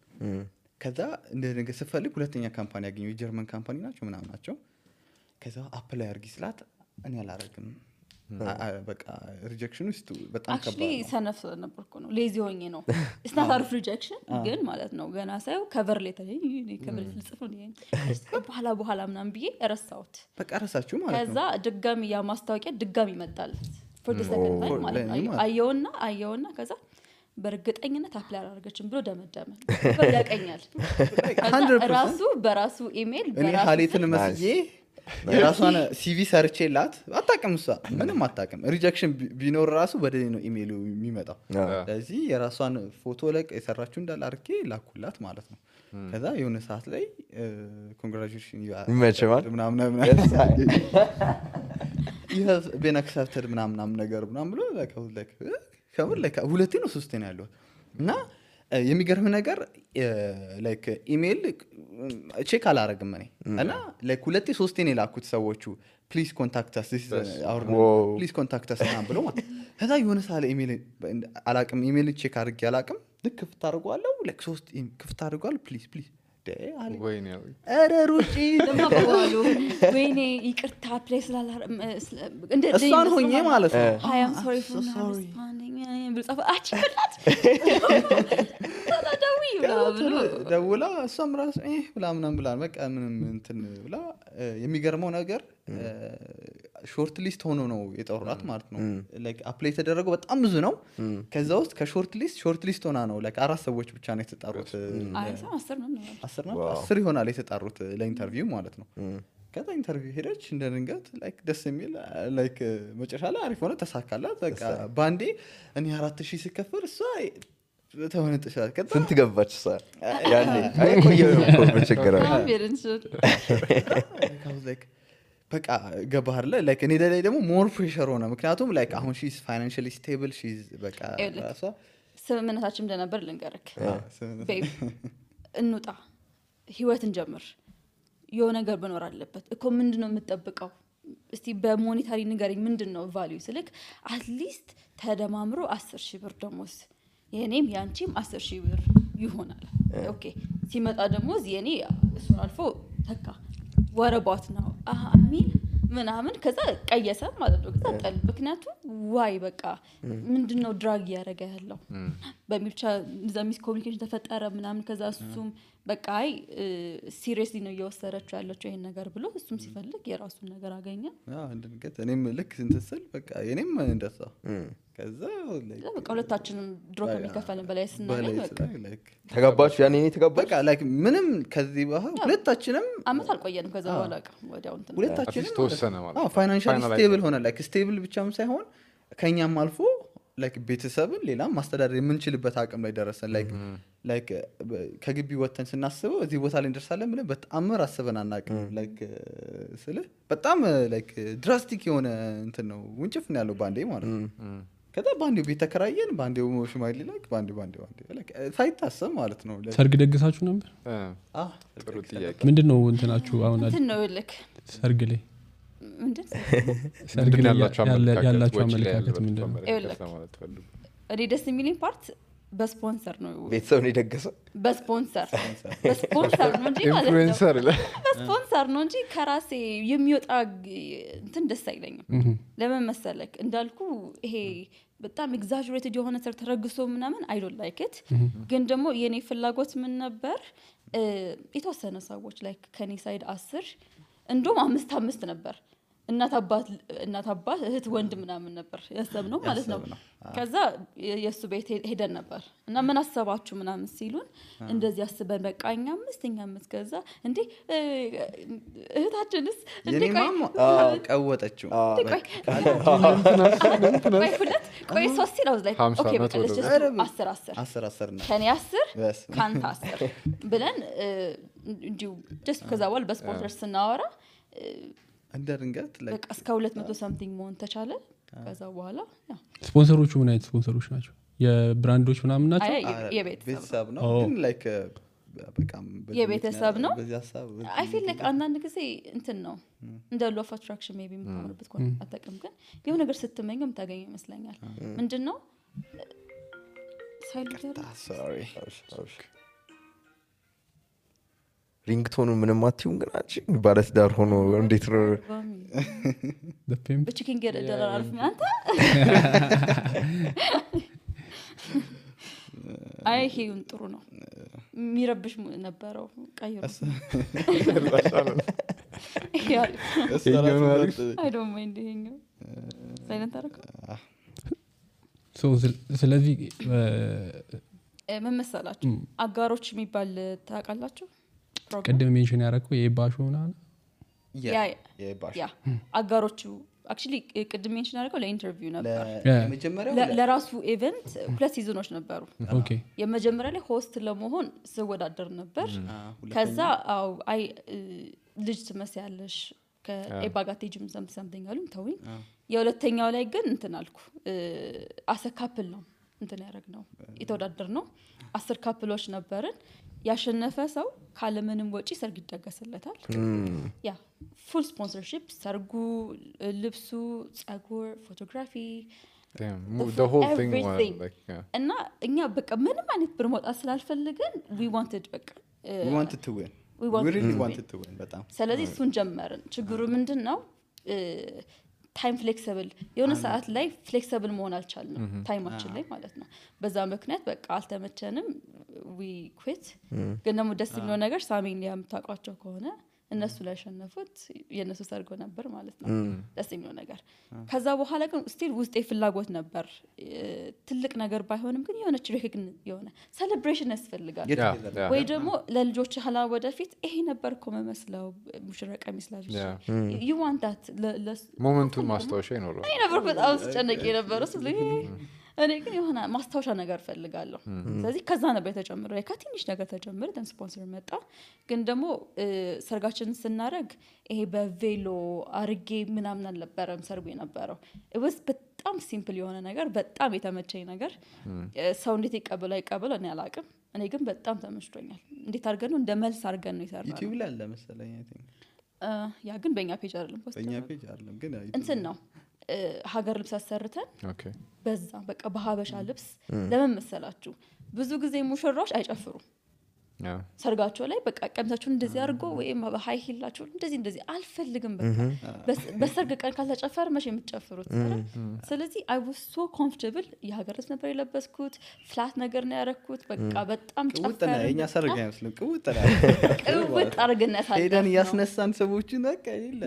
ከዛ እንደ ድንገት ስፈልግ ሁለተኛ ካምፓኒ አገኘው የጀርመን ካምፓኒ ናቸው ምናምን ናቸው ከዛ አፕላይ አርጊ ስላት እኔ አላረግም በቃ ሪጀክሽን ውስጥ በጣም ከባድ actually ሰነፍ ነበርኩ ነው ሌዚ ሆኜ ነው it's not out of rejection ግን ማለት ነው ገና ሳይው ከቨር ሌተር ከቨር ልጽፍ ነው በኋላ ምናምን ብዬ ረሳሁት በቃ ረሳችሁ ማለት ነው ከዛ ድጋሚ ያ ማስታወቂያ ድጋሚ መጣል for the second time ማለት ነው አየውና ከዛ በርግጠኝነት አፕላይ አላደረገችም ብሎ ደመደመ ያቀኛል በራሱ ኢሜል እኔ ሀሊትን መስዬ የራሷን ሲቪ ሰርቼላት አጣቀም እሷ ምንም አጣቀም ሪጀክሽን ቢኖር ራሱ በደኔ ነው ኢሜሉ የሚመጣው ስለዚህ የራሷን ፎቶ ለቅ የሰራችሁ እንዳል አርኬ ላኩላት ማለት ነው ከዛ የሆነ ሰዓት ላይ ኮንግራቹሌሽን ምናምን you have been accepted ምናምን ነገር ምናምን ብሎ ከምን ሁለቴ ነው ሶስቴ ነው ያለው እና የሚገርም ነገር ላይክ ኢሜል ቼክ አላረግም እኔ እና ላይክ ሁለቴ ሶስቴ ነው ላኩት ሰዎቹ ፕሊዝ ኮንታክት አስ ዲስ ፕሊዝ ኮንታክት አስ ምናምን ብሎ ማለት ከዛ የሆነ ሳለ ኢሜል አላቅም ኢሜል ቼክ አድርጌ አላቅም ልክ ክፍት አድርጓለሁ ላይክ ሶስት ክፍት አድርጓለሁ ፕሊዝ ወይኔ አረ ሩጪ ለማባሉ ወይኔ ይቅርታ ፕሌስ እንደ እሷን ሆኜ ማለት ነው I am sorry for not responding ብልጻፈ አጭላት ደውላ እሷም ራሱ ብላ ምናምን ብላ በቃ ምንም እንትን ብላ የሚገርመው ነገር ሾርት ሊስት ሆኖ ነው የጠሩት ማለት ነው ላይክ አፕላይ ተደረገው በጣም ብዙ ነው ከዛ ውስጥ ከሾርት ሊስት ሆና ነው ላይክ 4 ሰዎች ብቻ ነው የተጠሩት 10 ይሆናል የተጠሩት ለኢንተርቪው ማለት ነው ከዛ ኢንተርቪው ሄደች እንደ ድንገት ላይክ ደስ የሚል ላይክ መጨረሻ ላይ አሪፍ ሆነ ተሳካላት በቃ ባንዴ እኔ 4000 ሲከፈል እሷ ተወነጥሻል ከዛ ስንት ገባች እሷ ያኔ አይቆየው ነው በቸገራ ላይክ በቃ ገባህ አይደል ላይክ እኔ ላይ ደግሞ ሞር ፕሬሸር ሆነ ምክንያቱም ላይክ አሁን ሺ ኢዝ ፋይናንሻሊ ስቴብል ሺ ኢዝ በቃ ራሷ ስምምነታችን እንደነበር ልንገርክ ቤብ እንውጣ ህይወትን ጀምር የሆነ ነገር በኖር አለበት እኮ ምንድነው የምትጠብቀው እስቲ በሞኔታሪ ንገረኝ ምንድነው ቫልዩ ስልክ አትሊስት ተደማምሮ 10,000 ብር ደሞዝ የኔም ያንቺም 10,000 ብር ይሆናል ኦኬ ሲመጣ ደሞዝ የኔ እሱ አልፎ ተካ ወረባት ነው አሚን ምናምን ከዛ ቀየሰ ማለት ነው ከዛ ጠል ምክንያቱም ዋይ በቃ ምንድነው ድራግ ያረጋ ያለው በሚልቻ ዘሚስ ኮሙኒኬሽን ተፈጠረ ምናምን ከዛ እሱም በቃ አይ ሲሪየስሊ ነው እየወሰደችው ያለችው ይሄን ነገር ብሎ እሱም ሲፈልግ የራሱን ነገር አገኘ እንደንገት እኔም ልክ እንተሰል በቃ የኔም እንደዛ ከዛ በቃ ሁለታችንም ድሮፕ የሚከፈልን በላይ ስናገኝ በቃ ተጋባችሁ ያኔ ተጋባችሁ በቃ ላይክ ምንም ከዚህ በኋላ ሁለታችንም አመት አልቆየንም ከዛ በኋላ ወዲያው እንትን ሁለታችንም ተወሰነ ማለት ፋይናንሻሊ ስቴብል ሆነ ላይክ ስቴብል ብቻም ሳይሆን ከኛም አልፎ ላይክ ቤተሰብን ሌላም ማስተዳደር የምንችልበት አቅም ላይ ደረሰን ላይክ ከግቢ ወተን ስናስበው እዚህ ቦታ ላይ እንደርሳለን ብለን በጣም አስበን አናውቅም ላይክ ስለ በጣም ላይክ ድራስቲክ የሆነ እንትን ነው ውንጭፍ ነው ያለው ባንዴ ማለት ነው ከዛ ባንዴ ቤት ተከራየን ባንዴው ሽማግሌ ላይክ ባንዴ ላይክ ሳይታሰብ ማለት ነው ሰርግ ደግሳችሁ ነበር ጥሩ ጥያቄ ምንድነው እንትናችሁ አሁን እንትን ነው ልክ ሰርግ ላይ ምንድን ያላችሁ አመለካከት ምንድነው እኔ ደስ የሚለኝ ፓርት በስፖንሰር ነው ቤተሰብ ነው የደገሰው በስፖንሰር ነው እንጂ ማለት ኢንፍሉዌንሰር በስፖንሰር ነው እንጂ ከራሴ የሚወጣ እንትን ደስ አይለኝም ለምን መሰለክ እንዳልኩ ይሄ በጣም ኤግዛጀሬትድ የሆነ ሰር ተረግሶ ምናምን አይ ዶንት ላይክ ኢት ግን ደግሞ የኔ ፍላጎት ምን ነበር የተወሰነ ሰዎች ላይክ ከኔ ሳይድ 10 እንደውም 5 ነበር እናት አባት እህት ወንድ ምናምን ነበር ያሰብነው ማለት ነው ከዛ የሱ ቤት ሄደን ነበር እና ምን አሰባችሁ ምናምን ሲሉን እንደዚህ አስበን በቃኛ 5 ከዛ እንዴ እህታችንስ እንዴ ቀወጠችው ቆይ ሶስት ነው ላይ ኦኬ በቃ ለሽ 10 ከኔ 10 ካንተ 10 ብለን እንዲሁ just ከዛ በኋላ በስፖንሰር ስናወራ እንደርንገት በቃ እስከ 200 something መሆን ተቻለ ከዛ በኋላ ስፖንሰሮቹ ምን አይነት ስፖንሰሮች ናቸው የብራንዶች ምናምን ናቸው የቤተሰብ ነው ግን ላይክ በቃም የቤተሰብ ነው አይ ፊል ላይክ አንዳንድ ጊዜ እንትን ነው እንደ ሎ ኦፍ አትራክሽን ሜቢ የምታወሩበት ኮን አጠቅም ግን የሆነ ነገር ስትመኘው ታገኝ ይመስለኛል ምንድነው ሳይልንት ሶሪ ሪንግቶኑ ምንም አትዩም ግን አንቺ ባለስ ዳር ሆኖ እንዴት ነው በቺኪንግ ገደራ አልፍ አንተ አይ ሄውን ጥሩ ነው የሚረብሽ ነበረው ቀይሩ አይ ዶንት ማይንድ ሄኝ ሳይለንት አረኩ ስለዚህ ምን መሰላችሁ አጋሮች የሚባል ታውቃላችሁ ቀደም ሜንሽን ያደረኩ የባሹ ምናምን ያ አጋሮቹ actually ቀደም ሜንሽን ያደረገው ለኢንተርቪው ነበር የመጀመሪያው ለራሱ ኢቨንት ሁለት ሲዝኖች ነበሩ ኦኬ የመጀመሪያ ላይ ሆስት ለመሆን ስወዳደር ነበር ከዛ አይ ልጅ ትመስያለሽ ከኤባጋቴጅም something አሉም ተውኝ የሁለተኛው ላይ ግን እንትን አልኩ አሰካፕል ነው እንትን ያደረግነው የተወዳደር ነው 10 ካፕሎች ነበርን ያሸነፈ ሰው ካለምንም ወጪ ሰርግ ይደገስለታል ያ ፉል ስፖንሰርሺፕ ሰርጉ ልብሱ ጸጉር ፎቶግራፊ the whole thing was like እና እኛ በቃ ምንም አይነት ብር መውጣት ስላልፈልገን we wanted to win we really wanted to win በጣም ስለዚህ እሱን ጀመርን ችግሩ ምንድነው ታይም ፍሌክሲብል የሆነ ሰዓት ላይ ፍሌክሲብል መሆን አልቻልንም ታይማችን ላይ ማለት ነው በዛ ምክንያት በቃ አልተመቸንም we quit ግን ደግሞ ደስ የሚለው ነገር ሳሚን ያምታቋቸው ከሆነ እነሱ ላይ ሸነፉት የነሱ ሰርጎ ነበር ማለት ነው ደስ የሚለው ነገር ከዛ በኋላ ግን ስቲል ውስጤ ፍላጎት ነበር ትልቅ ነገር ባይሆንም ግን የሆነ ሪኮግኒሽን የሆነ ሴሌብሬሽን ያስፈልጋል ወይ ደግሞ ለልጆች hala ወደፊት ይሄ ነበር እኮ መመስለው ሙሽረቃ መስላጅ you want that ሞመንቱን ማስታወሻ ይኖረው አይ ነበር በጣም ስጨነቅ ነበር እሱ እኔ ግን የሆነ ማስታወሻ ነገር ፈልጋለሁ ስለዚህ ከዛ ነበር የተጨመረው ከትንሽ ነገር ተጨመረ ደን ስፖንሰር መጣ ግን ደግሞ ሰርጋችንን ስናረግ ይሄ በቬሎ አርጌ ምናምን አልነበረም ሰርጉ የነበረው it was በጣም ሲምፕል የሆነ ነገር በጣም የተመቸኝ ነገር ሰው እንዴት ይቀበለው እኔ አላቅም እኔ ግን በጣም ተመችቶኛል እንዴት አርገን ነው እንደ መልስ አርገን ነው ይሰራል ዩቲዩብ ላይ አለ መሰለኝ አይ ቲንክ ያ ግን በእኛ ፔጅ አይደለም ፖስት በእኛ ፔጅ አይደለም ግን እንትን ነው ሀገር ልብስ አሰርተን ኦኬ በዛ በቃ በሀበሻ ልብስ ለምን መሰላችሁ ብዙ ጊዜ ሙሽራዎች አይጨፍሩም ሰርጋቸው ላይ በቃ ቀምታችሁን እንደዚህ አድርጎ ወይም በሃይ ሂላችሁ እንደዚህ አልፈልግም በቃ በሰርግ ቀን ካልተጨፈረ መቼ የምትጨፍሩት ስለዚህ I was so comfortable የሀገር ልብስ ነበር የለበስኩት ፍላት ነገር ነው ያረኩት በቃ በጣም ጨፈረ የኛ ሰርግ አይመስልም ቅውጥ አርገነት አለ ሄደን ያስነሳን ሰዎችን በቃ ይለ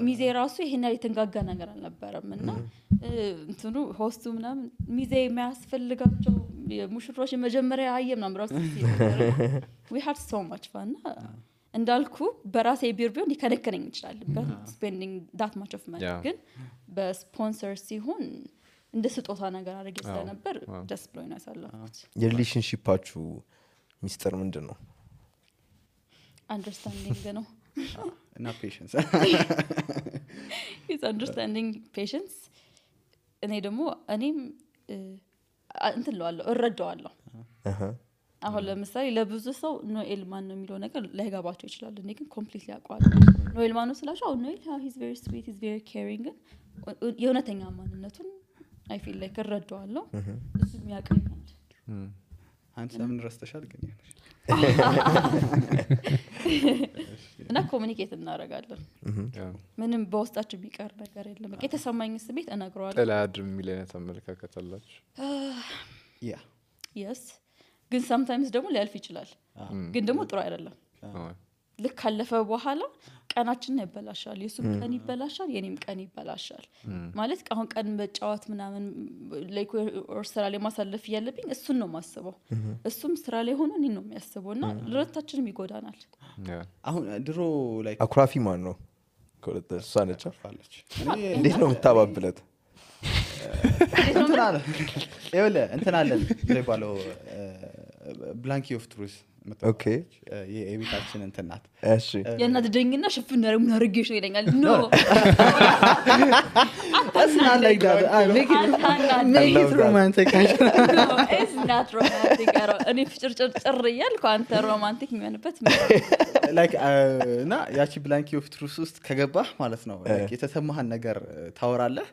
ሚዜ ራሱ ይሄን ያህል የተንጋጋ ነገር አልነበረም እና እንትኑ ሆስቱ ምናምን ሚዜ የሚያስፈልጋቸው የሙሽሮች መጀመሪያ አየም ነው ራሱ we had so much fun እንዳልኩ በራሴ ቢር ቢሆን ሊከነከነኝ ይችላል spending that much of money ግን በስፖንሰር ሲሆን እንደ ስጦታ ነገር አድርጌ ስለነበር ደስ ብሎኝ ነው ያሳለፍኩት የሪሌሽንሺፓችሁ ሚስጥር ምንድነው understanding ነው እና patience is understanding patience እኔም እንትን ለዋለሁ እረዳዋለሁ አሁን ለምሳሌ ለብዙ ሰው ኖኤል ማን ነው የሚለው ነገር ላይገባቸው ይችላል እኔ ግን ኮምፕሊትሊ አውቀዋለሁ ኖኤል ማን ነው ስላቸው ኖኤል he's very sweet he's very caring የእውነተኛ ማንነቱን I feel like እረዳዋለሁ እሱ የሚያቀኛል አንተ ምን ረስተሻል ግን እና ኮሙኒኬት እናደርጋለን ምንም በውስጣችን ቢቀር ነገር የለም በቃ የተሰማኝ ስሜት እነግረዋለሁ ተላድም ሚሊዮነት አመለካከት አላችሁ yes ግን sometimes ደግሞ ሊያልፍ ይችላል ግን ደግሞ ጥሩ አይደለም ልክ ካለፈ በኋላ ቀናችን ይበላሻል የሱም ቀን ይበላሻል የኔም ቀን ይበላሻል ማለት አሁን ቀን በጫዋት ምናምን ላይክ ስራ ላይ ማሳለፍ ያለብኝ እሱን ነው ማስበው እሱም ስራ ላይ ሆኖ እኔ ነው የሚያስበውና ለሁለታችንም ይጎዳናል አሁን ድሮ ላይክ አኩራፊ ማን ነው ኮለተ ሳነቻ እንዴት ነው የምታባብለት እንትን አለን ይባለው ብላንኪ ኦፍ ትሩዝ ኦኬ የቤታችን እንትን ናት እሺ የእናት ደኝና ሽፍን ነው አርጌሽ ይለኛል ኖ That's not like that. Make it romantic. No, it's not romantic at all. እኔ ፍጭርጭር እያልኩ አንተ ሮማንቲክ የሚሆንበት like እና ያቺ ብላንኪ ኦፍ ትሩስ ውስጥ ከገባህ ማለት ነው የተሰማህን ነገር ታወራለህ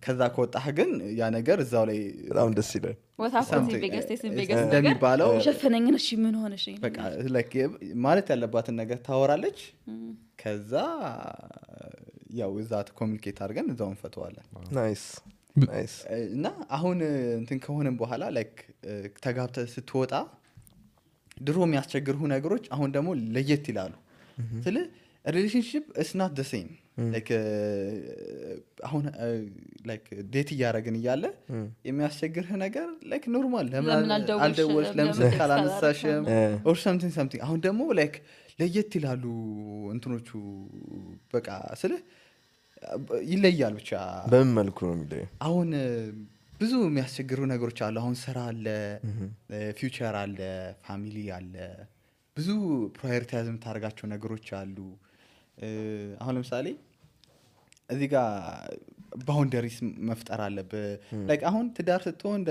ከዛ ከወጣህ ግን ያ ነገር እዛው ላይ በጣም ደስ ይላል ወታፈቲ ቢገስቴስ ቢገስ እንደሚባለው ሸፈነኝ ነሽ ምን ሆነሽ በቃ like ማለት ያለባትን ነገር ታወራለች ከዛ ያው እዛት ኮሙኒኬት አድርገን እዛው እንፈተዋለን ናይስ እና አሁን እንትን ከሆነም በኋላ ላይክ ተጋብተ ስትወጣ ድሮ የሚያስቸግሩ ነገሮች አሁን ደግሞ ለየት ይላሉ ስለ ሪሌሽንሺፕ is not the same like አሁን like ዴት ያረጋግን ይያለ የሚያስቸግርህ ነገር like ኖርማል ለምን አልደወልሽ ለምን ካላነሳሽም or something አሁን ደግሞ like ለየት ይላሉ እንትኖቹ በቃ ስለ ይለያል ብቻ በምን መልኩ ነው የሚለየው አሁን ብዙ የሚያስቸግሩ ነገሮች አሉ አሁን ስራ አለ ፊውቸር አለ ፋሚሊ አለ ብዙ ፕራዮሪታይዝ የምታደርጋቸው ነገሮች አሉ አሁን ለምሳሌ እዚህ ጋር ባውንደሪስ መፍጠር አለብህ ላይክ አሁን ትዳር ስትሆን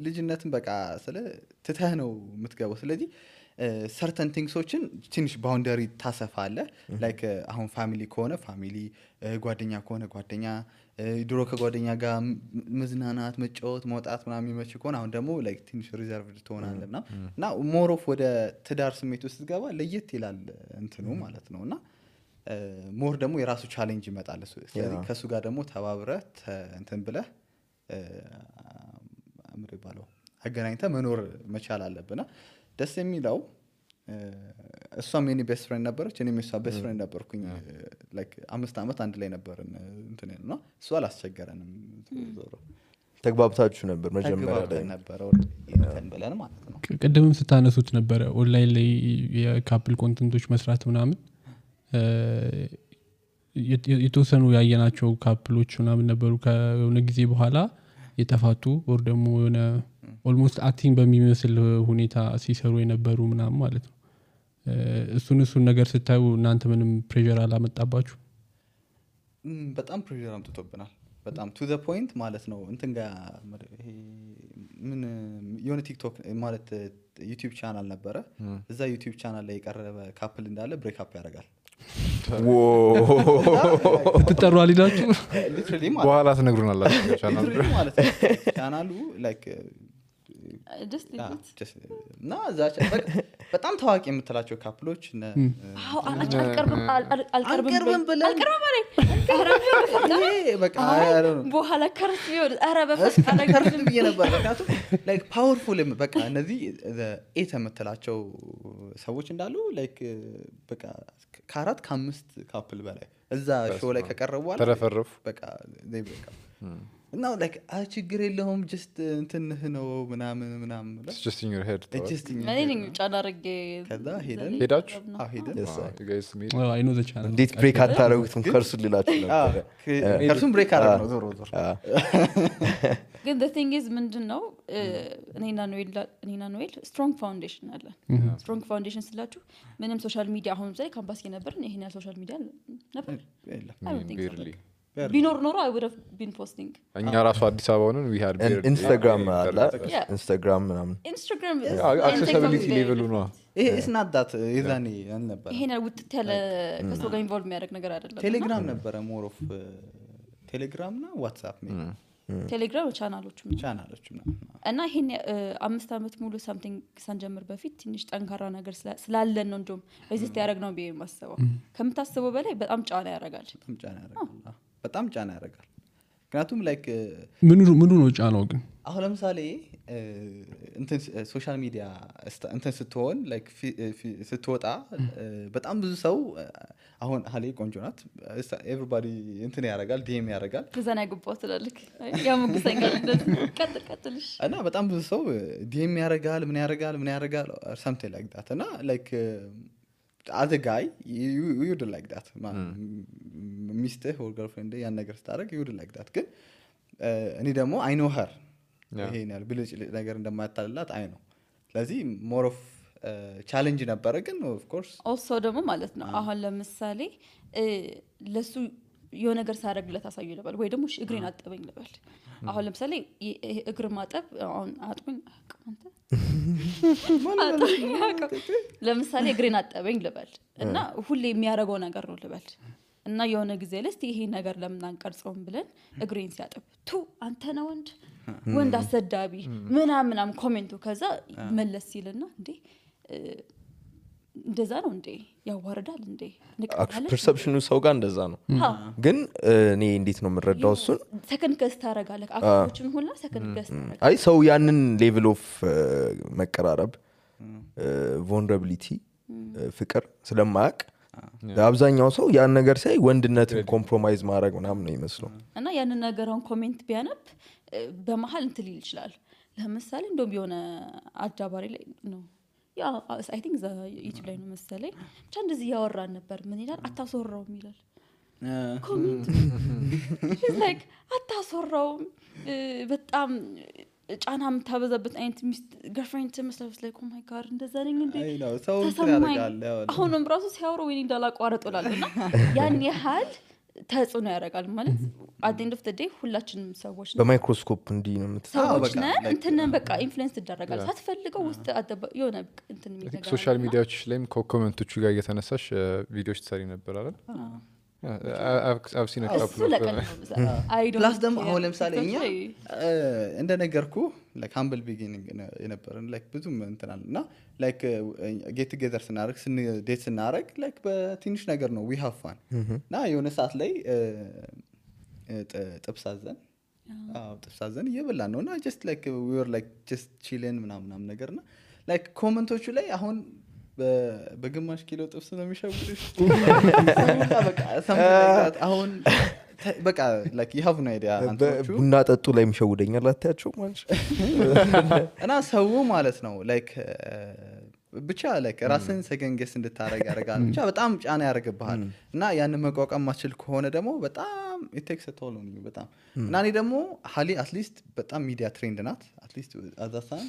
ልጅነትን በቃ ስለ ትተህ ነው የምትገባው ስለዚህ certain thingsዎችን ትንሽ ባውንደሪ ታሰፋለህ ላይክ አሁን ፋሚሊ ከሆነ ፋሚሊ ጓደኛ ከሆነ ጓደኛ ድሮ ከጓደኛ ጋር መዝናናት መጫወት መውጣት ምናምን የሚመች ከሆነ አሁን ደግሞ ላይክ ትንሽ ሪዘርቭድ ትሆናለህና እና ሞር ኦፍ ወደ ትዳር ስሜት ውስጥ ገባ ለየት ይላል እንትኑ ማለት ነውና ሞር ደግሞ የራሱ ቻሌንጅ ይመጣል ስለዚህ ከሱ ጋር ደግሞ ተባብረህ እንትን ብለህ አምር ይባለው አገናኝተህ መኖር መቻል አለብና ደስ የሚለው እሷም የኔ ቤስት ፍሬንድ ነበረች እኔም የሷ ቤስት ፍሬንድ ነበርኩኝ ላይክ 5 አመት አንድ ላይ ነበርን እንትን ነው እሷ አላስቸገረንም ተግባብታችሁ ነበር መጀመሪያ ላይ ነበር እንትን ብለን ማለት ነው ቀደምም ስታነሱት ነበር ኦንላይን ላይ የካፕል ኮንተንቶች መስራት ምናምን የተወሰኑ ያየናቸው ካፕሎች ምናምን ነበሩ ከሆነ ጊዜ በኋላ የተፋቱ ወር ደግሞ የሆነ ኦልሞስት አክቲንግ በሚመስል ሁኔታ ሲሰሩ የነበሩ ምናምን ማለት ነው እሱን ነገር ስታዩ እናንተ ምንም ፕሬሸር አላመጣባችሁ በጣም ፕሬሸር አምጥቶብናል በጣም to the point ማለት ነው እንትን ጋር ይሄ ምን የሆነ ቲክቶክ ማለት ዩቲዩብ ቻናል ነበረ እዛ ዩቲዩብ ቻናል ላይ የቀረበ ካፕል እንዳለ ብሬክ አፕ ያደርጋል ትጠሩ አልሄዳችሁ ሊትራሊ በኋላ ትነግሩናላችሁ ማለት ነው ቻናሉ ላይክ እና እዛ በጣም ታዋቂ የምትላቸው ካፕሎች አልቀርብም በኋላ ከርስ ቢሆን ኧረ በፈስ ብዬ ነበር ምክንያቱም ላይክ ፓወርፉል በቃ እነዚህ ኤት የምትላቸው ሰዎች እንዳሉ ላይክ በቃ ከ4 ከ5 ካፕል በላይ እዛ ሾው ላይ ከቀረቡ ተረፈረፉ በቃ እና ላይክ ችግር የለውም ጀስት እንትንህ ነው ምናምን It's just in your head እኔ ጫና አድርጌ ከዛ ሄዳችሁ ሄደን you guys meet አይ ኖ ዘ ቻናል እንዴት ብሬክ አታረጉትም ከእርሱ ልላችሁ ነበር ከእርሱም ብሬክ አደረግ ነው ዞሮ ግን the thing is ምንድነው እኔና ኖኤል ስትሮንግ ፋውንዴሽን አለ ስትሮንግ ፋውንዴሽን ስላችሁ ምንም ሶሻል ሚዲያ አሁን ላይ ካምፓስ የነበርን ይሄን ያለ ሶሻል ሚዲያ ነበር ቢኖር ኖሮ I would have been posting እኛ ራሱ አዲስ አበባ ሆነን we had ኢንስታግራም አለ ኢንስታግራም ምናምን Instagram accessibility level ነው ይሄ is not that ይዛኔ አልነበረ ይሄን ውጥት ያለ ከሰው ጋር ኢንቮልቭ የሚያደርግ ነገር አይደለም ቴሌግራም ነበረ ሞር ኦፍ ቴሌግራም እና ዋትስአፕ ቴሌግራም ቻናሎች እና ይሄን 5 አመት ሙሉ something ሳንጀምር በፊት ትንሽ ጠንካራ ነገር ስላለን ነው እንደውም ሬዚስት ያደረግ ነው ብዬ ማስበው ከምታስበው በላይ በጣም ጫና ያደርጋል በጣም ጫና ያደርጋል ምክንያቱም ላይክ ምኑ ነው ጫናው ግን አሁን ለምሳሌ እንትን ሶሻል ሚዲያ እንትን ስትሆን ላይክ ስትወጣ በጣም ብዙ ሰው አሁን ሀሌ ቆንጆ ናት ኤቨሪባዲ እንትን ያደርጋል ዲኤም ያደርጋል ከዛና ግቦት ትላለክ ያሙግሰኛል እንደዚህ ቀጥልሽ እና በጣም ብዙ ሰው ዲኤም ያደርጋል ምን ያደርጋል something like that እና like as a guy you would like that mister or girlfriend ያን ነገር ስታደርግ you would like that ግን እኔ ደግሞ I know her ይሄን ያህል ብልጭ ነገር እንደማታልላት አይ ነው ስለዚህ more of ቻሌንጅ ነበረ ግን of course also ደግሞ ማለት ነው አሁን ለምሳሌ ለሱ የሆነ ነገር ሳደርግለት አሳዩ ልበል ወይ ደግሞ እግሬን አጠበኝ ልበል አሁን ለምሳሌ እግር ማጠብ አሁን አጥብኝ አንተ ለምሳሌ እግሬን አጠበኝ ልበል እና ሁሌ የሚያደርገው ነገር ነው ልበል እና የሆነ ጊዜ ለስቲ ይሄ ነገር ለምን አንቀርጸውም ብለን እግሬን ሲያጠብ ቱ አንተ ነው ወንድ አሰዳቢ ምናምን ኮሜንቱ ከዛ መለስ ሲልና እንዴ እንደዛ ነው እንዴ ያዋርዳል እንዴ ፐርሰፕሽኑ ሰው ጋር እንደዛ ነው ግን እኔ እንዴት ነው የምረዳው እሱን ሰከንድ ገስት ታረጋለህ አክቶችን ሁላ ሰከንድ ገስት ታረጋለህ አይ ሰው ያንን ሌቭል ኦፍ መቀራረብ vulnerability ፍቅር ስለማያውቅ አብዛኛው ሰው ያን ነገር ሳይ ወንድነትን ኮምፕሮማይዝ ማድረግ ምናምን ነው ይመስለው እና ያንን ነገርን ኮሜንት ቢያነብ በመሃል እንትን ሊል ይችላል ለምሳሌ እንደውም የሆነ አዳባሪ ላይ ነው ያ I think the YouTube ላይ ነው መሰለኝ ብቻ እንደዚህ ያወራን ነበር ምን ይላል አታሶራው ይላል ኮሜንት it's like አታሶራው በጣም ጫናም ታበዛበት አይነት ሚስት girlfriend ተመስለስ ላይ oh my god እንደዛ ነኝ እንዴ አይ ነው ሰው ያደርጋል አሁንም ራሱ ሲያወሩ ወይ እንዳላቋረጡላልና ያን ያህል ተጽዕኖ ያደርጋል ማለት at the end of the day ሁላችንም ሰዎች ነው በማይክሮስኮፕ እንዲ ነው ሰዎች ነን እንትን በቃ ኢንፍሉዌንስ ተደረጋል ሳትፈልገው ውስጥ የሆነ እንትን የሚደረግ ሶሻል ሚዲያዎች ላይም ኮሜንቶቹ ጋር እየተነሳሽ ቪዲዮዎች ትሰሪ ነበር አይደል I've seen a couple of plus ደግሞ አሁን ለምሳሌ እኛ እንደነገርኩ like humble beginning የነበረን like ብዙም እንትናልና like get together ስናረግ ዴት ስናረግ like በትንሽ ነገር ነው we have fun እና የሆነ ሰዓት ላይ ጥብሳዘን ጥብሳዘን እየበላን ነውና just like we were like just chilling ምናምን ነገርና like ኮሜንቶቹ ላይ አሁን በግማሽ ኪሎ ጥብስ ነው የሚሸውልሽ በቃ something አሁን በቃ like you have no idea አንቶቹ ቡና ጠጡ ላይ የሚሸውደኛል አታያቸው ማለት እና ሰው ማለት ነው like ብቻ like ራስን ሰገንገስ እንድታረግ ያረጋል ብቻ በጣም ጫና ያረጋብሃል እና ያን መቋቋም ማችል ከሆነ ደግሞ በጣም it takes a toll on you በጣም እና እኔ ደግሞ ሀሊ at least በጣም ሚዲያ ትሬንድ ናት at least አዛሳን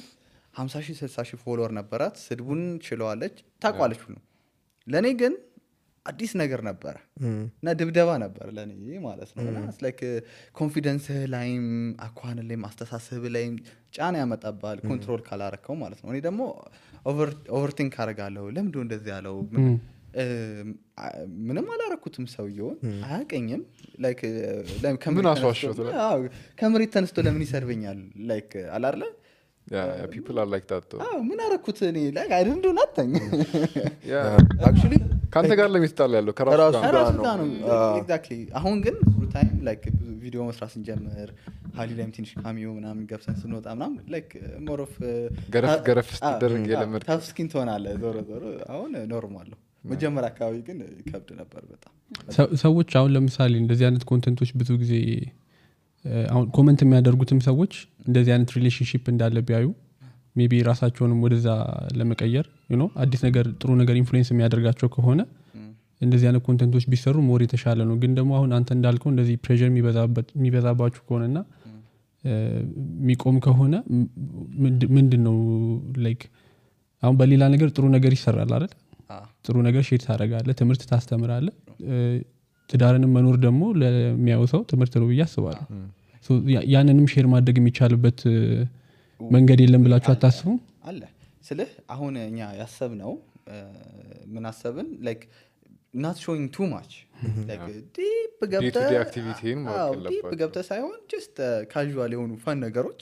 50,000-60,000 ፎሎወር ነበራት ስድቡን ችለዋለች ታቋለች ሁሉ ለኔ ግን አዲስ ነገር ነበር እና ድብደባ ነበር ለኔ ማለት ነው እና it's like ኮንፊደንስ ላይም አኳን ላይም አስተሳሰብ ላይም ጫና ያመጣባል ኮንትሮል ካላረከው ማለት ነው እኔ ደግሞ ኦቨርቲንክ አረጋለሁ ለምንድነው እንደዚህ ያለው ምንም አላረኩትም ሰውየውን አያቀኝም ምን አስዋሸሁት ከመሬት ተነስቶ ለምን ይሰርበኛል ላይክ አላርለ people are like that though ምን አረኩት እኔ like I didn't do nothing actually ካንተ ጋር ለሚስጣል ያለው ከራሱ ከራሱ ጋር ነው exactly አሁን ግን full time like ቪዲዮ መስራት ስንጀምር ሃሊ ላይም ትንሽ ካሚዮ ምናምን ገብሰን ስንወጣ ምናምን like more of ገረፍ ስትደረግ የለመድ ታፍ ስኪን ትሆናለህ ዞሮ አሁን ኖርማል ነው መጀመሪያ አካባቢ ግን ከብድ ነበር በጣም ሰዎች አሁን ለምሳሌ እንደዚህ አይነት ኮንቴንቶች ብዙ ጊዜ አሁን ኮሜንት የሚያደርጉትም ሰዎች እንደዚህ አይነት ሪሌሽንሺፕ እንዳለ ቢያዩ ሜቢ ራሳቸውንም ወደዛ ለመቀየር አዲስ ነገር ጥሩ ነገር ኢንፍሉዌንስ የሚያደርጋቸው ከሆነ እንደዚህ አይነት ኮንቴንቶች ቢሰሩ ሞር የተሻለ ነው ግን ደግሞ አሁን አንተ እንዳልከው እንደዚህ ፕሬሸር የሚበዛባችሁ ከሆነና የሚቆም ከሆነ ምንድነው ላይክ አሁን በሌላ ነገር ጥሩ ነገር ይሰራል አይደል ጥሩ ነገር ሼር ታደርጋለህ ትምህርት ታስተምራለህ ትዳርንም መኖር ደግሞ ለሚያው ሰው ትምህርት ነው ያስባሉ ሶ ያንንም ሼር ማድረግ የሚቻልበት መንገድ የለም ብላችሁ አታስቡ አለ ስለህ አሁን እኛ ያሰብነው ምን አሰብን like not showing too much like deep ገብተ ሳይሆን just casual የሆኑ ፈን ነገሮች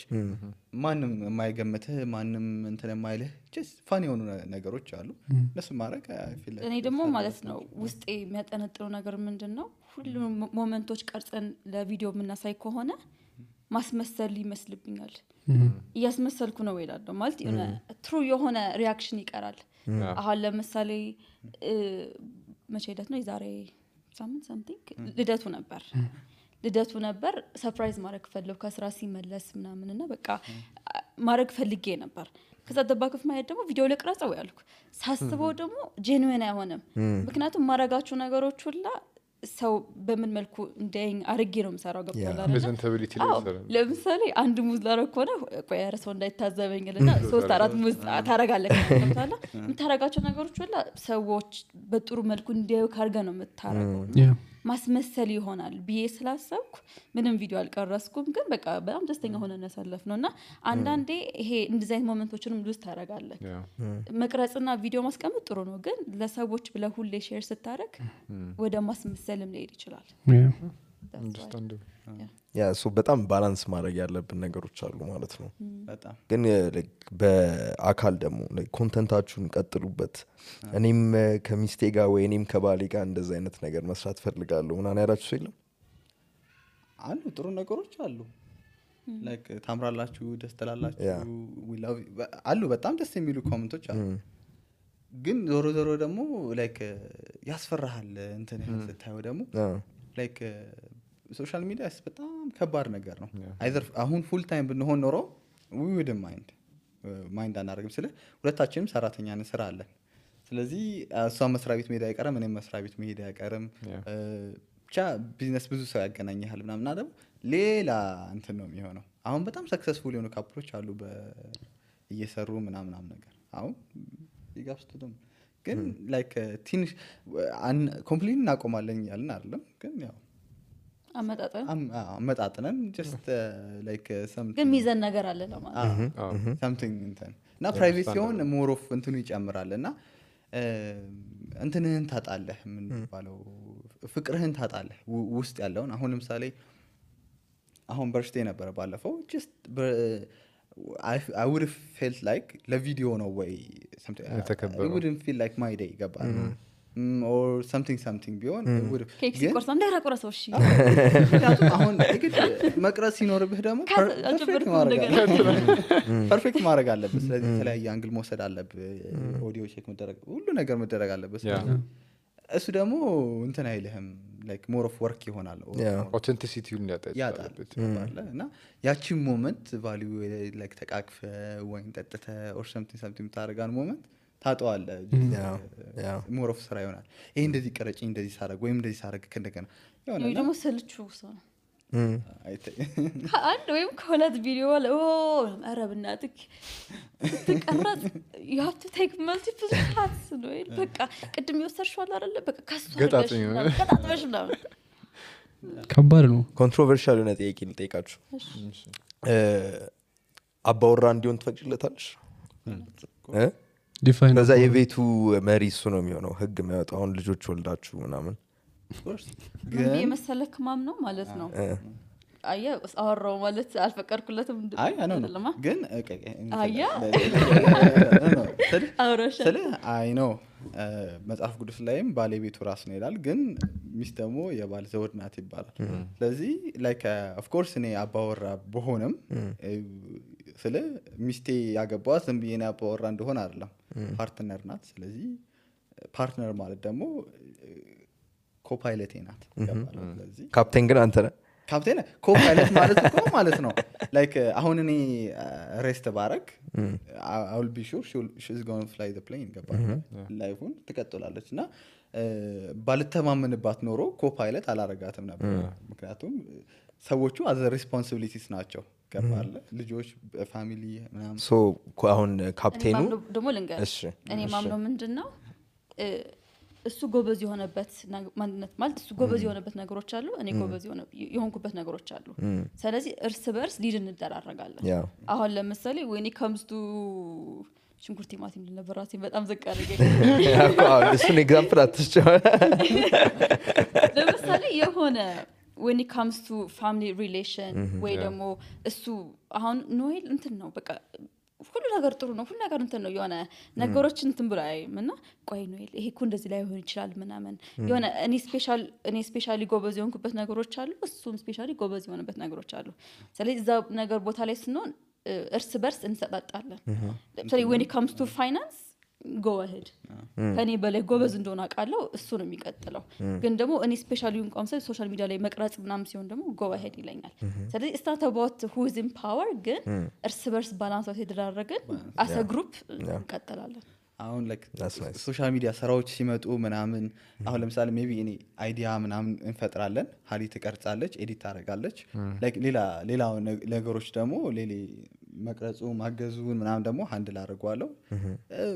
ማንም የማይገምትህ ማንም እንትን የማይልህ just ፈን የሆኑ ነገሮች አሉ ለሱ ማድረግ እኔ ደግሞ ማለት ነው ውስጤ የሚያጠነጥረው ነገር ምንድነው ሁሉም ሞመንቶች ቀርጸን ለቪዲዮ የምናሳይ ከሆነ ማስመሰል ይመስልብኛል እያስመሰልኩ ነው ይላል ማለት ትሩ የሆነ ሪአክሽን ይቀራል አሁን ለምሳሌ መቼ ሄደት ነው የዛሬ ሳምንት something ልደቱ ነበር ሰርፕራይዝ ማድረግ ፈልጌ ከስራ ሲመለስ ምናምንና በቃ ማድረግ ፈልጌ ነበር ከዛ ደባከፍ ማየት ደግሞ ቪዲዮ ለቅራጻው ያልኩ ሳስበው ደግሞ ጄኑዊን አይሆንም ምክንያቱም ማረጋችሁ ነገሮች ሁላ ሰው በምን መልኩ እንደኝ አርጌ ነው መሰራው ገብቷል አይደል ለምሳሌ አንድ ሙዝ ላረኮነ ቆይ ያረሰው እንዳይታዘበኝልና 3-4 ሙዝ ታረጋለህ ገብቷል የምታረጋቸው ነገሮች ሁላ ሰዎች በጥሩ መልኩ እንዲያዩ ካርገ ነው የምታረገው ማስመሰል ይሆናል ብዬ ስላሰብኩ ምንም ቪዲዮ አልቀረስኩም ግን በቃ በጣም ደስተኛ ሆነን ያሳለፍነውና አንዳንዴ ይሄ እንደዚህ ሞመንቶችንም ሉዝ ታረጋለህ መቅረጽና ቪዲዮ ማስቀመጥ ጥሩ ነው ግን ለሰዎች ብለ ሁሌ ሼር ስታረግ ወደ ማስመሰልም ሊሄድ ይችላል ሶ በጣም ባላንስ ማድረግ ያለብን ነገሮች አሉ ማለት ነው በጣም ግን በአካል ደግሞ ኮንተንታችሁን ቀጥሉበት እኔም ከሚስቴ ጋር ወይ እኔም ከባሌ ጋር እንደዛ አይነት ነገር መስራት ፈልጋለሁ ምናምን ያላችሁ ሰው የለም አሉ ጥሩ ነገሮች አሉ ላይክ ታምራላችሁ ደስ ትላላችሁ we love አሉ በጣም ደስ የሚሉ ኮሜንቶች አሉ ግን ዞሮ ደግሞ ላይክ ያስፈራሃል እንትን ስታየው ደግሞ ላይክ ሶሻል ሚዲያ በጣም ከባድ ነገር ነው አይዘር አሁን ፉል ታይም ብንሆን ኖሮ we wouldn't ማይንድ አናደርግም ስለ ሁለታችንም ሰራተኛ ነን ስራ አለን ስለዚህ እሷ መስሪያ ቤት መሄድ አይቀርም እኔም መስሪያ ቤት መሄድ አይቀርም ብቻ ቢዝነስ ብዙ ሰው ያገናኛል ምናምን አይደል ሌላ እንትን ነው የሚሆነው አሁን በጣም ሰክሰስፉል የሆኑ ካፕሎች አሉ እየሰሩ ምናምን ነገር አሁን ይጋብስቱም ግን ላይክ ትንሽ ኮምፕሊት እናቆማለን ያልን አይደለም ግን ያው አመጣጥነን just like something ግን ሚዘን ነገር አለ ለማለት something እና ፕራይቬት ሲሆን more of እንትኑ ይጨምራልና እንትንህን ታጣለህ ምን ባለው ፍቅርህን ታጣለህ ውስጥ ያለውን አሁን ለምሳሌ አሁን በርሽቴ ነበር ባለፈው just I would have felt like ለቪዲዮ ነው ወይ something I wouldn't feel like my day ገባል or something ቢሆን ኬክ ሲቆርስ እንዳይራቆረሰው እሺ አሁን እግድ መቅረጽ ሲኖርብህ ደግሞ ፐርፌክት ማድረግ አለብህ ስለዚህ የተለያየ አንግል መውሰድ አለብህ ኦዲዮ ቼክ መደረግ ሁሉ ነገር መደረግ አለበት እሱ ደግሞ እንትን አይልህም like more of work ይሆናል authenticity-ን ያጣለበት እና ያቺ ሞመንት ቫልዩ like ተቃቅፈ ወይን ጠጥተ or something ታረጋን ሞመንት ታጣዋለ more of ስራ ይሆናል ይሄ እንደዚህ ቀረጭ እንደዚህ ሳረግ ወይም እንደዚህ ሳረግ ከእንደገና ይሄ ደግሞ ሰልቹ ሰው አንድ ወይም ከሁለት ቪዲዮ ላይ አረብናትክ ተቀረጽ you have to take multiple shots ነው በቃ ቅድም ይወሰርሽዋል አይደለ በቃ ካሱ ገጣጥመሽ ነው ከባድ ነው ኮንትሮቨርሻል ነው ጥያቄ ልጠይቃችሁ አባወራ እንዲሆን ትፈቅጂለታለሽ ዲፋይን ከዛ የቤቱ መሪ እሱ ነው የሚሆነው ህግ የሚያወጣው አሁን ልጆች ወልዳችሁ ምናምን ግን የመሰለክ ማም ነው ማለት ነው አያ አወራው ማለት አልፈቀድኩለትም አይደለም ግን አያ አውራሽ ስለ አይ ነው መጽሐፍ ቅዱስ ላይም ባለቤቱ ራስ ነው ይላል ግን ሚስት ደግሞ የባል ዘውድ ናት ይባላል ስለዚህ ላይክ ኦፍ ኮርስ እኔ አባወራ በሆነም ስለ ሚስቴ ያገባው ዝም ብዬ ነው አባወራ እንደሆነ አይደለም ፓርትነር ናት ስለዚህ ፓርትነር ማለት ደግሞ ኮፓይለቴ ናት ይባላል ስለዚህ ካፕቴን ግን አንተ ነህ ካፕቴን ኮፓይለት ማለት ነው ላይክ አሁን እኔ ሬስት ባረክ I will be sure she's going to fly the plane ገባህ ላይፉን ትቀጥላለች እና ባልተማመንባት ኖሮ ኮፓይለት አላረጋትም ነበር ምክንያቱም ሰዎቹ as responsibilities ናቸው ገባህ ልጆች ፋሚሊ ምናምን ሶ አሁን ካፕቴኑ ደግሞ ልንገር እኔ ማምነው ምንድነው እሱ ጎበዝ የሆነበት ማንነት ማለት እሱ ጎበዝ የሆነበት ነገሮች አሉ እኔ ጎበዝ የሆንኩበት ነገሮች አሉ ስለዚህ እርስ በርስ ሊድ እንደራረጋለን አሁን ለምሳሌ when it comes to ሽንኩርት ቲማቲም ለነበራሴ በጣም ዘቃረገ እሱን ኤግዛምፕል አትስጨው ለምሳሌ የሆነ when it comes to family relation ወይ ደግሞ እሱ አሁን ኖኤል እንትን ነው በቃ ሁሉ ነገር ጥሩ ነው ሁሉ ነገር እንትን ነው የሆነ ነገሮችን እንትን ብሎ አይምና ቆይ ነው ይሄ እኮ እንደዚህ ላይ ሆነ ይችላል ምናምን የሆነ እኔ ስፔሻሊ ጎበዝ የሆንኩበት ነገሮች አሉ እሱም ስፔሻሊ ጎበዝ የሆነበት ነገሮች አሉ ስለዚህ እዛ ነገር ቦታ ላይ ስንሆን እርስ በርስ እንሰጣጣለን ለምሳሌ when it comes to finance go ahead ከኔ በላይ ጎበዝ እንደሆነ አውቃለሁ እሱ ነው የሚቀጥለው ግን ደግሞ እኔ ስፔሻሊ እንኳን ሶሻል ሚዲያ ላይ መቅረጽ ምናምን ሲሆን ደግሞ go ahead ይለኛል ስለዚህ it's not about who is in power ግን እርስ በርስ ባላንስ የተደራረገን as a group እንቀጥላለን አሁን like ሶሻል ሚዲያ ስራዎች ሲመጡ ምናምን አሁን ለምሳሌ ሜቢ እኔ አይዲያ ምናምን እንፈጥራለን ሀሊ ትቀርጻለች ኤዲት ታደርጋለች like ሌላ ነገሮች ደግሞ መቅረጹ ማገዙን ምናምን ደግሞ ሃንድል አድርጓለሁ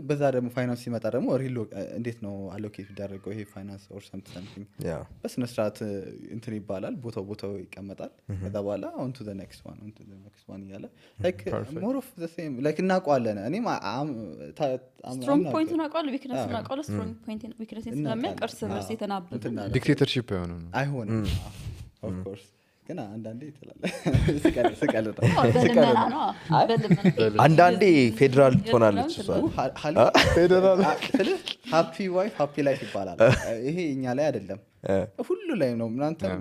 በዛ ደግሞ ፋይናንስ ሲመጣ ደግሞ ሪል እንዴት ነው አሎኬት ይደረገው ይሄ ፋይናንስ or something በስነ ስርዓት እንትን ይባላል ቦታው ይቀመጣል ከዛ በኋላ on to the next one ያለ like more of the same like እናውቀዋለን እኔም strong point እናውቀዋለን weakness እናውቀዋለን strong point weakness ስለሚያቀርስ በርስ የተናበበ ዲክቴተርሺፕ አይሆንም of course ገና አንዳንዴ ይተላል ስቀልጥ አንዳንዴ ፌደራል ትሆናለች እሷ ፌደራል ሃፒ ዋይፍ ሃፒ ላይፍ ይባላል ይሄ እኛ ላይ አይደለም ሁሉ ላይ ነው እናንተ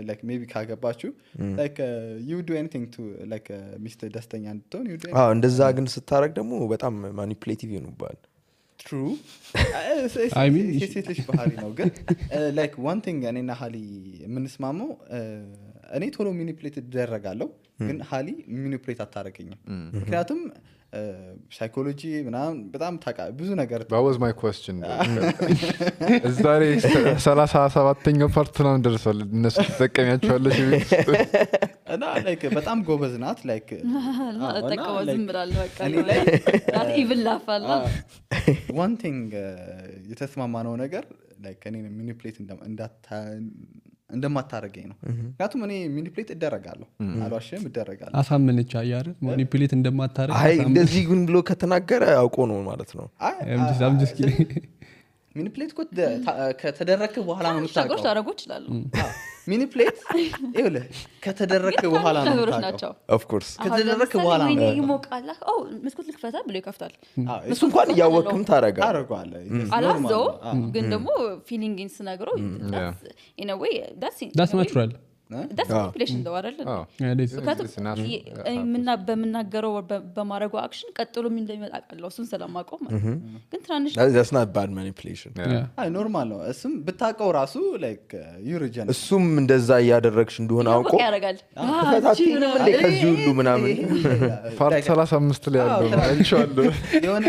like maybe ካገባችሁ like you do anything to like Mr. ደስተኛ እንድትሆን you do እንደዛ ግን ስታረግ ደግሞ በጣም ማኒፑሌቲቭ ይሆንባል true I mean ሴቶች ባህሪ ነው ግን like one thing እኔና ሀሊ የምንስማማው እኔ ቶሎ ሚኒፕሌት ይደረጋለሁ ግን ሀሊ ሚኒፕሌት አታረገኝም ምክንያቱም ሳይኮሎጂ ምናምን በጣም ብዙ ነገር that was my question እዛሬ 37ኛው ፓርት ነው ደርሷል እነሱ ተጠቀሚያቸዋለሽ እና like በጣም ጎበዝ ናት like ተጠቀመው ዝም ብላለሁ በቃ that even ላፋላ one thing የተስማማነው ነገር like እኔ ሚኒፕሌት እንደማታረገኝ ነው ምክንያቱም እኔ ሚኒፕሌት እደረጋለሁ አልዋሽም እደረጋለሁ አሳመነች አያረ ማኒፑሌት እንደማታረግ አይ እንደዚህ ግን ብሎ ከተናገረ አውቆ ነው ማለት ነው I'm just kidding ሚኒፕሌት ከተደረከ በኋላ ነው የምታውቀው ታረጉ ይችላል ሚኒፕሌት ይኸውልህ ከተደረከ በኋላ ነው የምታውቀው of course ከተደረከ በኋላ ነው ይሞቃል መስኮት ልክፈታ ብሎ ይከፍታል እሱ እንኳን ያወቅም ታረጋለህ አላዘው ግን ደግሞ ፊሊንግስ ነገሩ in a way that's natural that's manipulation though አይደለም እና በመናገረው በማረጋው አክሽን ቀጥሎ ምን እንደሚመጣ አውቃለሁ እሱን ስለማውቀው ማለት ግን ትራንሽ that's not bad manipulation አይ ኖርማል ነው እሱም ብታውቀው ራሱ like you regen እሱም እንደዛ ያደረግሽ እንደሆነ አውቆ ያረጋል ፈታቲንም እንደ ከዚህ ሁሉ ምናምን ፓርት 35 ላይ ያለው አይቻለሁ የሆነ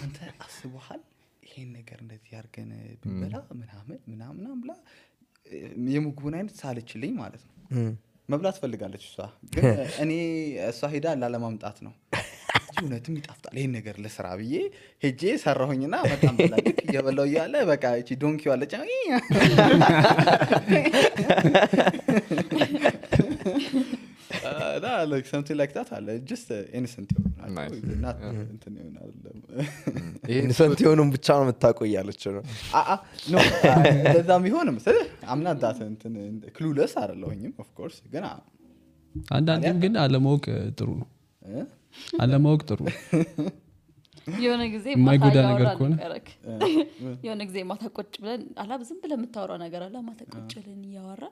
አንተ አስበሃል ይሄን ነገር እንደዚህ ያርገን ብላ ምናምን ብላ የምግቡን አይነት ሳለችልኝ ማለት ነው መብላት ፈልጋለች እሷ ግን እኔ እሷ ሄዳ ላለማምጣት ነው እውነትም ይጣፍጣል ይሄን ነገር ለስራ ብዬ ሄጄ ሰራሁኝና በጣም ብላልክ እየበላው ያለ በቃ እቺ ዶንኪው አለች like something like that አለ just innocent Nice. not እንትን ይሆናል ኢንሰንት የሆኑን ብቻ ነው የምታውቀው እያለች ነው no እንደዛም ቢሆንም አምናት ዳት እንትን ክሉለስ አይደለሁኝም of course ግን አንዳንዴም ግን አለማወቅ ጥሩ ነው አለማወቅ ጥሩ ነው የሆነ ጊዜ የማይጎዳ ነገር ከሆነ የሆነ ጊዜ ማታ ቁጭ ብለን አላብ ዝም ብለን የምታወራው ነገር አለ ማታ ቁጭ ብለን እያወራ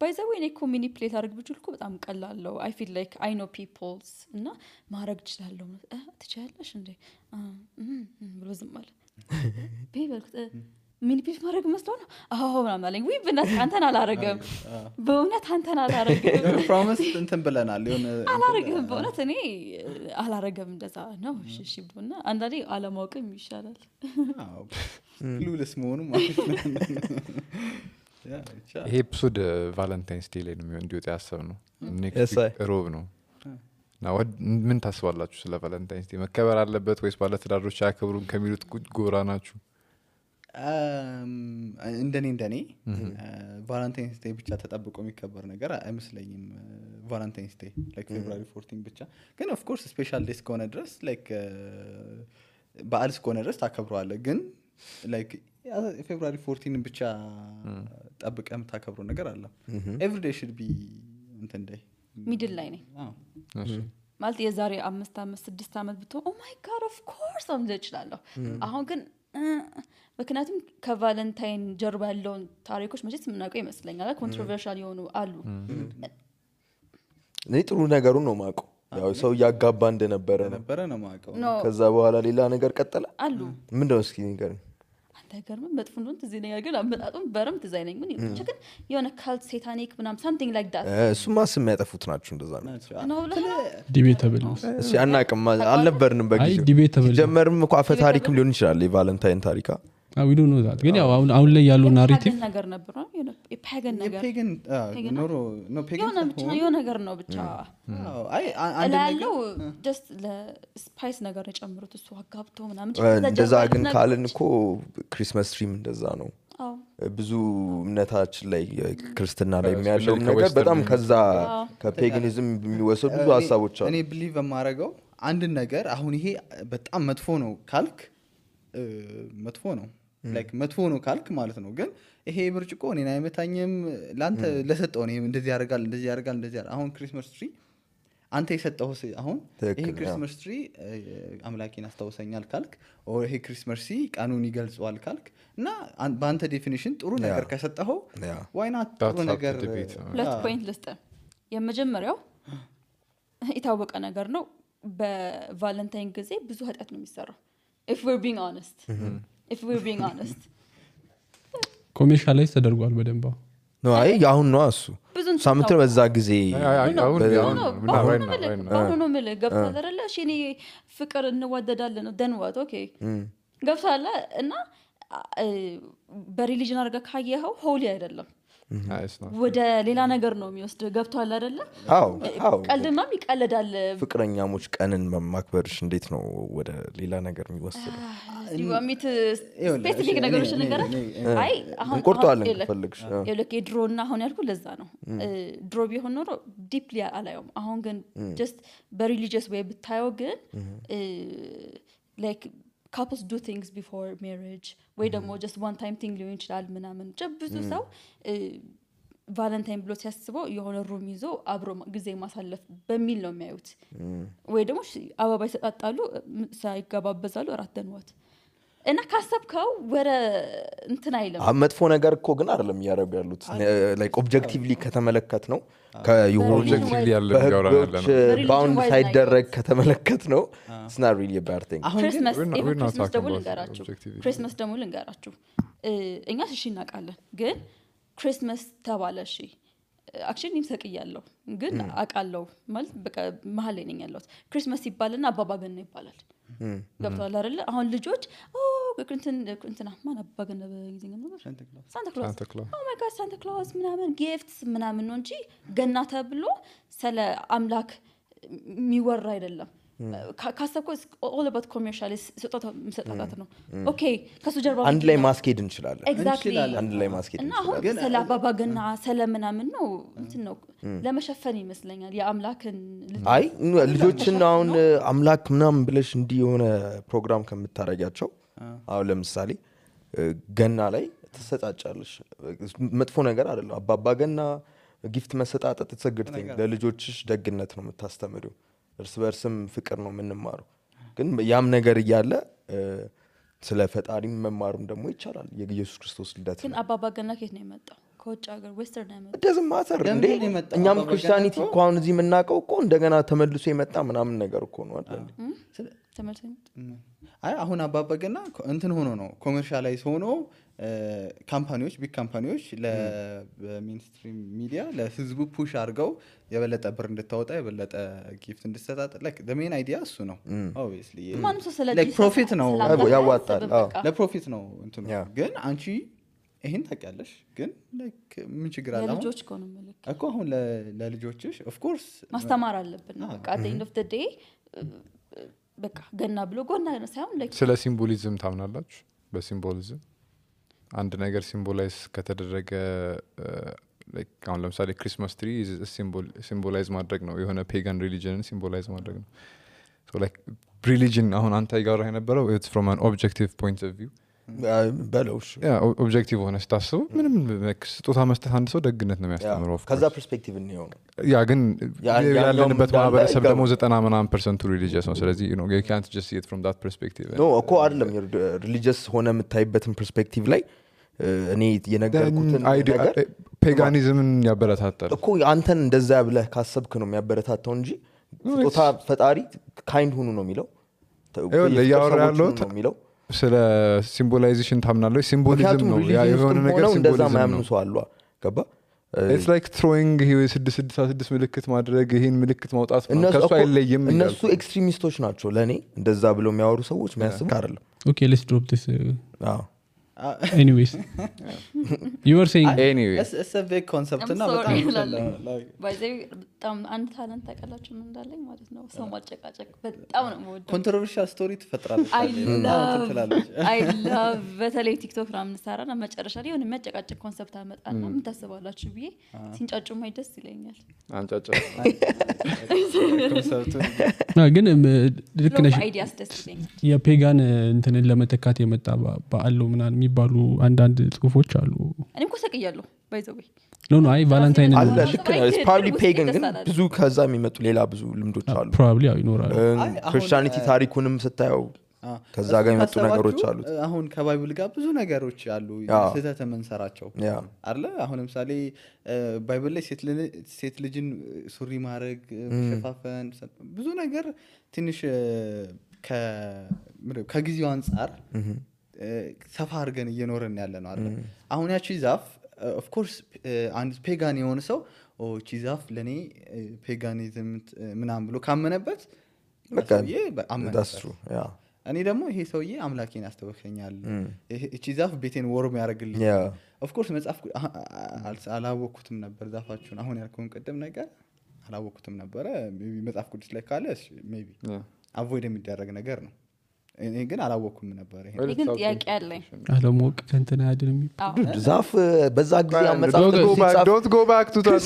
ባይዘው እኔ ኮሚኒፕሌት አድርግ ብችልኩ በጣም ቀላለው I feel like I know people's እና ማድረግ እችላለሁ ትችያለሽ እንዴ ብሎ ዝም አለ ቢበልክ ሚኒፕሌት ማድረግ መስሎ ነው አዎ ምናምን አለኝ ወይ በእናትህ አንተን አላረገም በእውነት አንተን አላረገም ፕሮሚስ እንትን ብለናል የሆነ አላረገም በእውነት እኔ አላረገም እንደዛ ነው እሺ ብሎና አንዳንዴ አለማወቅም ይሻላል አዎ ክሉለስ መሆኑ ማለት ነው ይሄ ኤፒሶድ ቫለንታይንስ ዴይ ላይ ነው እንዲወጣ ያሰብነው ኔክስት ሮብ ነው እና ምን ታስባላችሁ ስለ ቫለንታይንስ ዴይ መከበር አለበት ወይስ ባለትዳሮች አያከብሩም ከሚሉት ጎራ ናችሁ እንደኔ ቫለንታይንስ ዴይ ብቻ ተጠብቆ የሚከበር ነገር አይመስለኝም ቫለንታይንስ ዴይ ላይክ ፌብሩዋሪ 14 ብቻ ግን ኦፍ ኮርስ ስፔሻል ዴይ እስከሆነ ድረስ ላይክ በዓል እስከሆነ ድረስ ታከብረዋለህ ግን ላይክ ፌብሩዋሪ 14 ብቻ ጠብቀህ የምታከብረው ነገር አለ ኤቭሪ ዴይ should be እንትን ዴይ ሚድል ላይ ነኝ ማለት የዛሬ 5 አመት 6 አመት ብትሆ ኦ ማይ ጋድ ኦፍ ኮርስ አምልጭ እችላለሁ አሁን ግን ምክንያቱም ከቫለንታይን ጀርባ ያለውን ታሪኮች መቼስ የምናውቀው ይመስለኛል ኮንትሮቨርሻል የሆኑ አሉ ጥሩ ነገሩን ነው ማውቀው ያው ሰው ያጋባ እንደነበረ ነው ማውቀው ከዛ በኋላ ሌላ ነገር ቀጠለ አሉ ምንድነው እስኪ ነገር አንተገርም መጥፎ ነው ትዝ ይለኛል ግን አመጣጡም በረም ትዝ አይለኝ ምን ብቻ ግን የሆነ ካልት ሴታኒክ ምናም something like that እሱማ ስም ያጠፉት ናቸው እንደዛ ነው ዲቤተብል እሺ አናቅም አልነበርንም በጊዜው ዲቤተብል ጀመርም እኮ አፈ ታሪክም ሊሆን ይችላል የቫለንታይን ታሪካ we don't know that ግን ያው አሁን ላይ ያለው ናሬቲቭ ነገር ነበር ነው የፓገን ነገር ፔገን ኖ ፔገን የሆነ ነገር ነው ብቻ አይ አንድ ነገር just ለስፓይስ ነገር የጨምሩት እሱ አጋብቶ ምናምን እንደዛ ግን ካልን እኮ ክሪስማስ ትሪም እንደዛ ነው ብዙ እምነታችን ላይ ክርስትና ላይ የሚያለው ነገር በጣም ከዛ ከፔጋኒዝም የሚወሰዱ ብዙ ሐሳቦች አሉ እኔ ቢሊቭ የማረጋው አንድ ነገር አሁን ይሄ በጣም መጥፎ ነው ካልክ መጥፎ ነው ላይክ መጥፎ ነው ካልክ ማለት ነው ግን ይሄ ብርጭቆ እኔን አይመታኝም ላንተ ለሰጠው ነው እንደዚህ ያደርጋል አሁን ክሪስማስ ትሪ አንተ የሰጠው አሁን ይሄ ክሪስማስ ትሪ አምላኬን አስተዋውሰኛል ካልክ ኦ ይሄ ክሪስማስ ትሪ ቀኑን ይገልጸዋል ካልክ እና በአንተ ዴፊኒሽን ጥሩ ነገር ከሰጠው why not ጥሩ ነገር ሁለት ፖይንት ልስጥ የመጀመሪያው የታወቀ ነገር ነው በቫለንታይን ጊዜ ብዙ ኃጢአት ነው የሚሰራው if we're being honest ኮሜርሻላይዝ ተደርጓል በደንብ ነው አይ አሁን ነው እሱ ሳምንት በዛ ጊዜ አሁን ነው ማለት ገብቷል አይደለ እሺ እኔ ፍቅር እንዋደዳለን ነው then what okay ገብቷል እና በሪሊጅን አርጋ ካየኸው ሆሊ አይደለም ወደ ሌላ ነገር ነው የሚወስድ ገብቷል አይደለ አዎ ቀልድማም ይቀለዳል ፍቅረኛሞች ቀንን ማክበርሽ እንዴት ነው ወደ ሌላ ነገር የሚወስደው ዲዋሚት ስፔሲፊክ ነገሮች ነገር አይ አሁን ቆርጧለን ፈልግሽ የለክ ድሮና አሁን ያልኩ ለዛ ነው ድሮ ቢሆን ኖሮ ዲፕሊ አላየውም አሁን ግን just በሪሊጂየስ ወይ ብታየው ግን like couples do things before marriage ወይ ደግሞ just one time thing ሊሆን ይችላል ምናምን ብዙ ሰው ቫለንታይን ብሎ ሲያስበው የሆነ ሩም ይዞ አብሮ ጊዜ ማሳለፍ በሚል ነው የሚያዩት ወይ ደግሞ አበባ ይሰጣጣሉ ሳይገባበዛሉ አራተንዋት እና ካሰብከው ወደ እንትን አይልም መጥፎ ነገር እኮ ግን አይደለም ያረጋሉ ያሉት ላይክ ኦብጀክቲቭሊ ከተመለከት ነው ከዩሆኑ ኦብጀክቲቭሊ ያለ ያወራን ያለ ነው ባውንድ ሳይደረግ ከተመለከት ነው it's not really a bad thing ክሪስማስ ደግሞ ልንገራችሁ እኛ እሺ እናውቃለን ግን ክሪስማስ ተባለ እሺ አክቹሊ ይምሰቅያለሁ ግን አቃለው ማለት በቃ መሀል ላይ ነኝ ያለሁት ክሪስማስ ይባልና አባባ ገና ይባላል ገብቷል አይደል አሁን ልጆች እንትና ማን አባባ ገና በእንግሊዝኛ ነበር ሳንታ ክላስ ኦ ማይ ጋድ ሳንታ ክላስ ምናምን ጊፍትስ ምናምን ነው እንጂ ገና ተብሎ ስለ አምላክ የሚወራ አይደለም ካሰብኩ all about commercial ስጦታ መስጠት ነው ኦኬ ከሱ ጀርባ አንድ ላይ ማስኬድ እንችላለን exactly አንድ ላይ ማስኬድ እና አሁን ስለ አባባገና ስለምናምን ነው እንትን ነው ለመሸፈን ይመስለኛል የአምላክን አይ ልጆችን አሁን አምላክ ምናምን ብለሽ እንዲ የሆነ ፕሮግራም ከምታረጋቸው አሁን ለምሳሌ ገና ላይ ተሰጣጫለሽ መጥፎ ነገር አይደለም አባባገና ጊፍት መሰጣጣት ተሰግድተኝ ለልጆችሽ ደግነት ነው የምታስተምሪው እርስ በርስም ፍቅር ነው የምንማረው ግን ያም ነገር እያለ ስለ ፈጣሪ መማሩም ደግሞ ይቻላል የኢየሱስ ክርስቶስ ልደት ግን አባባገና ከየት ነው የመጣው ከውጭ ሀገር ዌስተርን ነው የመጣው ደዝም ማተር እንዴ እኛም ክርስቲያኒቲ እንኳን እዚህ የምናውቀው እኮ እንደገና ተመልሶ የመጣ ምናምን ነገር እኮ ነው አይደል ተመልሶ አይ አሁን አባባገና እንትን ሆኖ ነው ኮመርሻላይዝ ሆኖ ካምፓኒዎች ቢግ ካምፓኒዎች ለሜንስትሪም ሚዲያ ለህዝቡ ፑሽ አድርገው የበለጠ ብር እንድታወጣ የበለጠ ጊፍት እንድትሰጣጥ like the main idea እሱ ነው obviously like profit ነው ያዋጣል ለፕሮፊት ነው እንትኑ ግን አንቺ ይሄን ታውቂያለሽ ግን like ምን ችግር አለ ለልጆች እኮ ነው መልክ እኮ አሁን ለልጆችሽ of course ማስተማር አለብን በቃ at the end of the day በቃ ገና ብሎ ጎና ሳይሆን like ስለ ሲምቦሊዝም ታምናላችሁ በሲምቦሊዝም አንድ ነገር ሲምቦላይዝ ከተደረገ like አሁን ለምሳሌ ክሪስማስ ትሪ ሲምቦላይዝ ማድረግ ነው የሆነ ፔጋን ሪሊጅንን ሲምቦላይዝ ማድረግ ነው so like religion አሁን አንተ ጋር የነበረው it's from an objective point of view በለውሽ ኦብጀክቲቭ ሆነ ስታስበው ምንም ስጦታ መስጠት አንድ ሰው ደግነት ነው የሚያስተምረው ከዛ ፐርስፔክቲቭ ነው ያ ግን ያለንበት ማህበረሰብ ደግሞ 90% ሪሊጂየስ ነው ስለዚህ you know you can't just see it from that perspective no እኮ አይደለም ሪሊጂየስ ሆነ የምታይበትን ፐርስፔክቲቭ ላይ እኔ የነገርኩትን ነገር ፔጋኒዝምን ያበረታታል እኮ አንተን እንደዛ ብለህ ካሰብክ ነው የሚያበረታታው እንጂ ስጦታ ፈጣሪ ካይንድ ሁኑ ነው የሚለው ያለው ስለ ሲምቦላይዜሽን ታምናለህ ሲምቦሊዝም ነው ያ የሆነ ነገር ሲምቦሊዝም ነው አሉ ገባ it's like throwing ይሄ 666 ምልክት ማድረግ ይሄን ምልክት ማውጣት ከሱ አይለይም እነሱ ኤክስትሪሚስቶች ናቸው ለኔ እንደዛ ብለው የሚያወሩ ሰዎች የሚያስብ አይደለም okay let's drop this anyways you were saying anyways it's a big concept እና በጣም by the way በጣም አንድ ታለንት ታውቃላችሁ ምን እንዳለኝ ማለት ነው ሰው ማጨቃጨቅ በጣም ነው የምወደው ኮንትሮቨርሻል ስቶሪ ትፈጥራለች I love በተለይ ቲክቶክ ላይ ምንሰራና መጨረሻ ላይ የሆነ የሚያጨቃጨቅ ኮንሰፕት አመጣና ምን ታስባላችሁ ብዬ ሲንጫጩ ማይ ደስ ይለኛል አንጫጫ ኮንሰፕቱ ግን ልክ ነሽ አይዲያስ ደስ ይለኛል የፔጋን እንትንን ለመተካት የመጣ በአለው ምናን የሚባሉ አንዳንድ ጽሁፎች አሉ እኔም እኮ ሰቅያለሁ by the way no አይ ቫለንታይን አለ ልክ ነው it's probably pagan ግን ብዙ ከዛ የሚመጡ ሌላ ብዙ ልምዶች አሉ probably ያው ይኖራል ክርስቲያኒቲ ታሪኩንም ስታየው ከዛ ጋር የመጡ ነገሮች አሉ አሁን ከባይብል ጋር ብዙ ነገሮች አሉ ስህተት መንሰራቸው አይደለ አሁን ለምሳሌ ባይብል ላይ ሴት ልጅን ሱሪ ማድረግ ሸፋፈን ብዙ ነገር ትንሽ ከጊዜው አንፃር ሰፋ አድርገን እየኖርን ያለ ነው አይደል አሁን ያቺ ዛፍ of course አንድ ፔጋን የሆነ ሰው እቺ ዛፍ ለኔ ፔጋኒዝም ምናምን ብሎ ካመነበት በቃ that's true እኔ ደግሞ ይሄ ሰውዬ አምላኬን ያስተወከኛል እቺ ዛፍ ቤቴን ወርም ያደርግልኝ of course መጽሐፍ አላወኩትም ነበር ዛፋችሁን አሁን ያልከውን ቀደም ነገር አላወኩትም ነበር መጽሐፍ ቅዱስ ላይ ካለ maybe avoid የሚደረግ ነገር ነው እኔ ግን አላወኩም ነበር ይሄ ግን ጥያቄ አለኝ አለሞቅ ከንተና ያድርም ዛፍ በዛ ጊዜ አመጻፍ don't go back to that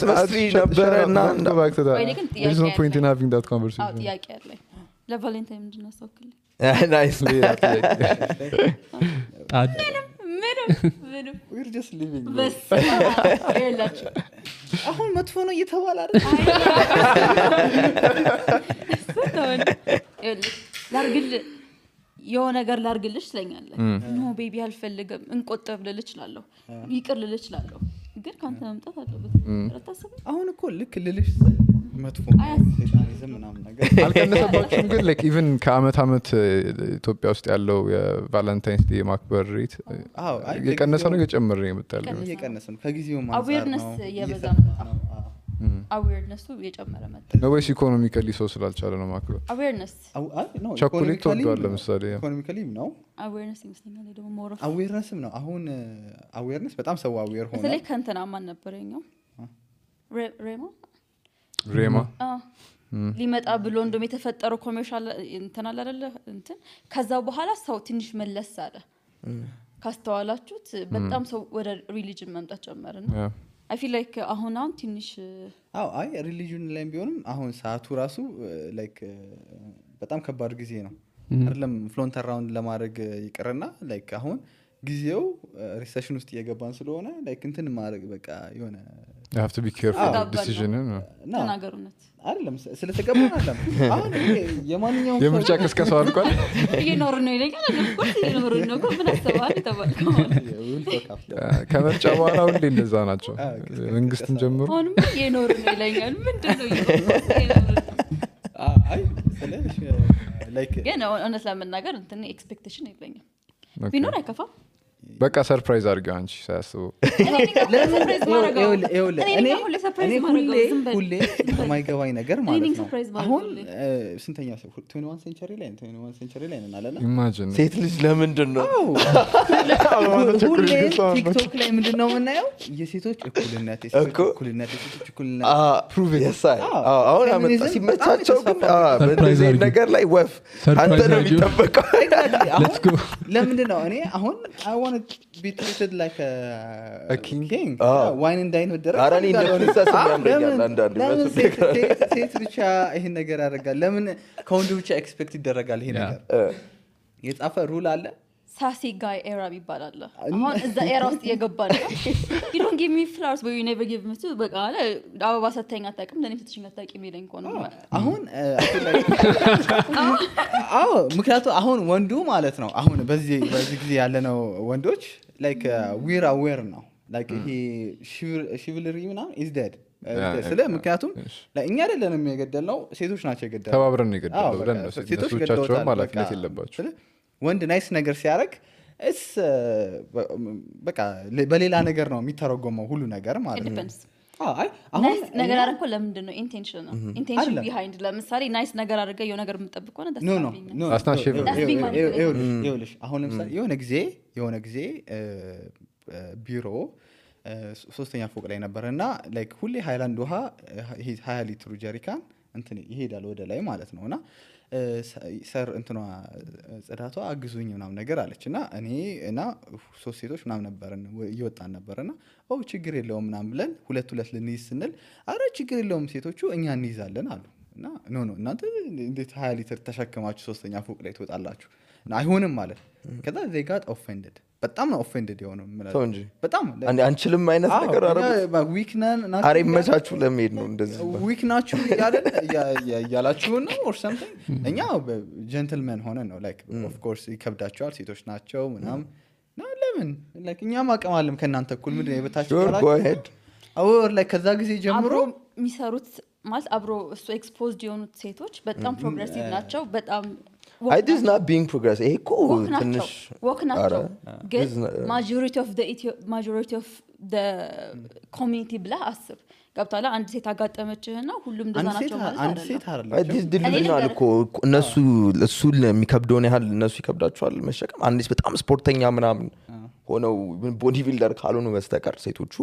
ነበረና go back to that there's no point in having that conversation ጥያቄ አለኝ ለቫለንታይን ምንድነው ሰውክልኝ nice ምንም we're just living በስ ይላችሁ አሁን መጥፎ ነው እየተባለ አይደል ላርግል የሆነ ነገር ላርግልሽ ስለኛለህ ኖ ቤቢ አልፈልግም እንቆጠብ ልልችላለሁ ይቅር ልልችላለሁ ግን ካንተ መምጣት አለበት ረታሰብ አሁን እኮ ልክ ልልሽ መጥፎ ሴጣኒዝም ምናምን ነገር አልቀነሰባችሁም ግን like even ከአመት አመት ኢትዮጵያ ውስጥ ያለው የቫለንታይንስ ዴይ ማክበር ሬት የቀነሰ ነው የጨመረ ነው የመጣው እየቀነሰ ነው ከጊዜው ማንሳት ነው አዌርነስ የበዛ አዌርነሱ የጨመረ መጣ ነው ወይስ ኢኮኖሚካሊ ሰው ስላልቻለ ነው ማክበር አዌርነስ ቸኮሌት ተወዷል ለምሳሌ ኢኮኖሚካሊ ነው አዌርነስ ይመስለኛል ደግሞ ሞር አዌርነስም ነው አሁን አዌርነስ በጣም ሰው አዌር ሆነ ስለዚህ ከንተና ማን ነበረኛው ሬማ ሊመጣ ብሎ እንደም የተፈጠረው ኮሜርሻል እንትን አለ አይደለ እንትን ከዛ በኋላ ሰው ትንሽ መለስ አለ ካስተዋላችሁት በጣም ሰው ወደ ሪሊጅን መምጣት ጀመረና I feel like አሁን ትንሽ አይ ሪሊጅን ላይ ቢሆንም አሁን ሰዓቱ ራሱ ላይክ በጣም ከባድ ጊዜ ነው አይደለም ፍሎንት አራውንድ ለማድረግ ይቀርና ላይክ አሁን ጊዜው ሪሴሽን ውስጥ እየገባን ስለሆነ ላይክ እንትን ማድረግ በቃ የሆነ you have to be careful with decision ተናገሩነት አይደለም ስለተገባን አይደለም አሁን የማንኛውም የምርጫ ቅስቀሳው አልቋል ይኖር ነው ይለኛል እኮ ይኖር ነው እኮ ምን አሰባል ተባልከው ከምርጫ በኋላ ሁሌ እንደዛ ናቸው መንግስትን ጀምሮ አሁንም ይኖር ነው ይለኛል ምንድነው ይኖር አይ ስለሽ ላይክ ግን honestly ለመናገር እንትን ኤክስፔክቴሽን የለኝም ቢኖር አይከፋም በቃ ሰርፕራይዝ አድርገው አንቺ ሳያስበው ሁሌ የማይገባኝ ነገር ማለት ነው አሁን ስንተኛ ሰው 21 ሴንቸሪ ላይ ነን አለና ኢማጂን ሴት ልጅ ለምንድን ነው ሁሌ ቲክቶክ ላይ ምንድን ነው የምናየው የሴቶች እኩልነት የሴቶች እኩልነት አሁን አመጣ ሲመቻቸው ግን በዚህ ነገር ላይ ወፍ አንተ ነው የሚጠበቀው ለምንድን ነው እኔ አሁን I want to be treated like a king wine and dine with አራኒ እንደዚህ ያምረኛል አንዳንድ ሴት ብቻ ይሄን ነገር ያደርጋል ለምን ከወንድ ብቻ ኤክስፔክት ይደረጋል ይሄ ነገር የጻፈ ሩል አለ ሳሲ ጋይ ኤራ ይባላል አሁን እዛ ኤራ ውስጥ የገባ ነው you don't give me flowers but you never give me to በቃ አበባ ሰተኛ አጣቀም ለኔ ፍትሽኝ አጣቀም ይለኝ ኮን አሁን ምክንያቱ አሁን ወንዱ ማለት ነው አሁን በዚህ ጊዜ ያለነው ወንዶች like we're aware now like he chivalry ምናምን is dead ስለ ምክንያቱም ለእኛ አይደለም የገደልነው ሴቶች ናቸው የገደሉት ተባብረን ነው የገደልነው ብለን ነው ሴቶቻቸው ማለፍለት የለባቸው ወንድ ናይስ ነገር ሲያደርግ እስ በቃ በሌላ ነገር ነው የሚተረጎመው ሁሉ ነገር ማለት ነው አይ አሁን ነገር አረንኮ ለምንድን ነው ኢንቴንሽን ቢሃይንድ ለምሳሌ ናይስ ነገር አድርገው የሆነ ነገር የምትጠብቀው ነው ኖ አሁን ለምሳሌ የሆነ ጊዜ ቢሮ 3ኛ ፎቅ ላይ ነበርና ላይክ ሁሌ ሃይላንድ ውሃ 20 ሊትር ጀሪካን እንትን ይሄዳል ወደ ላይ ማለት ነውና ሰር እንትኗ ጽዳቷ አግዙኝ ምናምን ነገር አለችና እኔ እና 3 ሴቶች ምናምን ነበርን ይወጣን ነበርና ችግር የለውም ምናምን ብለን ሁለት ልንይዝ ስንል አረ ችግር የለውም ሴቶቹ እኛ እንይዛለን አሉ እና ኖ እናንተ እንዴት 20 ሊትር ተሸክማችሁ 3ኛ ፎቅ ላይ ትወጣላችሁ አይሆንም ማለት ከዛ they got offended በጣም ነው offended የሆነው ማለት እንጂ በጣም አንችልም አይነት ነገር አረጋግጥ ዊክነን አሬ መቻችሁ ለመሄድ ነው እንደዚህ ዊክናችሁ ያላችሁ ነው or something እኛ ጀንትልመን ሆነን ነው like of course ይከብዳቸዋል ሴቶች ናቸው ምናምን ነው ለምን like እኛም አቀማለም ከናንተ እኩል ምንድነው የበታችሁ or like ከዛ ጊዜ ጀምሮ የሚሰሩት ማለት አብሮ እሱ ኤክስፖዝድ የሆኑት ሴቶች በጣም ፕሮግሬሲቭ ናቸው በጣም I this not being progress እኮ ትንሽ ወክ ናቸው ግን majority of the community ብለህ አስብ ገብታላ አንድ ሴት አጋጠመችህና ሁሉም እንደዛ ናቸው ማለት አንድ ሴት አይደለም this ድልድልናል እኮ እነሱ እሱ የሚከብደውን ያህል እነሱ ይከብዳቸዋል መሸከም አንዲስ በጣም ስፖርተኛ ምናምን ሆነው ቦዲ ቢልደር ካልሆኑ በስተቀር ሴቶቹ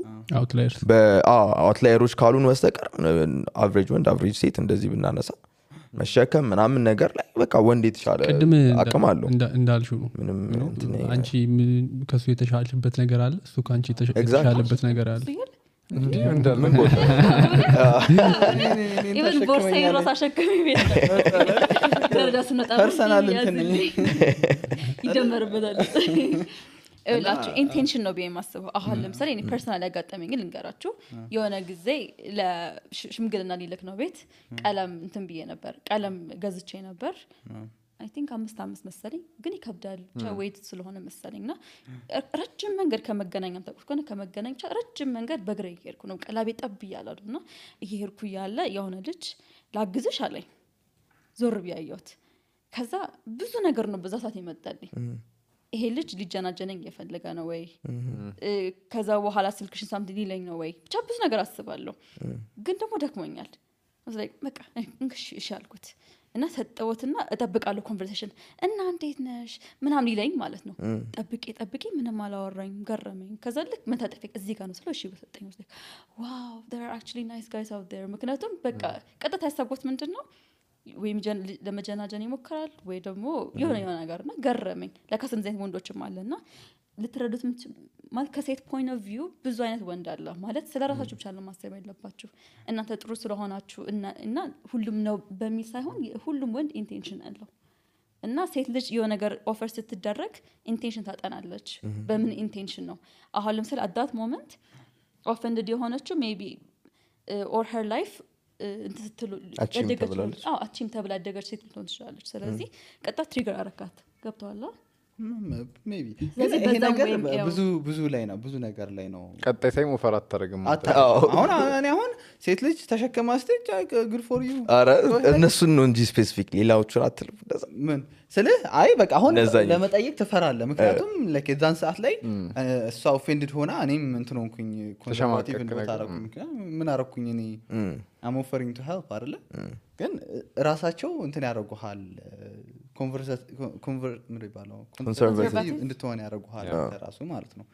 አውትላየሮች ካልሆኑ በስተቀር አቨሬጅ ወንድ አቨሬጅ ሴት እንደዚህ ብናነሳ መሸከም ምናምን ነገር ላይ በቃ ወንድ የተሻለ አቅም አለው እንዳልሽው ምንም አንቺ ከሱ የተሻለበት ነገር አለ እሱ ካንቺ የተሻለበት ነገር አለ እንዴ እንዳልነው ኢቭን ቦርሳዬ ራስ አሸከሚ ቤት ደረጃስ ነው ፐርሰናል እንትን ይደመርበታል እላችሁ ኢንቴንሽን ነው በየማስበው አሁን ለምሳሌ እኔ ፐርሰናል ያጋጠመኝ ልንገራችሁ የሆነ ጊዜ ለሽምግልና ሊልክ ነው ቤት ቀለም እንትን ብዬ ነበር ቀለም ገዝቼ ነበር I think 5 መሰለኝ ግን ይከብዳል ዌት ስለሆነ መሰለኝና ረጅም መንገድ ከመገናኛም ተቆጥቆነ ከመገናኛ ረጅም መንገድ በእግሬ እየሄድኩ ነው ቀላቤ ጠብ ይያላሉና እየሄድኩ ያለ የሆነ ልጅ ላግዝሽ አለኝ ዞር ቢያየሁት ከዛ ብዙ ነገር ነው በዛ ሰዓት ይመጣልኝ ይሄ ልጅ ሊጀናጀነኝ እየፈለገ ነው ወይ ከዛ በኋላ ስልክሽን ሳምቲ ሊለኝ ነው ወይ ብቻ ብዙ ነገር አስባለሁ ግን ደግሞ ደክሞኛል like በቃ እንግሽ እሺ አልኩት እና ሰጠውትና እጠብቃለሁ ኮንቨርሴሽን እና እንዴት ነሽ ምናምን ይለኝ ማለት ነው ጠብቄ ምንም አላወራኝ ገረመኝ ከዛ ልክ መታጠፊያ እዚህ ጋር ነው ስለው እሺ በሰጠኝ ውስጥ ዋው there are actually nice guys out there ምክንያቱም በቃ ቀጥታ ያሰብኩት ምንድነው ወይ ለመጀናጀን ይሞክራል ወይ ደግሞ የሆነ ነገርና ገረመኝ ለካስ እንደዚህ ወንዶችም አለና ልትረዱት ማለት ከሴት ፖይንት ኦፍ ቪው ብዙ አይነት ወንድ አለ ማለት ስለራሳችሁ ብቻ ነው ማሰብ ያለባችሁ እናንተ ጥሩ ስለሆናችሁ እና ሁሉም ነው በሚል ሳይሆን ሁሉም ወንድ ኢንቴንሽን አለው እና ሴት ልጅ የሆነ ነገር ኦፈር ስትደረግ ኢንቴንሽን ታጠናለች በምን ኢንቴንሽን ነው አሁን ለምሳሌ at that moment offended የሆነችው maybe or her life እንትትሉ አቺም ተብላ አደገች ሴት ልትሆን ትችላለች ስለዚህ ቀጣ ትሪገር አረካት ገብቷል ሜቢ ይሄ ነገር ብዙ ላይ ነው ብዙ ነገር ላይ ነው ቀጣይ ሳይም ኦፈር አታረግም አሁን ሴት ልጅ ተሸከማ ስቴጅ good for you አረ እነሱን ነው እንጂ ስፔሲፊክ ሌላዎቹን አትልፍ እንደዛ ምን ስልህ አይ በቃ አሁን ለመጠየቅ ትፈራለህ ምክንያቱም ለከዛን ሰዓት ላይ እሷ ኦፌንድድ ሆና እኔም እንትን ሆንኩኝ ኮንሰርቫቲቭ እንደታረኩኝ ምን አረኩኝ እኔ I'm offering to help አይደለ ግን ራሳቸው እንትን ያደርጉሃል ኮንሰርቫቲቭ እንድትሆን ያደርጉሃል ራሱ ማለት ነው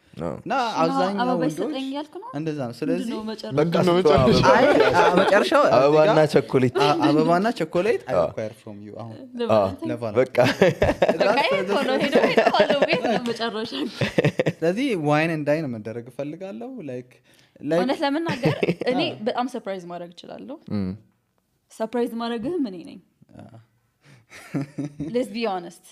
እና አብዛኛው ወንዶች እንደዛ ነው ስለዚህ መጨረሻው አበባና ቾኮሌት I require from you አሁን በቃ ስለዚህ ዋይን ኤንድ ዳይን መደረግ ፈልጋለሁ ላይክ እውነት ለመናገር እኔ በጣም ሰርፕራይዝ ማድረግ እችላለሁ ሰርፕራይዝ ማድረግህ ምን ነኝ let's be honest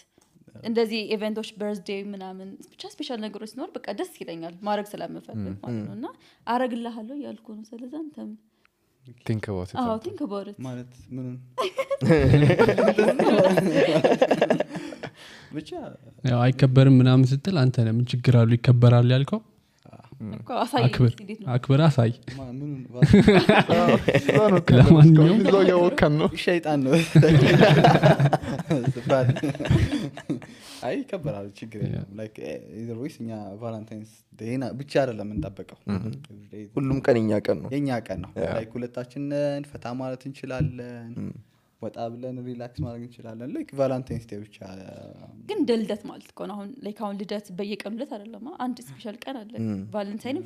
እንደዚህ ኢቨንቶች በርዝዴይ ምናምን ብቻ ስፔሻል ነገሮች ሲኖር በቃ ደስ ይለኛል ማድረግ ስለምፈልግ ማለት ነውና አረግልሃለሁ ያልኩ ነው ስለዚህ አንተም think about it think about it ማለት ምኑን ብቻ ያው አይከበርም ምናምን ስትል አንተ ለምን ችግር አሉ ይከበራል ያልከው አክብር አሳይ ለማንኛውም ነው ያወከን ነው ሸይጣን ነው አይ ከበራል ችግር የለም ላይክ either way እኛ ቫለንታይንስ ዴይ ብቻ አይደለም እንጠብቀው ሁሉም ቀን የኛ ቀን ነው ላይክ ሁለታችንን ፈታ ማለት እንችላለን ወጣ ብለን ሪላክስ ማድረግ እንችላለን ላይክ ቫለንታይንስ ዴይ ብቻ ግን ደልደት ማለት ነው አሁን ላይክ አሁን ልደት በየቀኑ ልደት አይደለም አንድ ስፔሻል ቀን አለ ቫለንታይን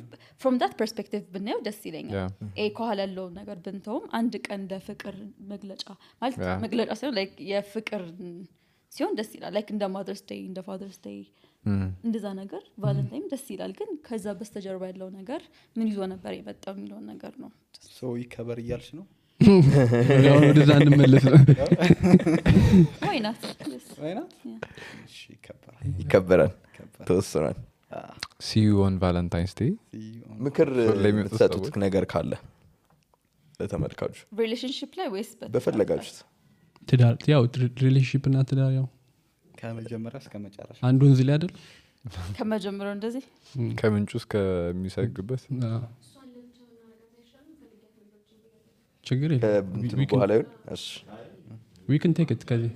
from that perspective ብናየው ደስ ይለኛል ከኋላ ያለው ነገር ብንተውም አንድ ቀን እንደ ፍቅር መግለጫ ማለት መግለጫ ሳይሆን ላይክ የፍቅር ሲሆን ደስ ይላል ላይክ እንደ ማዘርስ ዴይ እንደ ፋዘርስ ዴይ እንደዛ ነገር ቫለንታይን ደስ ይላል ግን ከዛ በስተጀርባ ያለው ነገር ምን ይዞ ነበር የመጣው የሚለው ነገር ነው ሶ ይከበር እያልሽ ነው ያው ወደዛ እንመለስ ነው why not እሺ ይከበራል ተወሰናል see you on valentine's day ምክር ለምትሰጡት ነገር ካለ ለተመልካቹ ሪሌሽንሺፕ ላይ ወይስ በፈለጋችሁት ትዳር ያው ሪሌሽንሺፕ እና ትዳር ያው ከመጀመሪያ እስከ መጨረሻ አንዱ ወንዝ ላይ አይደል ከመጀመሪያው እንደዚህ ከምንጩ እስከሚሰግበት ችግር የለም በኋላ እሺ we can take it ከዚህ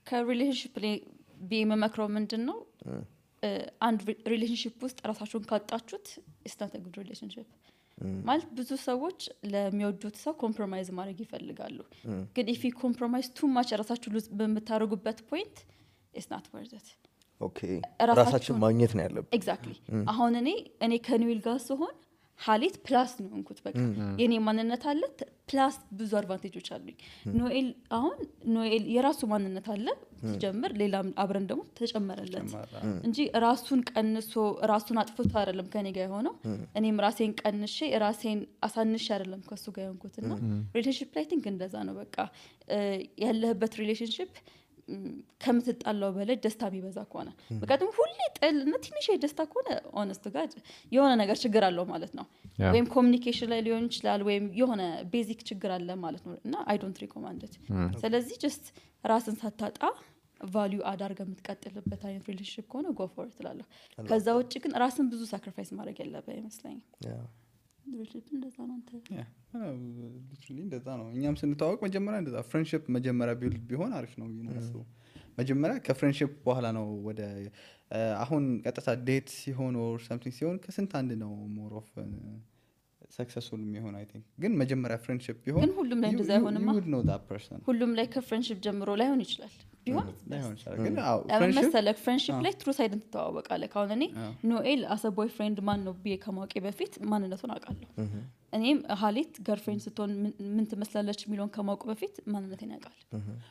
ከሪሌሽንሺፕ ላይ ቢመክረው ምንድነው አንድ ሪሌሽንሺፕ ውስጥ ራሳችሁን ካጣችሁት it's not a good relationship ማለት ብዙ ሰዎች ለሚወዱት ሰው ኮምፕሮማይዝ ማድረግ ይፈልጋሉ ግን if you compromise too much ራሳችሁ በመታረጉበት point it's not worth it okay ራሳችን ማግኘት ነው ያለብን exactly አሁን እኔ ከኒውል ጋር ሲሆን ሀሊት ፕላስ ነው እንኩት በቃ የኔ ማንነት አለ ፕላስ ብዙ አድቫንቴጆች አሉኝ ኖኤል የራሱ ማንነት አለ ሲጀምር ሌላም አብረን ደግሞ ተጨመረለት እንጂ ራሱን ቀንሶ ራሱን አጥፍቶ አይደለም ከኔ ጋር ሆኖ እኔም ራሴን ቀንሼ ራሴን አሳንሼ አይደለም ከሱ ጋር ሆንኩትና ሪሌሽንሺፕ ላይ ቲንክ እንደዛ ነው በቃ ያለህበት ሪሌሽንሺፕ ከምትጣላው በላይ ደስታ ቢበዛ ከሆነ በቃም ሁሌ ጥልና ትንሽ ደስታ ከሆነ ሆነስት ጋር የሆነ ነገር ችግር አለው ማለት ነው ወይም ኮሙኒኬሽን ላይ ሊሆን ይችላል ወይም የሆነ ቤዚክ ችግር አለ ማለት ነው እና I don't recommend it ስለዚህ just ራስን ሳታጣ ቫልዩ አዳርገ የምትቀጥልበት አይነት ሪሌሽንሺፕ ከሆነ go for it እላለሁ ከዛ ውጪ ግን ራስን ብዙ ሳክሪፋይስ ማድረግ ያለበት ይመስለኛል ሪሌሽንሺፕ እንደዛ ነው ሊትራሊ እንደዛ ነው እኛም ስንታወቅ መጀመሪያ እንደዛ ፍሬንድሺፕ መጀመሪያ ቢልድ ቢሆን አሪፍ ነው ነው መጀመሪያ ከፍሬንድሺፕ በኋላ ነው ወደ አሁን ቀጥታ ዴት ሲሆን or something ሲሆን ከስንት አንድ ነው more of ሰክሰስፉል የሚሆን አይ ቲንክ ግን መጀመሪያ ፍሬንድሺፕ ቢሆን ግን ሁሉም ላይ እንደዛ አይሆንማ you would know that person ሁሉም ላይ ከፍሬንድሺፕ ጀምሮ ላይሆን ይችላል ቢሆን ላይሆን ይችላል ግን መሰለክ ፍሬንድሺፕ ላይ ትሩ ሳይድን ትተዋወቃለህ ካሁን እኔ ኖኤል አሰ ቦይፍሬንድ ማን ነው ብዬ ከማወቄ በፊት ማንነቱን አውቃለሁ እኔም ሀሊት ገርፍሬንድ ስትሆን ምን ትመስላለች የሚለውን ከማወቁ በፊት ማንነቴን ያውቃል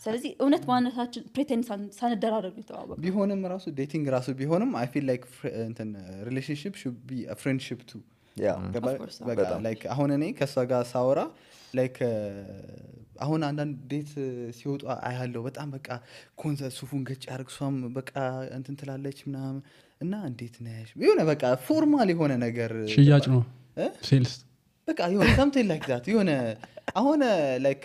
ስለዚህ እውነት ማንነታችን ፕሬቴንድ ሳንደራረግ ተዋወቅ ቢሆንም ራሱ ዴቲንግ ራሱ ቢሆንም I feel like እንትን relationship should be a friendship too በቃ ላይክ አሁን እኔ ከሷ ጋር ሳወራ ላይክ አሁን አንዳንድ ዴት ሲወጡ አያለው በጣም በቃ ኮንሰርት ሱፉን ገጭ ያርግሷም በቃ እንትን ትላለች ምናምን እና እንዴት ነሽ የሆነ በቃ ፎርማል የሆነ ነገር ሽያጭ ነው ሴልስ በቃ የሆነ something like that የሆነ አሁን ላይክ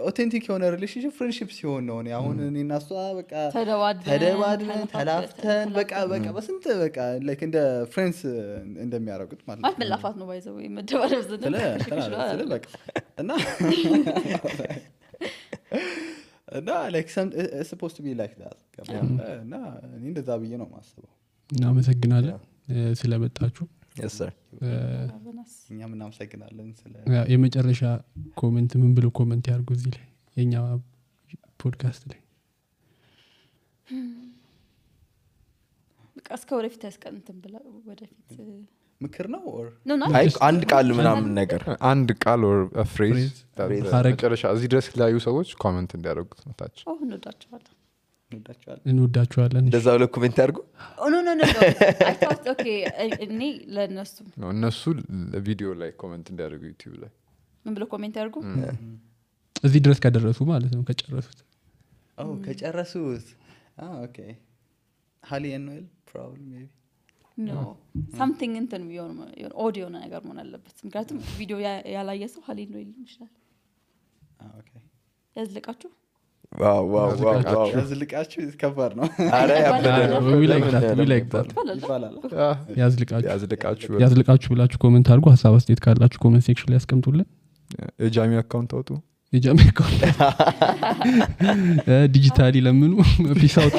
ኦቴንቲክ የሆነ ሪሌሽንሺፕ ፍሬንድሺፕ ሲሆን ነው አሁን እኔና እሷ በቃ ተደባድበን ተላፍተን በቃ በስንት በቃ ላይክ እንደ ፍሬንድስ እንደሚያረጉት ማለት ነው መላፋት ነው ባይዘው መደባደብ ስለ በቃ እና ላይክ supposed to be like that እና እኔ እንደዛ ብዬ ነው ማስበው እናመሰግናለን ስለመጣችሁ yes sir እኛም እናመሰግናለን ስለ የመጨረሻ ኮሜንት ምን ብሎ ኮሜንት ያርጉ እዚህ ላይ የኛ ፖድካስት ላይ በቃ እስከ ወደፊት ያስቀንተን ብላ ወደፊት ምክር ነው or አይ አንድ ቃል ምናምን ነገር አንድ ቃል or a phrase መጨረሻ እዚህ ድረስ ላዩ ሰዎች ኮሜንት እንዲያደርጉት ነው ታች እንወዳችኋለን እንደዛ ብለው ኮሜንት ያርጉ ኖ I thought okay እኔ ለነሱ እነሱ ቪዲዮ ላይ ኮሜንት እንዲያደርጉ ዩቲዩብ ላይ ምን ብለው ኮሜንት ያርጉ እዚህ ድረስ ከደረሱ ማለት ነው ከጨረሱት ከጨረሱት okay Hali and Noel probably maybe no something እንትን ቢሆን ኦዲዮ ነገር መሆን አለበት ምክንያቱም ቪዲዮ ያላየ ሰው Hali Noel ይችላል okay ያዝልቃችሁ wow ያዝልቃችሁ ከባድ ነው አረ we like that ይባላል ያዝልቃችሁ ብላችሁ ኮሜንት አድርጉ ሐሳብ አስተያየት ካላችሁ ኮሜንት ሴክሽን ላይ አስቀምጡልን የጃሚ አካውንት አውጡ የጃሚ አካውንት ዲጂታሊ ለምኑ ፒስ አውት